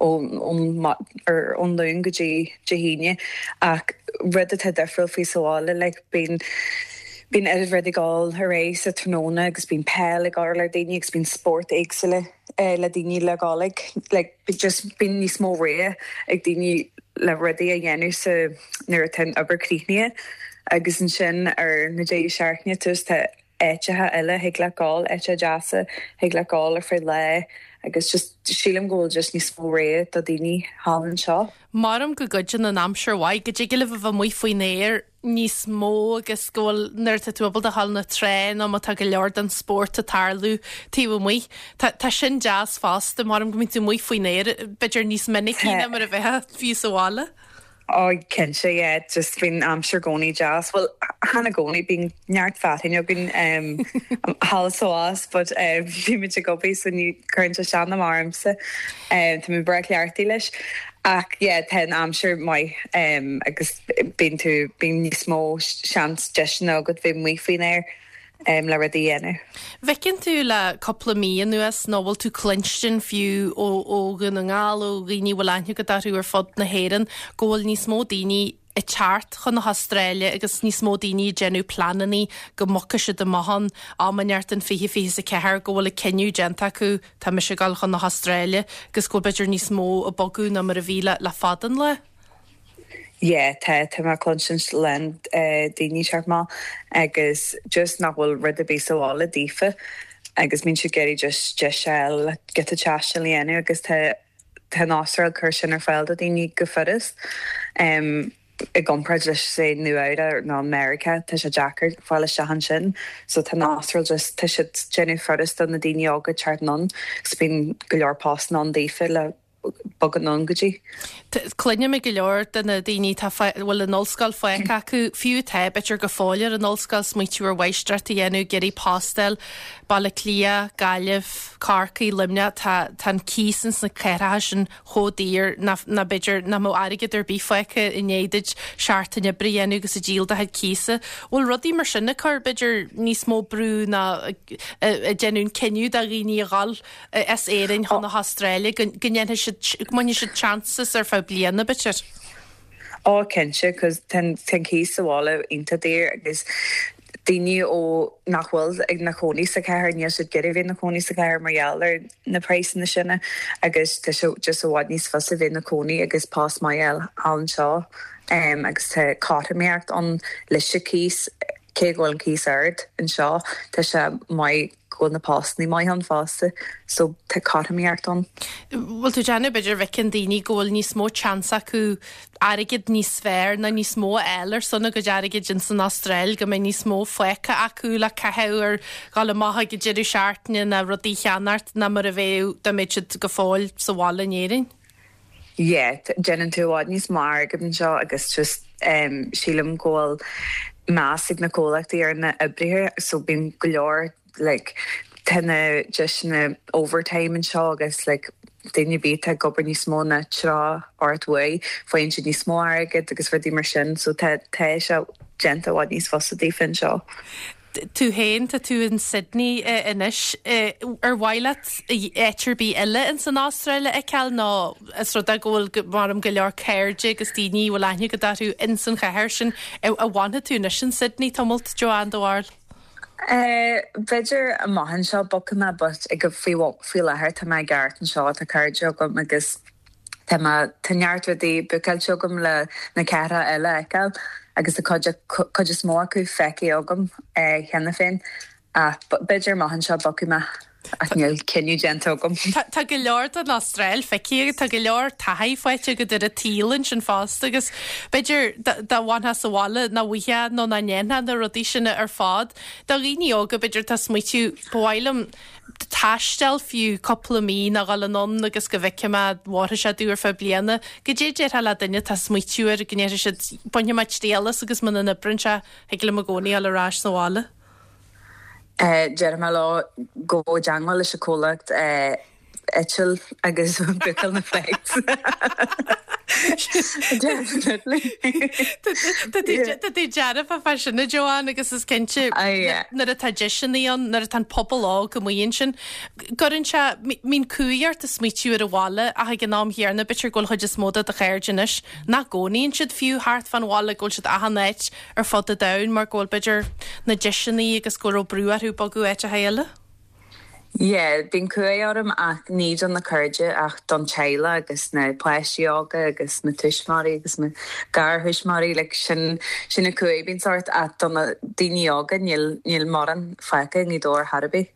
ón Luan go dtí Dé hAoine ach rud atá difriúil faoi sa bhaile like bíonn bíonn oiread rudaí ag dul ar aghaidh sa tráthnóna agus bíonn peil ag dul ar daoine agus bíonn spórt éagsúla le daoine le dhul ag like just bíonn níos mó rogha ag daoine le rudaí a dhéanamh sa nuair atá an obair críochnaithe agus ansin ar na deireadh seachtaine tá áiteacha eile thig leat gabháil, áiteacha deasa thig leat gabháil ar feadh lae agus just sílim go bhfuil just níos mó rogha do daoine thall anseo. Maram go gcuidíonn an aimsir mhaith, go dtig libh a bheith amuigh faoin aer níos mó agus go bhfuil, nuair atá tú ábalta a ghabháil na trá nó má tá go leor den spórt ag tarlú taobh amuigh. Tá, tá sin deas fosta, maram go mbíonn tú amuigh faoin aer b'fhéidir níos minicí ná mar a bheifeá fiú sa bhaile. Ó, cinnte, yeah, just bíonn aimsir i gcónaí deas. Bhuel, chan i gcónaí, bíonn neart fearthainn againn thall is abhus, but bímid ag obair so ní cuireann sé isteach ná amach ormsa. Tá mé breá cleachtaithe leis. Ach yeah, tá an aimsir maith agus bíonn tú, bíonn níos mó seans deiseanna agat bheith amuigh faoin aer. le rudaí a dhéanamh. Bhfeiceann tú le cúpla mí anuas, nó bhfuil tú cluinstin fiú ó ó Dhún na nGall, ó dhaoine a bhfuil aithne agat orthu ar fud na hÉireann, go bhfuil níos mó daoine ag teacht chun na hAstráile agus níos mó daoine ag déanamh pleanannaí go mbogfaidh siad amach ann am inteacht in 2024, go bhfuil an cinneadh déanta acu, tá mise ag dul chun na hAstráile, agus go bhfuil b'fhéidir níos mó ag bogadh ná mar a bhí le le fada an lá? Yeah, tá, tá mé ag cluinsint a lán daoine teacht amach agus just nach bhfuil rud ar bith sa bhaile daofa agus bíonn siad ag iarraidh just deis a fháil le giota taistil a dhéanamh agus tá, tá an Astráil ag cur sin ar fáil do daoine go furast. I gcomparáid leis say Nua Eabhrac nó Meiriceá tá sé deacair fáil isteach ansin so tá an Astráil just, tá siad déanamh furast do na daoine óga teacht anonn agus bíonn go leor postanna ann daofa le bogadh anonn go dtí. Cluinim ag go leor de na daoine atá, a bhfuil an ollscoil fágtha acu, fiú atá, b'fhéidir go fóill ar an ollscoil, smaoitiú ar mháistreacht a dhéanamh, ag iarraidh post a fháil, Baile Átha Cliath, Gaillimh, Corcaigh, Luimneach, tá, tá an cíos ins na cathracha sin chomh daor nach, nach b'fhéidir nach mbeadh airgead ar bith fágtha i ndiaidh duit seachtain oibre a dhéanamh agus ag díol do chuid cíosa. Bhfuil rudaí mar sin ag cur, b'fhéidir, níos mó brú ná ag déanamh an cinneadh do dhaoine a dhul as Éirinn chun na hAstráile, go ndéanfaidh siad, go mbainfidh siad chances ar feadh bliana, b'fhéidir. Ó, cinnte, 'cause tá an cíos sa bhaile iontach daor agus daoine ó nach bhfuil ina chónaí sa chathair, níl siad ag iarraidh bheith ina chónaí sa chathair mar gheall ar na praghsanna sin agus tá sé just i bhfad níos fusa bheith ina cónaí agus post maith a fháil thall anseo agus tá cothromaíocht ann leis an cíos, cé go bhfuil an cíos ard anseo, tá sé maith. go bhfuil na postannaí maith ann fosta so tá cothromaíocht ann. Bhfuil tú ag déanamh b'fhéidir bhfeiceann daoine go bhfuil níos mó chance acu airgead níos fearr nó níos mó a fháil ar son a gcuid airgid ins an Astráil, go mbeidh níos mó fágtha acu le caitheamh ar dhul amach ag an deireadh seachtaine nó rudaí a cheannacht ná mar a bheadh dá mbeadh siad go fóill sa bhaile in Éirinn? Yeah, déanann tú i bhfad níos mó airgead anseo agus just sílim go bhfuil meas ag na comhlachtaí ar na oibrithe so bíonn go leor like tá na deiseanna overtime anseo agus like duine ar bith atá ag obair níos mó ná 38 uair faigheann siad níos mó airgead agus rudaí mar sin so tá tá sé déanta i bhfad níos fusa daofa anseo. Tú féin, tá tú in Sydney anois. Ar mhaith leat áit ar bith eile ins an Astráil a fheiceáil nó is rud é go bhfuil, maram, go leor cairde agus daoine a bhfuil aithne agat orthu ins an chathair sin. An bhfanfaidh tú anois in Sydney tamalt, Joanne, do bharúil? B'fhéidir amach anseo bogfaidh mé but ag faoi faoi láthair tá mé i gceart anseo, tá cairde agam agus Tá mé, tá neart rudaí bookáilte agam le na cathracha eile a fheiceáil agus tá cuid, cuid is mó acu feicthe agam cheana féin. Ach b'fhéidir amach anseo bogfaidh mé ach níl cinneadh déanta agam. Tá go leor den Astráil feicthe agat, tá go leor taithí faighte agat ar an tsaol ansin fosta agus b'fhéidir dá bhfanfá sa bhaile nach bhfaighfeá nó nach ndéanfá na rudaí sin ar fad. Do dhaoine óga b'fhéidir atá ag smaoitiú ba mhaith liom taisteal fiú cúpla mí nó dhul anonn agus go bhfeicfidh mé an bhfóirfidh sé domh ar feadh bliana. Goidé a déarfá le duine atá ag smaoitiú air go ndéarfaidh siad bainfidh mé triail as agus muna n-oibreann sé thig liom i gcónaí dhul ar ais sa bhaile. Déarfaidh mé leo gabh i dteangmháil leis an comhlacht eitil agus bookáil na flights. Definitely. Tá tú dearfa fá sin a Joanne agus is cinnte nuair atá deiseanna ann, nuair atá an pobal óg amuigh ansin, gcuireann sé, mbíonn cumhaidh ort ag smaoitiú ar an bhaile ach ag an am chéanna b'fhéidir go bhfuil chuid is mó de do chairde anois nach gcónaíonn siad fiú thart fán bhaile, go bhfuil siad achan áit ar fud an domhain mar go bhfuil b'fhéidir na deiseanna agus go raibh brú orthu bogadh áiteacha eile. Yeah, bíonn cumhaidh orm ach ní do na cairde ach don teaghlach agus na páistí óga agus na tuismitheoirí agus na garthuismitheoirí like sin sin an cumhaidh a bíonns ort ach do na daoine óga níl níl mórán fágtha i nGaoth Dobhair chor ar bith.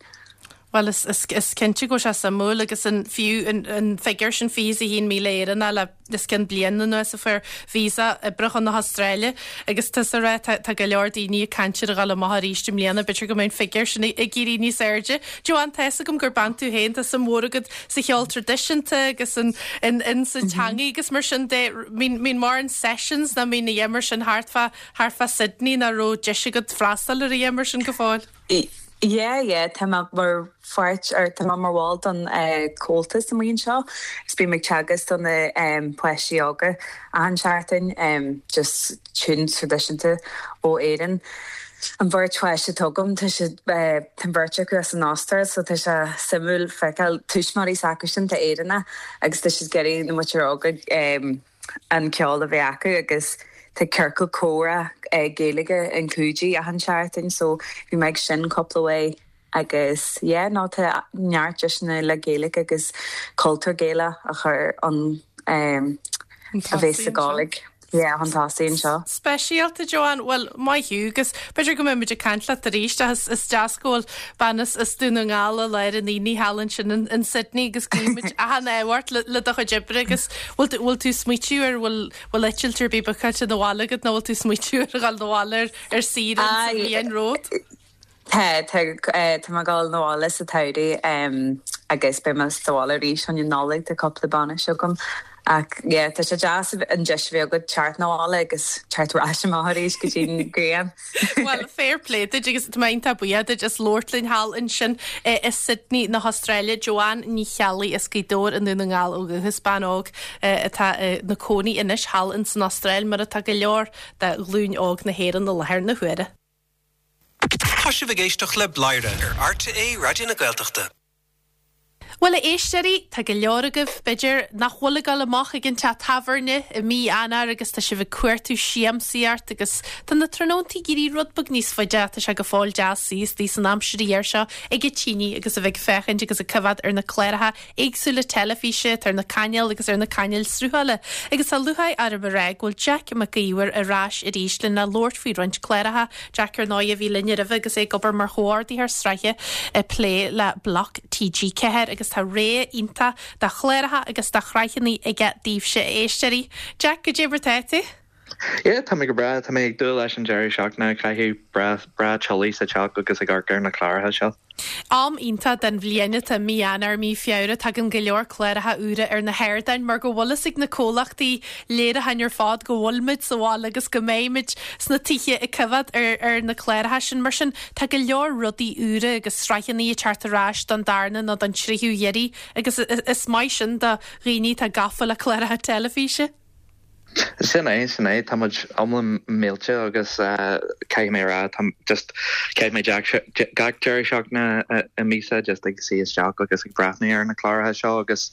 Bhuel is is is cinnte go bhfuil sé suimiúil agus an fiú an an figiúr sin 21,000 Éireannach le os cionn bliain anuas a fuair visa oibre chun na hAstráile agus tusa ag rá tá tá go leor daoine ag caint ar a dhul amach arís i mbliana, b'fhéidir go mbeidh an figiúr sin ag éirí níos airde. Joanne, tá fhios agam gur bean tú féin, tá suim mhór agat sa cheol traidisiúnta agus in in in sa teangaidh agus mar sin de, mbíonn mbíonn mórán sessions nó mbíonn a dhath mar sin thart fá thart fá Sydney nó raibh deis agat freastal ar a dhath mar sin go fóill? Yeah, yeah, tá mé mar pháirt, or tá mé mar bhall don Comhaltas amuigh anseo agus bím ag teagasc do na páistí óga achan seachtain, just tunes traidisiúnta ó Éirinn. An bheirt pháiste atá agam, tá siad, tá an bheirt acu as an Astráil so tá sé suimiúil feiceáil tuismitheoirí s'acusan atá Éireannach agus tá siad ag iarraidh na muintir óga an ceol a bheith acu agus tá ciorcal comhrá Gaeilge in Coogee achan seachtain so bhí mé ag sin cúpla uair agus yeah no tá neart deiseanna le Gaeilge agus cultúr Gaelach a chur chun a bheith sa Gàidhlig yeah chun tosaigh anseo. Speisialta, Joanne, bhuel, maith thú agus b'fhéidir go mbeidh muid ag caint leat arís ach is deas go bhfuil bean as Dún na nGall i lár an aonaigh thall ansin in Sydney agus guímid achan ádh ort le do chuid oibre agus bhfuil tú bhfuil tú ag smaoitiú ar bhfuil bhfuil eitilt ar bith bookáilte 'na bhaile agat nó bhfuil tú ag smaoitiú ar dhul 'na bhaile ar ar saoire sa bhliain romhat? Tá, tá, tá mé ag dul 'na bhaile sa tsamhradh agus beidh mé sa bhaile arís chun an Nollaig, tá cúpla bainis agam. Ach yeah, tá sé deas an deis a bheith agat teacht 'na bhaile agus teacht ar ais amach arís go dtí an ghrian. Bhuel, fair play duit agus tá mé iontach buíoch duit as labhairt linn thall ansin i Sydney na hAstráile. Joanne Ní Cheallaigh as Gaoth Dobhair i nDún na nGall ó dhúchas, bean óg atá ina cónaí anois thall ins an Astráil mar atá go leor de ghlúin óg na hÉireann i láthair na huaire. Tá sibh ag éisteacht le Bladhaire ar RTÉ Raidió na Gaeltachta. Bhuel, a éisteoirí, tá go leor agaibh, b'fhéidir, nach bhfuil ag dul amach ag an teach tábhairne i mí Eanáir agus tá sibh ag cuartú siamsaíocht agus tá na tráthnóntaí ag éirí rud beag níos faide ach tá sé go fóill deas suí istigh san aimsir ghear seo ag an tine agus a bheith ag féachaint agus ag coimhéad ar na cláracha éagsúla teilifíse atá ar na cainéil agus ar na cainéil sruthála. Agus tá lúcháir orm a rá go bhfuil Jack Mac Íomhair ar ais arís lena labhairt faoi roinnt cláracha. Jack ar ndóigh a bhí linn roimhe agus é ag obair mar chomhordaitheoir sraithe ag plé le Bloc TG4 agus tá rogha iontach de chláracha agus de shraitheanna aige daoibhse a éisteoirí. Jack, goidé mar tá tú? Yeah, tá mé go breá. Tá mé ag dúil leis an deireadh seachtaine a chaitheamh breá, breá teolaí sa teach agus ag amharc ar na cláracha seo. Am iontach den bhliain atá i mí Eanáir, mí Feabhra. Tagann go leor cláracha úra ar na hardáin mar go bhfuil fhios ag na comhlachtaí léiriúcháin ar fad go bhfuil muid sa bhaile agus go mbeidh muid sna tithe ag coimhéad ar ar na cláracha sin. Mar sin, tá go leor rudaí úra agus sraitheanna ag teacht ar ais don darna nó don tríú hiarraidh agus is maith sin do dhaoine atá gafa le cláracha teilifíse. Sin é, sin é. Tá muid iomlán millte agus caithfidh mé a rá, tá just, chaith mé gach deireadh seachtaine i míosa just ag suí isteach agus ag breathnú ar na cláracha seo agus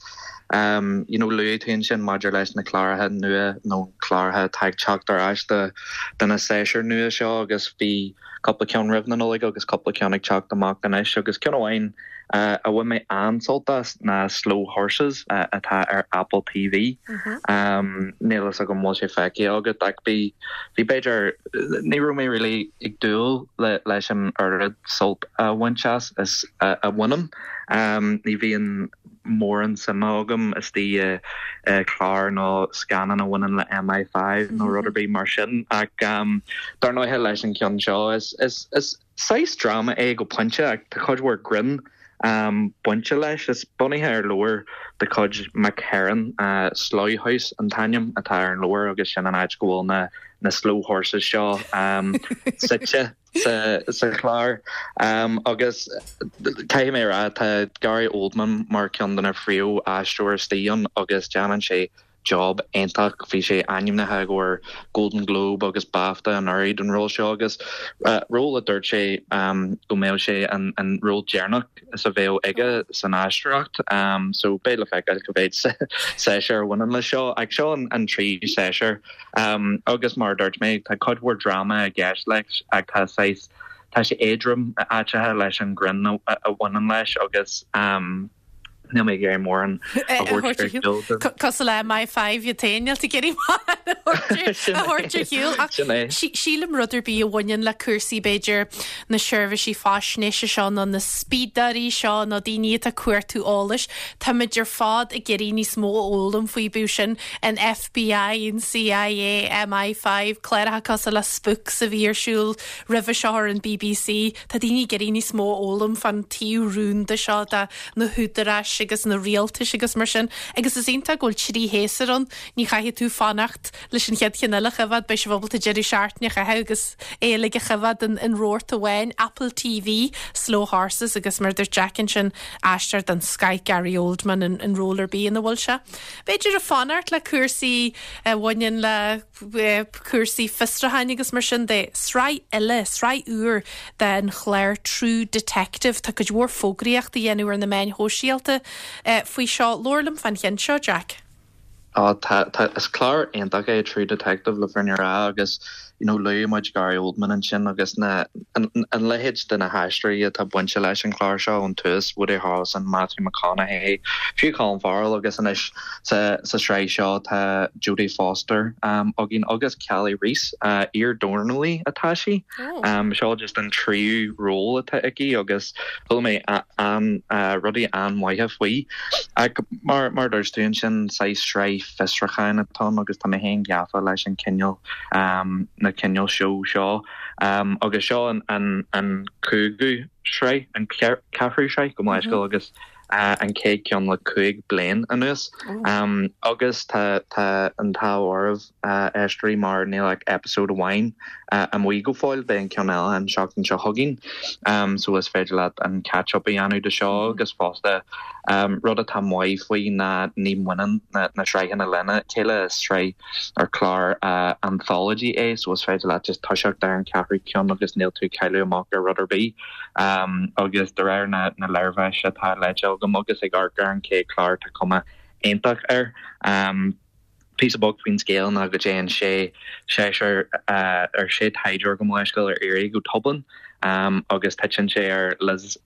you know luaigh tú ansin maidir leis na cláracha nua nó cláracha atá ag teacht ar ais do do na séasúir nua seo agus bhí cúpla ceann roimh na Nollag agus cúpla ceann ag teacht amach anois agus ceann amháin. a bhain mé an-sult as ná Slow Horses atá ar Apple TV. Níl fhios agam an bhfuil sé feicthe agat ach bhí, bhí b'fhéidir, ní raibh mé really ag dúil leis an oiread sult a bhaint as is a bhainim. Ní bhíonn mórán suime agam istigh i clár nó scannán a bhaineann le MI5 nó rud ar bith mar sin ach dar ndóighe leis an cheann seo is, is, is saghas dráma é go pointe ach tá cuid mhór grinn bainte leis. Is bunaithe ar leabhar de chuid McHerron, Slough House an t-ainm atá ar an leabhar agus sin an áit go bhfuil na na slow horses seo suite sa chlár. Agus caithfidh mé a rá tá Gary Oldman mar ceann de na phríomh-aisteoirí istigh ann agus déanann sé job iontach. Bhí sé ainmnithe i gcomhair Golden Globe agus BAFTA anuraidh don ról seo agus ról a dúirt sé go mbeadh sé an ról deireanach is a bheadh aige san aisteoireacht. So beidh le feiceáil cá mhéad séasúr a bhaineann leis seo. Ach seo an tríú séasúr agus mar a dúirt mé tá cuid mhór dráma i gceist leis ach tá saghas, tá sé éadrom áiteacha leis an greann a bhaineann leis agus. Níl mé ag iarraidh mórán a thabhairt ar shiúl. Cosúil le MI5 iad féin, níl tú ag iarraidh mórán a thabhairt ar shiúl. Ach sílim rud ar bith a bhaineann le cúrsaí b'fhéidir na seirbhísí faisnéise seo nó na spiadóirí seo nó daoine atá ag cuartú eolais, táimid ar fad ag iarraidh níos mó a fhoghlaim faoi, bíodh sin an FBI, an CIA, MI5, cláracha cosúil le Spooks a bhí ar siúl roimhe seo ar an BBC. Tá daoine ag iarraidh níos mó a fhoghlaim fán taobh rúnda seo de na húdaráis agus na rialtais agus mar sin. Agus is iontach go bhfuil trí shéasúr ann, ní chaithfidh tú fanacht leis an chéad cheann eile a choimhéad, beidh sibh ábalta deireadh seachtaine a chaitheamh agus é uilig a choimhéad in rabharta amháin, Apple TV, Slow Horses agus mar a dúirt Jack ansin, aisteoir den scoth Gary Oldman in ról ar bith ina bhfuil sé. B'fhéidir ag fanacht le cúrsaí a bhaineann le cúrsaí fiosrúcháin agus mar sin de. Sraith eile, sraith úr den chlár True Detective. Tá cuid mhór fógraíochta á dhéanamh ar na meáin shóisialta faoi seo. Labhair liom fán cheann seo, Jack. Á, tá, tá, is clár iontach é True Detective le fírinne a rá agus, you know, luaigh muid Gary Oldman ansin agus na, an, an leithéid de na haisteoirí atá bainte leis an chlár seo ón tús, Woody Harrelson, Matthew McConaughey, fiú Colin Farrell agus anois Sa sraith seo tá Jodie Foster againn agus Kali Reis, iar-dornálaí atá sí. Seo just an tríú ról atá aici agus chuala mé rudaí an-mhaithe faoi. Ach mar a dúirt tú ansin, saghas sraith fiosrúcháin atá ann agus tá mé féin gafa leis an cineál, na cineál seó seo. Agus seo an cúigiú sraith, an ceathrú sraith, gabh mo leithscéal, agus an chéad ceann le 5 bliain anuas agus tá tá an t-ádh oraibh a éisteoirí mar níl ach episode amháin amuigh go fóill, beidh an ceann eile an seachtain seo chugainn so is féidir leat an catch up a dhéanamh de seo agus fosta rud atá maith faoi ná ní bhaineann na sraitheanna lena chéile, is sraith ar clár anthology é so is féidir leat just toiseacht ar an ceathrú ceann agus níl tú ag cailleadh amach ar rud ar bith. Agus de réir na léirmheas atá léite agam agus ag amharc ar an chéad chlár tá cuma iontach air. Píosa beag faoin scéal ná go dtéann sé seisear ar sé taighdeoir gabh mo leithscéal ar iarraidh go Dublin agus titeann sé ar Liz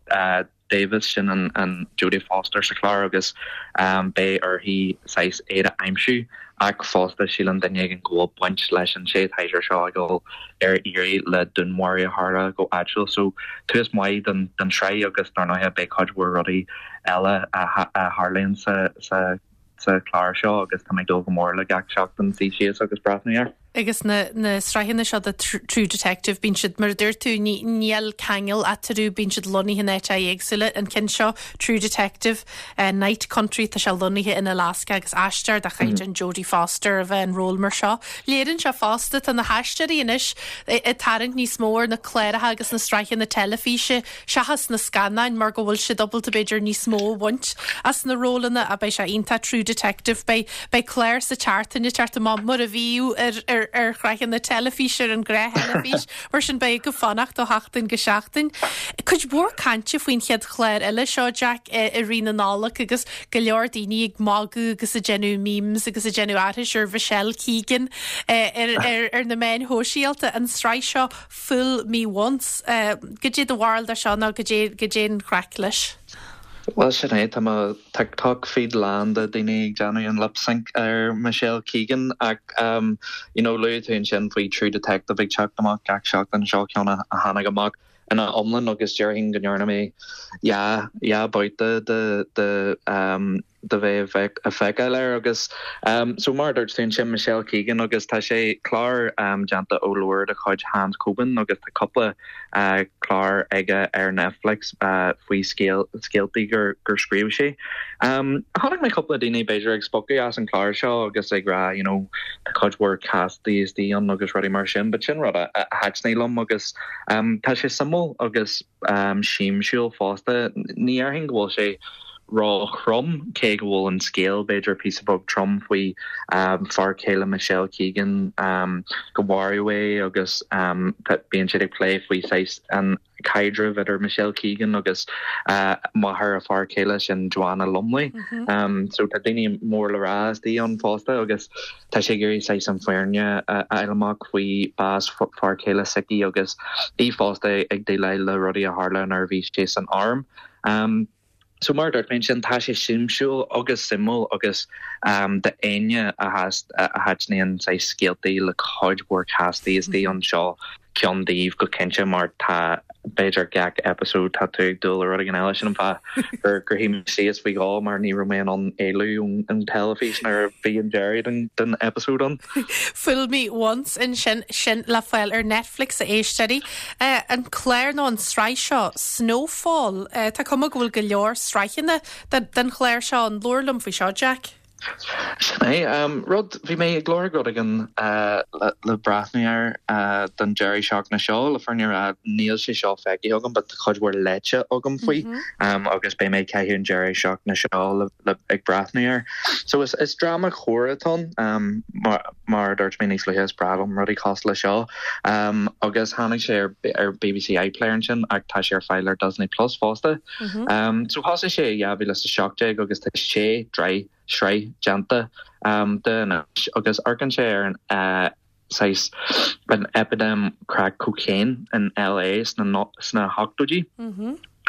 Davis, sin an Jodie Foster sa chlár agus beidh uirthi saghas iad a aimsiú ach fosta síleann duine éigin go bhfuil baint leis an sé taighdeoir seo ag dul ar iarraidh le dúnmharú a tharla go áitiúil. So tús maith don tsraith agus dar ndóighe beidh cuid mhór rudaí eile a tharlaíonn sa sa chlár seo agus tá mé ag dúil go mór le gach seachtain suí síos agus breathnú air. Agus na na sraitheanna seo de True Detective, bíonn siad, mar a dúirt tú, ní níl ceangal eatarthu, bíonn siad lonnaithe in áiteacha éagsúla. An ceann seo, True Detective, Night Country, tá sé lonnaithe in Alaska agus aisteoir de chaighdeán Jodie Foster a bheith in ról mar seo. Léiríonn sé fosta, tá na haisteoirí anois ag tarraingt níos mó ar na cláracha agus na sraitheanna teilifíse seachas na scannáin mar go bhfuil siad ábalta b'fhéidir níos mó a bhaint as na rólanna ach beidh sé iontach True Detective beidh beidh clár sa tseachtain ag teacht amach mar a bhíodh ar ar ar shraitheanna teilifíse ar an ghnáth-theilifís mar sin beidh agaibh fanacht ó sheachtain go seachtain. Cuid mhór cainte faoin chéad chlár eile seo Jack i i rith na Nollag agus go leor daoine ag magadh agus ag déanamh memes agus ag déanamh aithris ar Michelle Keegan ar ar ar na meáin shóisialta an tsraith seo Fool Me Once. Goidé do bharúil de seo nó goidé, goidé an chraic leis? Bhuel, sin é, tá mo TikTok feed lán de daoine ag déanamh an lip sync ar Michelle Keegan ach you know luaigh tú ansin faoi True Detective ag teacht amach gach seachtain, seo ceann a tháinig amach ina iomlán agus déarfainn go ndearna mé dhá dhá babhta de de de bheith ag feiceáil air agus so mar a dúirt tú ansin Michelle Keegan agus tá sé clár déanta ó leabhar de chuid Hans Coben agus tá cúpla clár aige ar Netflix faoi scéaltaí gur gur scríobh sé. Chonaic mé cúpla daoine b'fhéidir ag spochadh as an chlár seo agus ag rá you know tá cuid mhór castaí istigh ann agus rudaí mar sin but sin rud a thaitnigh liom agus tá sé suimiúil agus siamsúil fosta. Ní dhéarfainn go bhfuil sé ró-throm, cé go bhfuil an scéal b'fhéidir píosa beag trom faoi fear céile Michelle Keegan, go maraíodh é agus bíonn siad ag plé faoi saghas an caidreamh idir Michelle Keegan agus máthair a fear céile, sin Joanna Lumley. So tá daoine mór le rá istigh ann fosta agus tá sé ag iarraidh saghas an fhírinne a fháil amach faoi bás fear céile s'aici agus í fosta ag déileáil le rudaí a tharla nuair a bhí sé san arm. So mar a dúirt mé ansin, tá sé siamsúil agus suimiúil agus d'éinne a thaitníonn saghas scéaltaí le cuid mhór castaí istigh ann seo ceann daoibh go cinnte mar tá b'fhéidir gach episode tá tú ag dúil le rud éigin eile. Sin an fáth gur gur shuigh mé síos faoi dhó mar ní raibh mé in ann éalú ón teilifís nuair a bhí an deireadh den episode ann. Fool Me Once ansin, sin le fáil ar Netflix a éisteoirí. An clár nó an tsraith seo, Snowfall, tá cuma go bhfuil go leor sraitheanna den chlár seo ann. Labhair liom faoi seo, Jack. Sin é. Rud, bhí mé ag lorg rud éigin le breathnú air don deireadh seachtaine seo, le fírinne a rá níl sé seo feicthe agam but tá cuid mhór léite agam faoi agus beidh mé ag caitheamh an deireadh seachtaine seo le ag breathnú air. So is is dráma coir atá ann mar mar a dúirt mé níos luaithe is breá liom rudaí cosúil le seo. Agus tháinig sé ar ar BBC iPlayer ansin ach tá sé ar fáil ar Disney Plus fosta. So thosaigh sé i 2017 agus tá sé sraith déanta de anois agus amharcann sé ar an saghas an eipidéim crack cocaine in LA sna sna hochtóidí.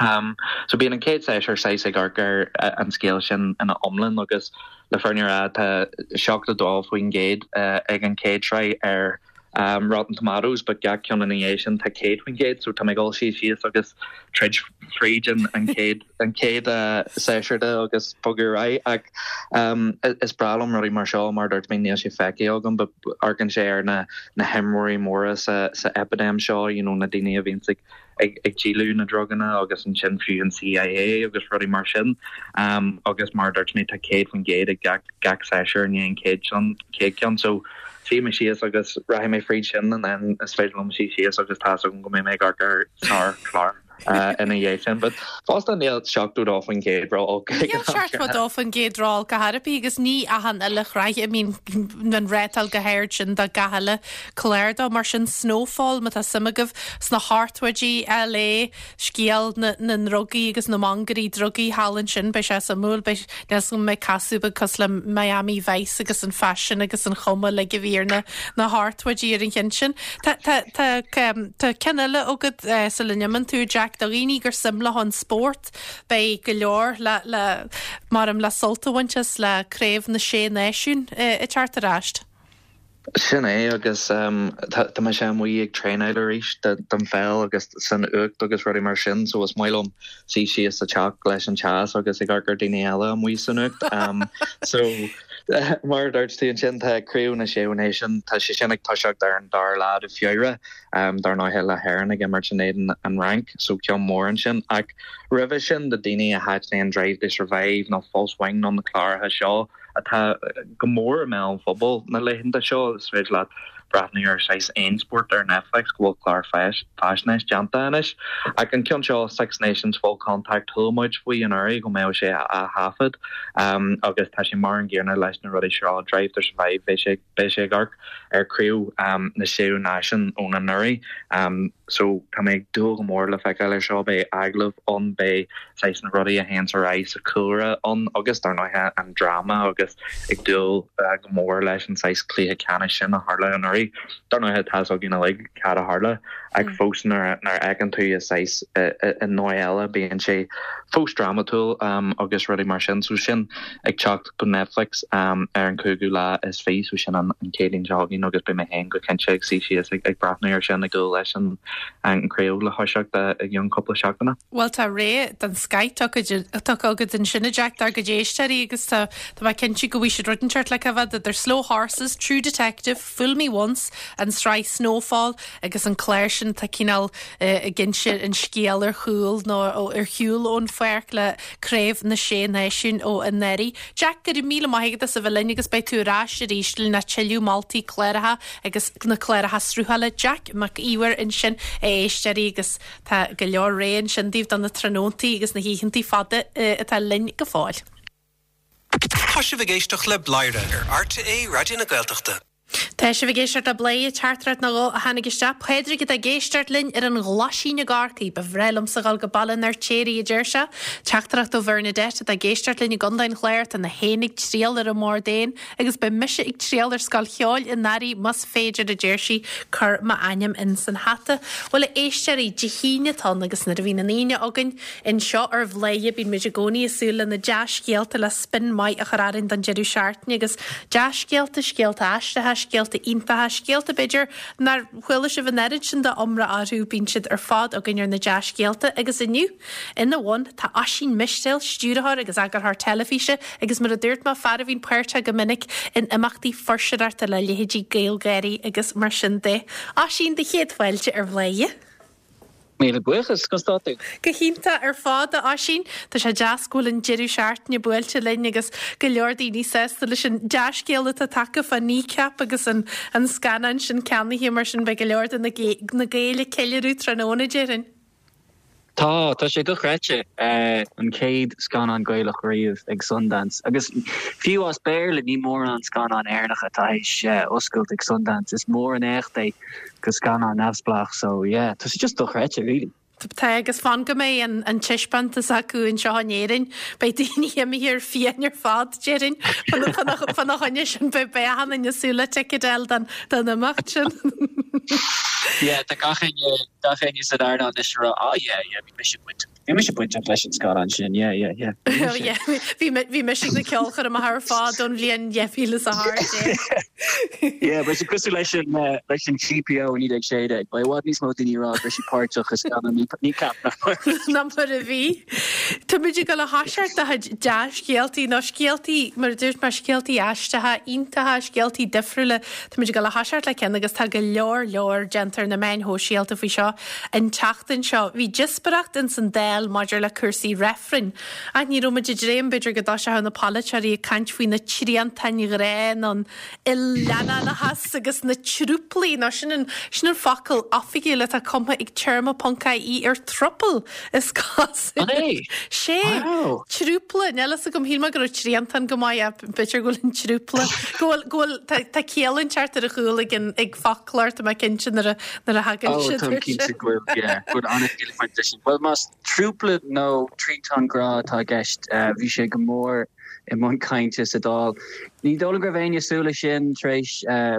So bíonn an chéad séasúr saghas ag amharc ar an scéal sin ina iomlán agus le fírinne a rá tá 72% ag an chéad sraith ar Rotten Tomatoes but gach ceann ina dhiaidh sin tá 100% so tá mé ag dul suí síos agus troid fríd an chéad an chéad séasúr de agus bogadh ar aghaidh ach is breá liom rudaí mar seo mar a dúirt mé níl sé feicthe agam but amharcann sé ar na na himreoirí móra sa sa eipidéim seo you know na daoine a bhíonns ag ag díoladh na druganna agus ansin fiú an CIA agus rudaí mar sin agus mar a dúirt mé tá 100% ag gach gach séasúr i ndiaidh an chéad sin chéad ceann so suífidh mé síos agus rachaidh mé fríd sin and then is féidir liom suí síos agus tá's agam go mbeidh mé ag amharc ar sár-chlár ina dhiaidh sin but fosta níl 72% ró-olc ag Níl 72% ró-olc ar chor ar bith agus ní achan uile shraith a mbíonn an rátáil chomh hard sin do gach uile clár dó mar sin Snowfall má tá suim agaibh sna hochtóidí, LA, scéal na na ndrugaí agus na mangairí drugaí thall ansin, beidh sé suimiúil, beidh, níl 'fhios agam an mbeidh casadh beag cosúil le Miami Vice agus an faisean agus an chuma uilig a bhí ar na na hochtóidí ar an cheann sin. Tá, tá, tá, tá ceann eile agat sula n-imíonn tú, Jack, do dhaoine gur suim leo an spórt, beidh go leor le, le, maram le sult a bhaint as le Craobh na Sé Náisiún ag teacht ar ais. Sin é agus tá mise amuigh ag traenáil arís don pheil agus san fhuacht agus rudaí mar sin so is maith liom suí síos sa teach leis an teas agus ag amharc ar daoine eile amuigh san fhuacht. So mar a dúirt tú ansin tá Craobh na Sé Náisiún, tá sé sin ag toiseacht ar an dara lá de Feabhra dar ndóighe le hÉirinn ag imirt in éadan an Fhrainc so ceann mór ansin ach roimhe sin do daoine a thaitníonn Drive to Survive nó Full Swing nó na cláracha seo, atá go mór i mbéal an phobail na laethanta seo. Is féidir leat breathnú ar saghas aon spórt ar Netflix go bhfuil clár faisnéis déanta anois. Ach an ceann seo, Six Nations Full Contact, chuala muid faoi anuraidh go mbeadh sé á thaifead agus tá sé mar an gcéanna leis na rudaí seo, Drive to Survive, beidh sé beidh sé ag amharc ar Craobh na Sé Náisiún ón anuraidh. So tá mé ag dúil go mór le feiceáil ar seo, beidh agallaimh ann, beidh saghas na rudaí a théanns ar aghaidh sa chúlra ann agus dar ndóighe an dráma agus ag dúil go mór leis an saghas cluiche ceannais sin a tharla anuraidh. Dar ndóighe tá fhios againn uilig cad a tharla ach fós nuair a fheiceann tú i saghas i ndóigh eile bíonn sé fós drámatúil agus rudaí mar sin. So sin ag teacht go Netflix ar an cúigiú lá is fi so sin an Chéadaoin seo chugainn agus beidh mé féin go cinnte ag suí síos ag breathnú ar sin ag dúil leis an chraobh le thoiseacht i gceann cúpla seachtaine. Bhuel tá rogha den scoth tugtha agat ansin a Jack dár gcuid éisteoirí agus tá mé cinnte go bhfaighidh siad rud inteacht le cá bhfad idir Slow Horses, True Detective, Fool Me Once, an tsraith Snowfall agus an clár sin atá cineál ag inse an scéal ar chúl nó ar shiúl ón pháirc le Craobh na Sé Náisiún ó anuraidh. Jack, go raibh míle maith agat as a bheith linn agus beidh tú ar ais arís lena tuilleadh moltaí cláracha agus na cláracha sruthála. Jack Mac Íomhair ansin, a éisteoirí, agus tá go leor rogha ansin daoibh do na tráthnóntaí agus na hoícheantaí fada atá linn go fóill. Tá sibh ag éisteacht le Bladhaire ar RTÉ Raidió na Gaeltachta. Tá sibh ag éisteacht le Bladhaire, teachtaireacht nó dhó a tháinig isteach. Pádraig atá ag éisteacht linn ar an nGlaisín i gCorcaigh. Ba bhreá liomsa dhul go Baile an Fheirtéaraigh, a deir sé. Teachtaireacht ó Bhernadette atá ag éisteacht linn i gContae an Chláir. Tá na héin ag triall ar an mbord éan agus beidh mise ag triall ar scoil cheoil i nDoire más féidir, a deir sí. Cuir m'ainm in san hata. Bhuel, a éisteoirí, Dé hAoine atá ann agus nuair a bhíonn an Aoine againn, Anseo ar Bhladhaire bíonn muid i gcónaí ag súil le na dea-scéalta le spin maith a chur orainn don deireadh seachtaine agus dea-scéalta, scéalta aisteacha, scéalta iontacha, scéalta b'fhéidir nár chuala sibh an oiread sin d'iomrá orthu, bíonn siad ar fad againn ar na dea-scéalta agus inniu ina bhun tá Oisín Mistéil, stiúrthóir agus eagarthóir teilifíse agus mar a dúirt mé, fear a bhíonn páirteach go minic in imeachtaí fuirseoireachta le leithéidí GaelGáirí agus mar sin de. Oisín, do chéad fáilte ar Bhladhaire. Míle buíochas, conas tá tú? Go hiontach ar fad, a Oisín. Tá sé deas go bhfuil an deireadh seachtaine buailte linn agus go leor daoine sásta leis an dea-scéal atá tagtha fá Kneecap agus an an scannán sin ceannaithe mar sin beidh go leor de na na Gaeil ag ceiliúradh tráthnóna, déarfainn. Tá, tá sé dochreidte. An chéad scannán Gaelach riamh ag Sundance. Agus fiú as Béarla ní mórán scannán Éireannacha atá théis oscailt ag Sundance. Is mór an éacht é. go scannán neamhspleách so yeah tá sé just dochreidte really. Tá agus fan go mbeidh an an taispeántas acu anseo in Éirinn beidh daoine imithe ar fiáin ar fad déarfainn fána choinne sin beidh beidh achan duine ag súil le ticéad a fháil don don imeacht sin. Yeah tá gach éinne gach éinne san earnáil anois ag rá ah yeah yeah bhí mise bainteach Bhí mise bainteach leis an scannán sin, yeah, yeah, yeah. Bhí mise. Yeah, bhí bhí mise ag na ceolchoirmeacha ar fad ón bhliain 2018. Yeah, beidh sé cosúil leis an leis an GPO i 1916. Beidh i bhfad níos mó daoine ag rá go raibh siad páirteach i scannán Kneecap ná mar ná mar a bhí. Táimid ag dul a thoiseacht do chuid dea-scéaltaí nó scéaltaí, mar a dúirt mé, scéaltaí aisteacha, iontacha, scéaltaí difriúla. Táimid ag dul a thoiseacht le ceann agus tá go leor leor déanta ar na meáin shóisialta faoi seo. An tseachtain seo, bhí díospóireacht ins an Dáil maidir le cúrsaí reifrinn. Ach ní raibh muid ag dréim, b'fhéidir, go dtoiseodh na polaiteoirí ag caint faoi na triantáin ghrá nó an il-leanánachas agus na trúplaí, nó sin an, sin an focal oifigiúil atá cumtha ag téarma ponc ie ar throuple, is cosúil. An é? Sé! Wow! Trúpla, níl fhios agam, shíl mé go raibh triantán go maith ach b'fhéidir go bhfuil an trúpla, go bhfuil, go bhfuil, tá, tá ciall inteacht ar a chúl ag an, ag foclóir, tá mé cinnte nuair a, nuair a thagann Oh, siad táim air cinnte sin. go bhfuil, yeah, go bhfuil an-chiall ag baint leis sin. Bhuel, más trúpla nó triantán grá atá i gceist, bhí sé go mór i mbun cainte sa Dáil. Ní dóigh liom go raibh éinne ag súil leis sin tar éis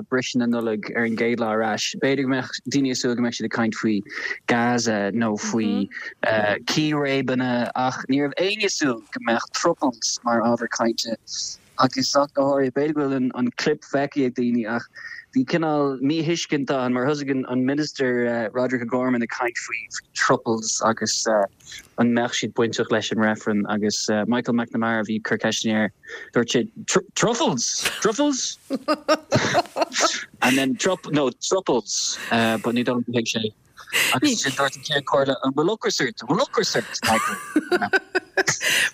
briseadh na Nollag ar an gcéad lá ar ais. B'fhéidir go mbeadh daoine ag súil go mbeadh siad ag caint faoi Gaza nó faoi círéibeanna ach ní raibh éinne ag súil go mbeadh throuples mar ábhar cainte. Agus ach go háirithe, b'fhéidir go bhfuil an clip feicthe ag daoine ach bhí cineál míthuiscint ann mar thosaigh an Minister Roderic O'Gorman ag caint faoi throuples agus an mbeadh siad bainteach leis an reifreann agus Michael McNamara a bhí ag cur ceisteanna air, dúirt sé truffles! Truffles? And then trup, no, throuples, but ní dóigh liom gur thuig sé. Agus ansin dúirt an Ceann Comhairle, an bhfuil ocras ort? An bhfuil ocras ort, Michael?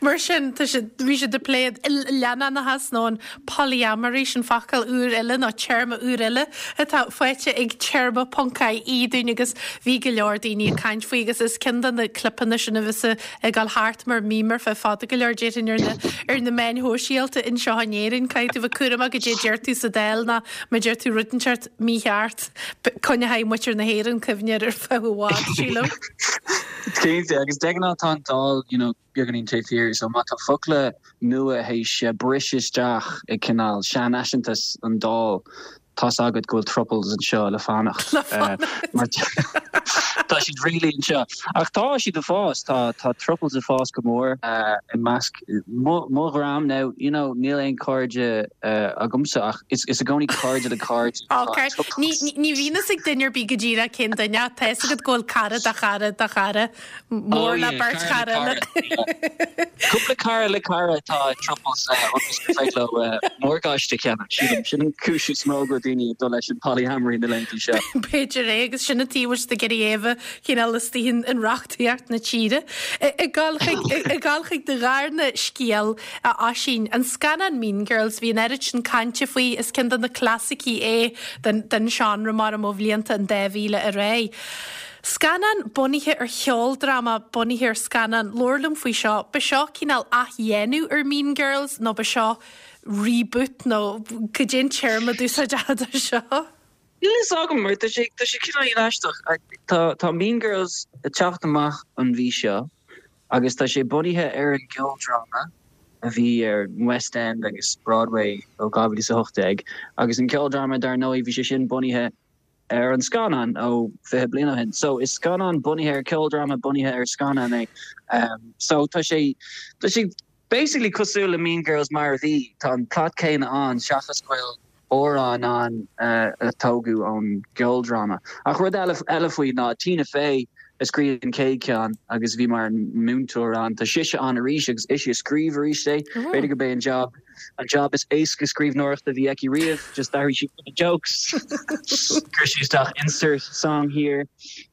Mar sin, tá siad, bhí siad ag plé an il-leannánachas nó an polyamory, sin focal úr eile nó téarma úr eile atá faighte ag téarma ponc ie dúinn agus bhí go leor daoine ag caint faoi agus is ceann de na clipeanna sin a bheas ag dul thart mar meme ar feadh fada go leor déarfainn ar na ar na meáin shóisialta anseo in Éirinn. Caithfidh tú bheith cúramach goidé a deir tú sa Dáil nó má deir tú rud inteacht mícheart, coinneoidh muintir na hÉireann cuimhne air ar feadh i bhfad, sílim. Cinnte, agus de ghnáth tá an Dáil, you know, beagáinín taobh thiar, so má tá focla nua théis briseadh isteach i cineál seanfhaiseantas an Dáil, tá's agat go bhfuil throuples anseo le fanacht. Le fanacht. Mar tá siad really anseo. Ach tá siad ag fás, tá tá throuples ag fás go mór i measc mo mo dhream now, you know, níl aon cairde agamsa ach is is i gcónaí cairde le cairde atá Ok, ní ní bhíonn fhios ag duine ar bith go díreach cén duine ach tá fhios agat go bhfuil cara de chara de chara. Oh Mór le yeah, beirt cara le chara eile. cara, yeah. Cúpla cara le cara atá i throuples ionas gur féidir leo morgáiste a cheannach, sílim. Sin an cúis is mó go bhfuil daoine ag dul leis an polyamory na laethanta seo. B'fhéidir é agus sin an taobh a bhfuil siad ag iarraidh é a bheith cineál istigh in in reachtaíocht na tíre. Ag dul chuig ag dul chuig do dharna scéal a Oisín, an scannán Mean Girls, bhí an oiread sin cainte faoi, is ceann de na clasaicí é den den seánra mar ó bhlianta an 2000 ar aghaidh. Scannán bunaithe ar cheoldráma bunaithe ar scannán. Labhair liom faoi seo. Ba seo cineál athdhéanamh ar Mean Girls nó ba seo reboot nó cad é an téarma a d'úsáidfeá do seo? Níl fhios agam mar tá sé tá sé cineál aisteach. Tá tá Mean Girls ag teacht amach an mhí seo agus tá sé bunaithe ar an gceoldráma a bhí ar an West End agus Broadway ó 2018 agus an ceoldráma dar ndóigh bhí sé sin bunaithe ar an scannán ó 20 bliain ó shin. So is scannán bunaithe ar ceoldráma bunaithe ar scannán é. So tá sé tá sé basically cosúil le Mean Girls mar a bhí. Tá an plot céanna ann seachas go bhfuil amhráin ann a tógadh ón gceoldráma. Ach rud eile eile faoi ná Tina Fey a scríobh an chéad cheann agus bhí mar múinteoir ann. Tá sise ann arís agus ise a scríobh arís é. B'fhéidir gurb é an job An job is éasca scríbhneoireachta a bhí aici riamh, just d'athraigh sí cúpla jokes, chuir sí isteach insert song here.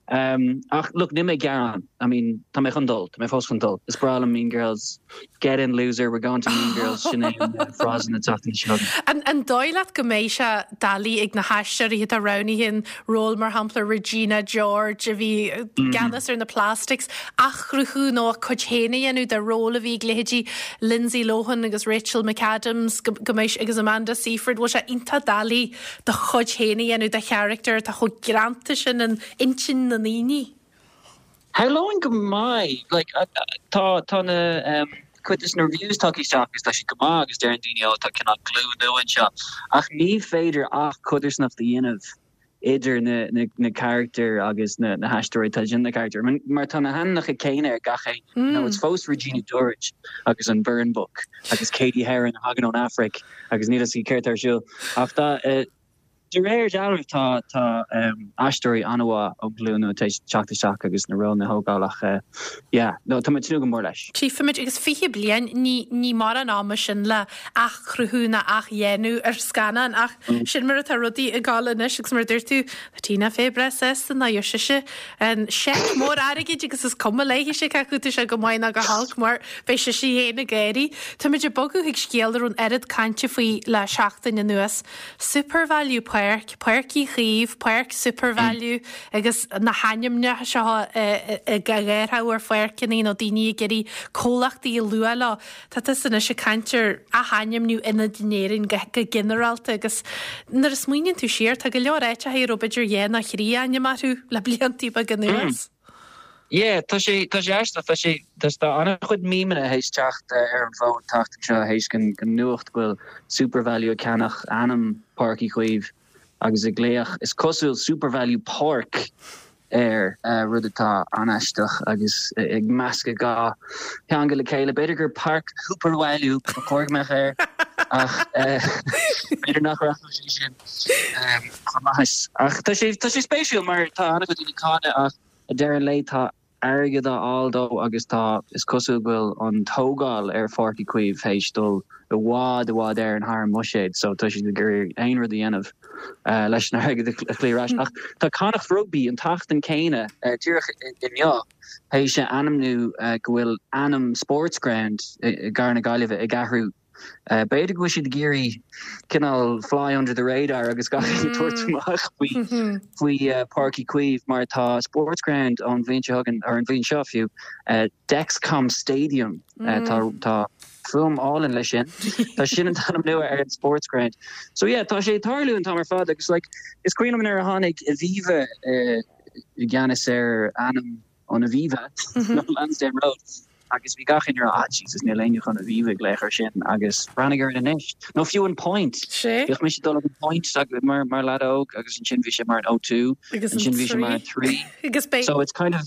Um, ach look, níl mé ag gearán. I mean, tá mé chun dul, tá mé fós chun dul. Is breá liom Mean Girls. Get in loser, we're going to Mean Girls, sin é an eh, frása na tseachtaine seo. An, an dóigh leat go mbeidh sé doiligh ag na haisteoirí atá roghnaithe an ról mar shampla Regina George a bhí i gceannas ar na Plastics, athchruthú nó a cuid féin a dhéanamh de ról a bhí ag leithéidí Lindsay Lohan agus Rachel McAdams go mbeidh agus Amanda Seyfried, bhfuil sé iontach doiligh do chuid féin a dhéanamh de charachtar atá chomh greanta sin in intinn na ndaoine. Shamhlóinn go mbeidh. Like, tá, tá na, cuid de na reviews tagtha isteach agus tá siad go maith agus deireann daoine ó tá cineál glúin nua anseo ach ní féidir ach codarsnacht a dhéanamh idir na, na, na carachtair agus na, na haisteoirí atá ag déanamh na carachtair. Mar tá na hainmneacha céanna ar gach éinne. You know, it's fós Regina George agus an Burn Book agus Cady Heron a thagann ón Afraic agus níl fhios céard tá ar siúl. Ach tá, eh, De réir dealraimh tá tá aisteoirí an-mhaith ón ghlúin nua tar éis teacht isteach agus na rólanna a thógáil ach yeah no tá mé ag tnúth go mór leis. Tchífimid agus 20 bliain, ní ní mórán ama sin le athchruthú ná athdhéanamh ar scannán ach sin mar atá rudaí ag gabháil anois agus mar a dúirt tú, tá Tina Fey breá sásta ná gheobhaidh sise an seic mór airgid agus is cuma léithise cé acu tá sé go maith ná go holc mar beidh sise féin ag gáirí. Táimid ag bogadh chuig scéal a raibh an oiread cainte faoi le seachtain anuas. Supervalu Páirc, Páirc Uí Chaoimh, Páirc Supervalu agus na hainmneacha seo á gcaitheamh ar pháirceanna nó daoine ag iarraidh comhlachtaí a lua leo. Tá tusa anois ag caint ar athainmniú ionaid in Éirinn go ginearálta agus nuair a smaoiníonn tú siar tá go leor áiteacha a raibh b'fhéidir dhá nó thrí ainm orthu le bliantaí beaga anuas. Yeah, tá sé, tá sé aisteach, tá sé, tá, tá an-chuid memeanna théis teacht ar an bhfód an tseachtain seo théis den, den nuacht go bhfuil Supervalu ag ceannach ainm Páirc Uí Chaoimh agus ag glaoch, is cosúil, Supervalu Páirc air, rud atá an-aisteach agus ag meascadh dhá theanga le chéile. B'fhéidir gur Páirc Shúparmhailiú ba chóir go mbeadh air ach b'fhéidir nach rachadh sé sin chun maitheas. Ach tá sé, tá sé spéisiúil mar tá an-chuid daoine ag cáineadh ach, Ag deireadh an lae tá. airgead á fháil dó agus tá, is cosúil go bhfuil an tógáil ar Pháirc Uí Chaoimh théis dul i bhfad, i bhfad Éireann thar an mbuiséad so tá siad ag iarraidh aon rud a dhéanamh leis an airgead a chloí ar ais. Ach tá Connacht Rugby an tseachtain céanna, díreach inniu, théis a ainmniú go bhfuil ainm Sportsground i gcathair na Gaillimhe ag athrú. B'fhéidir go bhfuil siad ag iarraidh cineál fly under the radar agus gach éinne tabhairt amach faoi faoi Páirc Uí Chaoimh mar tá Sportsground ón bhliain seo chugainn, or an bhliain seo fiú, Dexcom Stadium. Tá tá fuaim álainn leis sin. Tá sin an t-ainm nua ar an Sportsground. So yeah, tá sé ag tarlú an t-am ar fad agus like is cuimhin liom nuair a tháinig Aviva i gceannas ar ainm an Aviva, nó Lansdowne Road, agus bhí gach éinne ag rá, ah Jesus, níl éinne chun Aviva a ghlaoch air sin, agus breathnaigh ar it anois. Nó fiú an Point. Sé. Bhíodh mise ag dul ag an Point mar, mar leaid óg, agus ansin bhí sé mar an O2, Agus an ansin bhí sé mar an 3. 3. Agus beidh. So it's kind of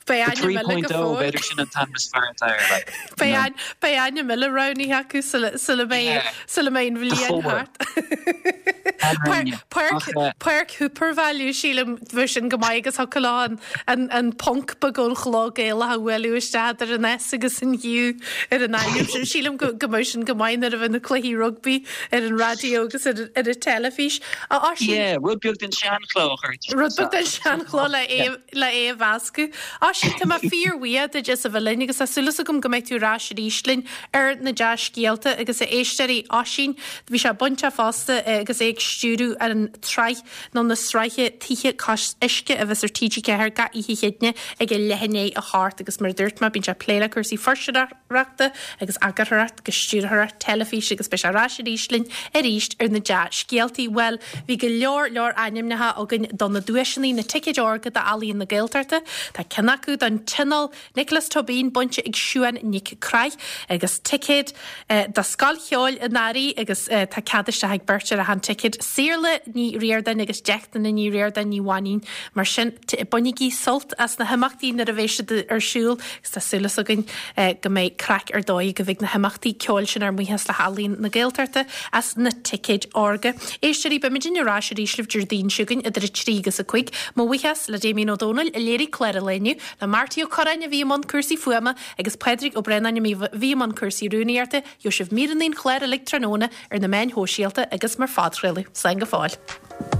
Beidh the ainm eile go 3.0, fóill. b'fhéidir sin an t-ainm is fearr atá air, like, you Beidh know. ain, beidh ainm eile roghnaithe acu sula, sula mbeidh, Yeah. sula mbeidh an The bhliain 4. thart. An Páirc, Ach, eh. Páirc SuperValu, sílim, bheadh sin go maith agus thiocfadh leo an, an, an ponc beag ón chló Gaelach a bhualadh isteach idir an S agus an U ar an ainm sin. Sílim go, go mbeadh sin go maith nuair a bheidh na cluichí rugbaí ar an raidió agus ar, ar an teilifís. A Oisín. Yeah, rud beag den seanchló a chur isteach. Rud beag den seanchló le é, le é a mheascadh. Oisín, tá mé fíorbhuíoch duit as a bheith linn agus tá súil agam go mbeidh tú ar ais arís linn ar na dea-scéalta agus a éisteoirí Oisín, Bhí sé bainteach fosta agus é ag stiúradh an tsraith nó na sraithe Tithe Cois Uisce a bheas ar TG4 gach oíche Chéadaoine ag a leath i ndiaidh a hocht agus mar a dúirt mé bíonn sé ag plé le cúrsaí fuirseoireachta agus eagarthóireacht agus stiúrthóireacht teilifíse agus beidh sé ar ais arís linn arís ar na dea-scéaltaí. Bhuel, bhí go leor leor ainmneacha againn do na duaiseanna, na ticéid órga d'Ealaíon na Gaeltachta. Tá ceann acu don Tionól Nioclás Tóibín bainte ag Siuán Nic Craith agus ticéad do Scoil Cheoil an Earraigh agus tá cead isteach ag beirt ar achan ticéad, Saorla Ní Ríordáin agus Deichtine Ní Ríordáin Ní Mhainín. Mar sin, bainigí sult as na himeachtaí nuair a bheidh siad ar siúl agus tá súil againn go mbeidh craic ar dóigh agaibh ag na himeachtaí ceoil sin ar mhaithe le hEalaín na Gaeltachta as na ticéid órga. Éisteoirí, beimidne ar ais arís libh Déardaoin seo chugainn idir 3 agus 5. Mo bhuíochas le Damien Ó Dónaill a léirigh clár an lae inniu. Le Marty Ó Curráin a bhí i mbun cúrsaí fuaime agus Pádraig Ó Braonáin a bhí i mbun cúrsaí rúnaíochta, gheobhaidh sibh míreanna an chláir uilig tráthnóna ar na meáin shóisialta agus mar phodchraoladh. Slán go fóill.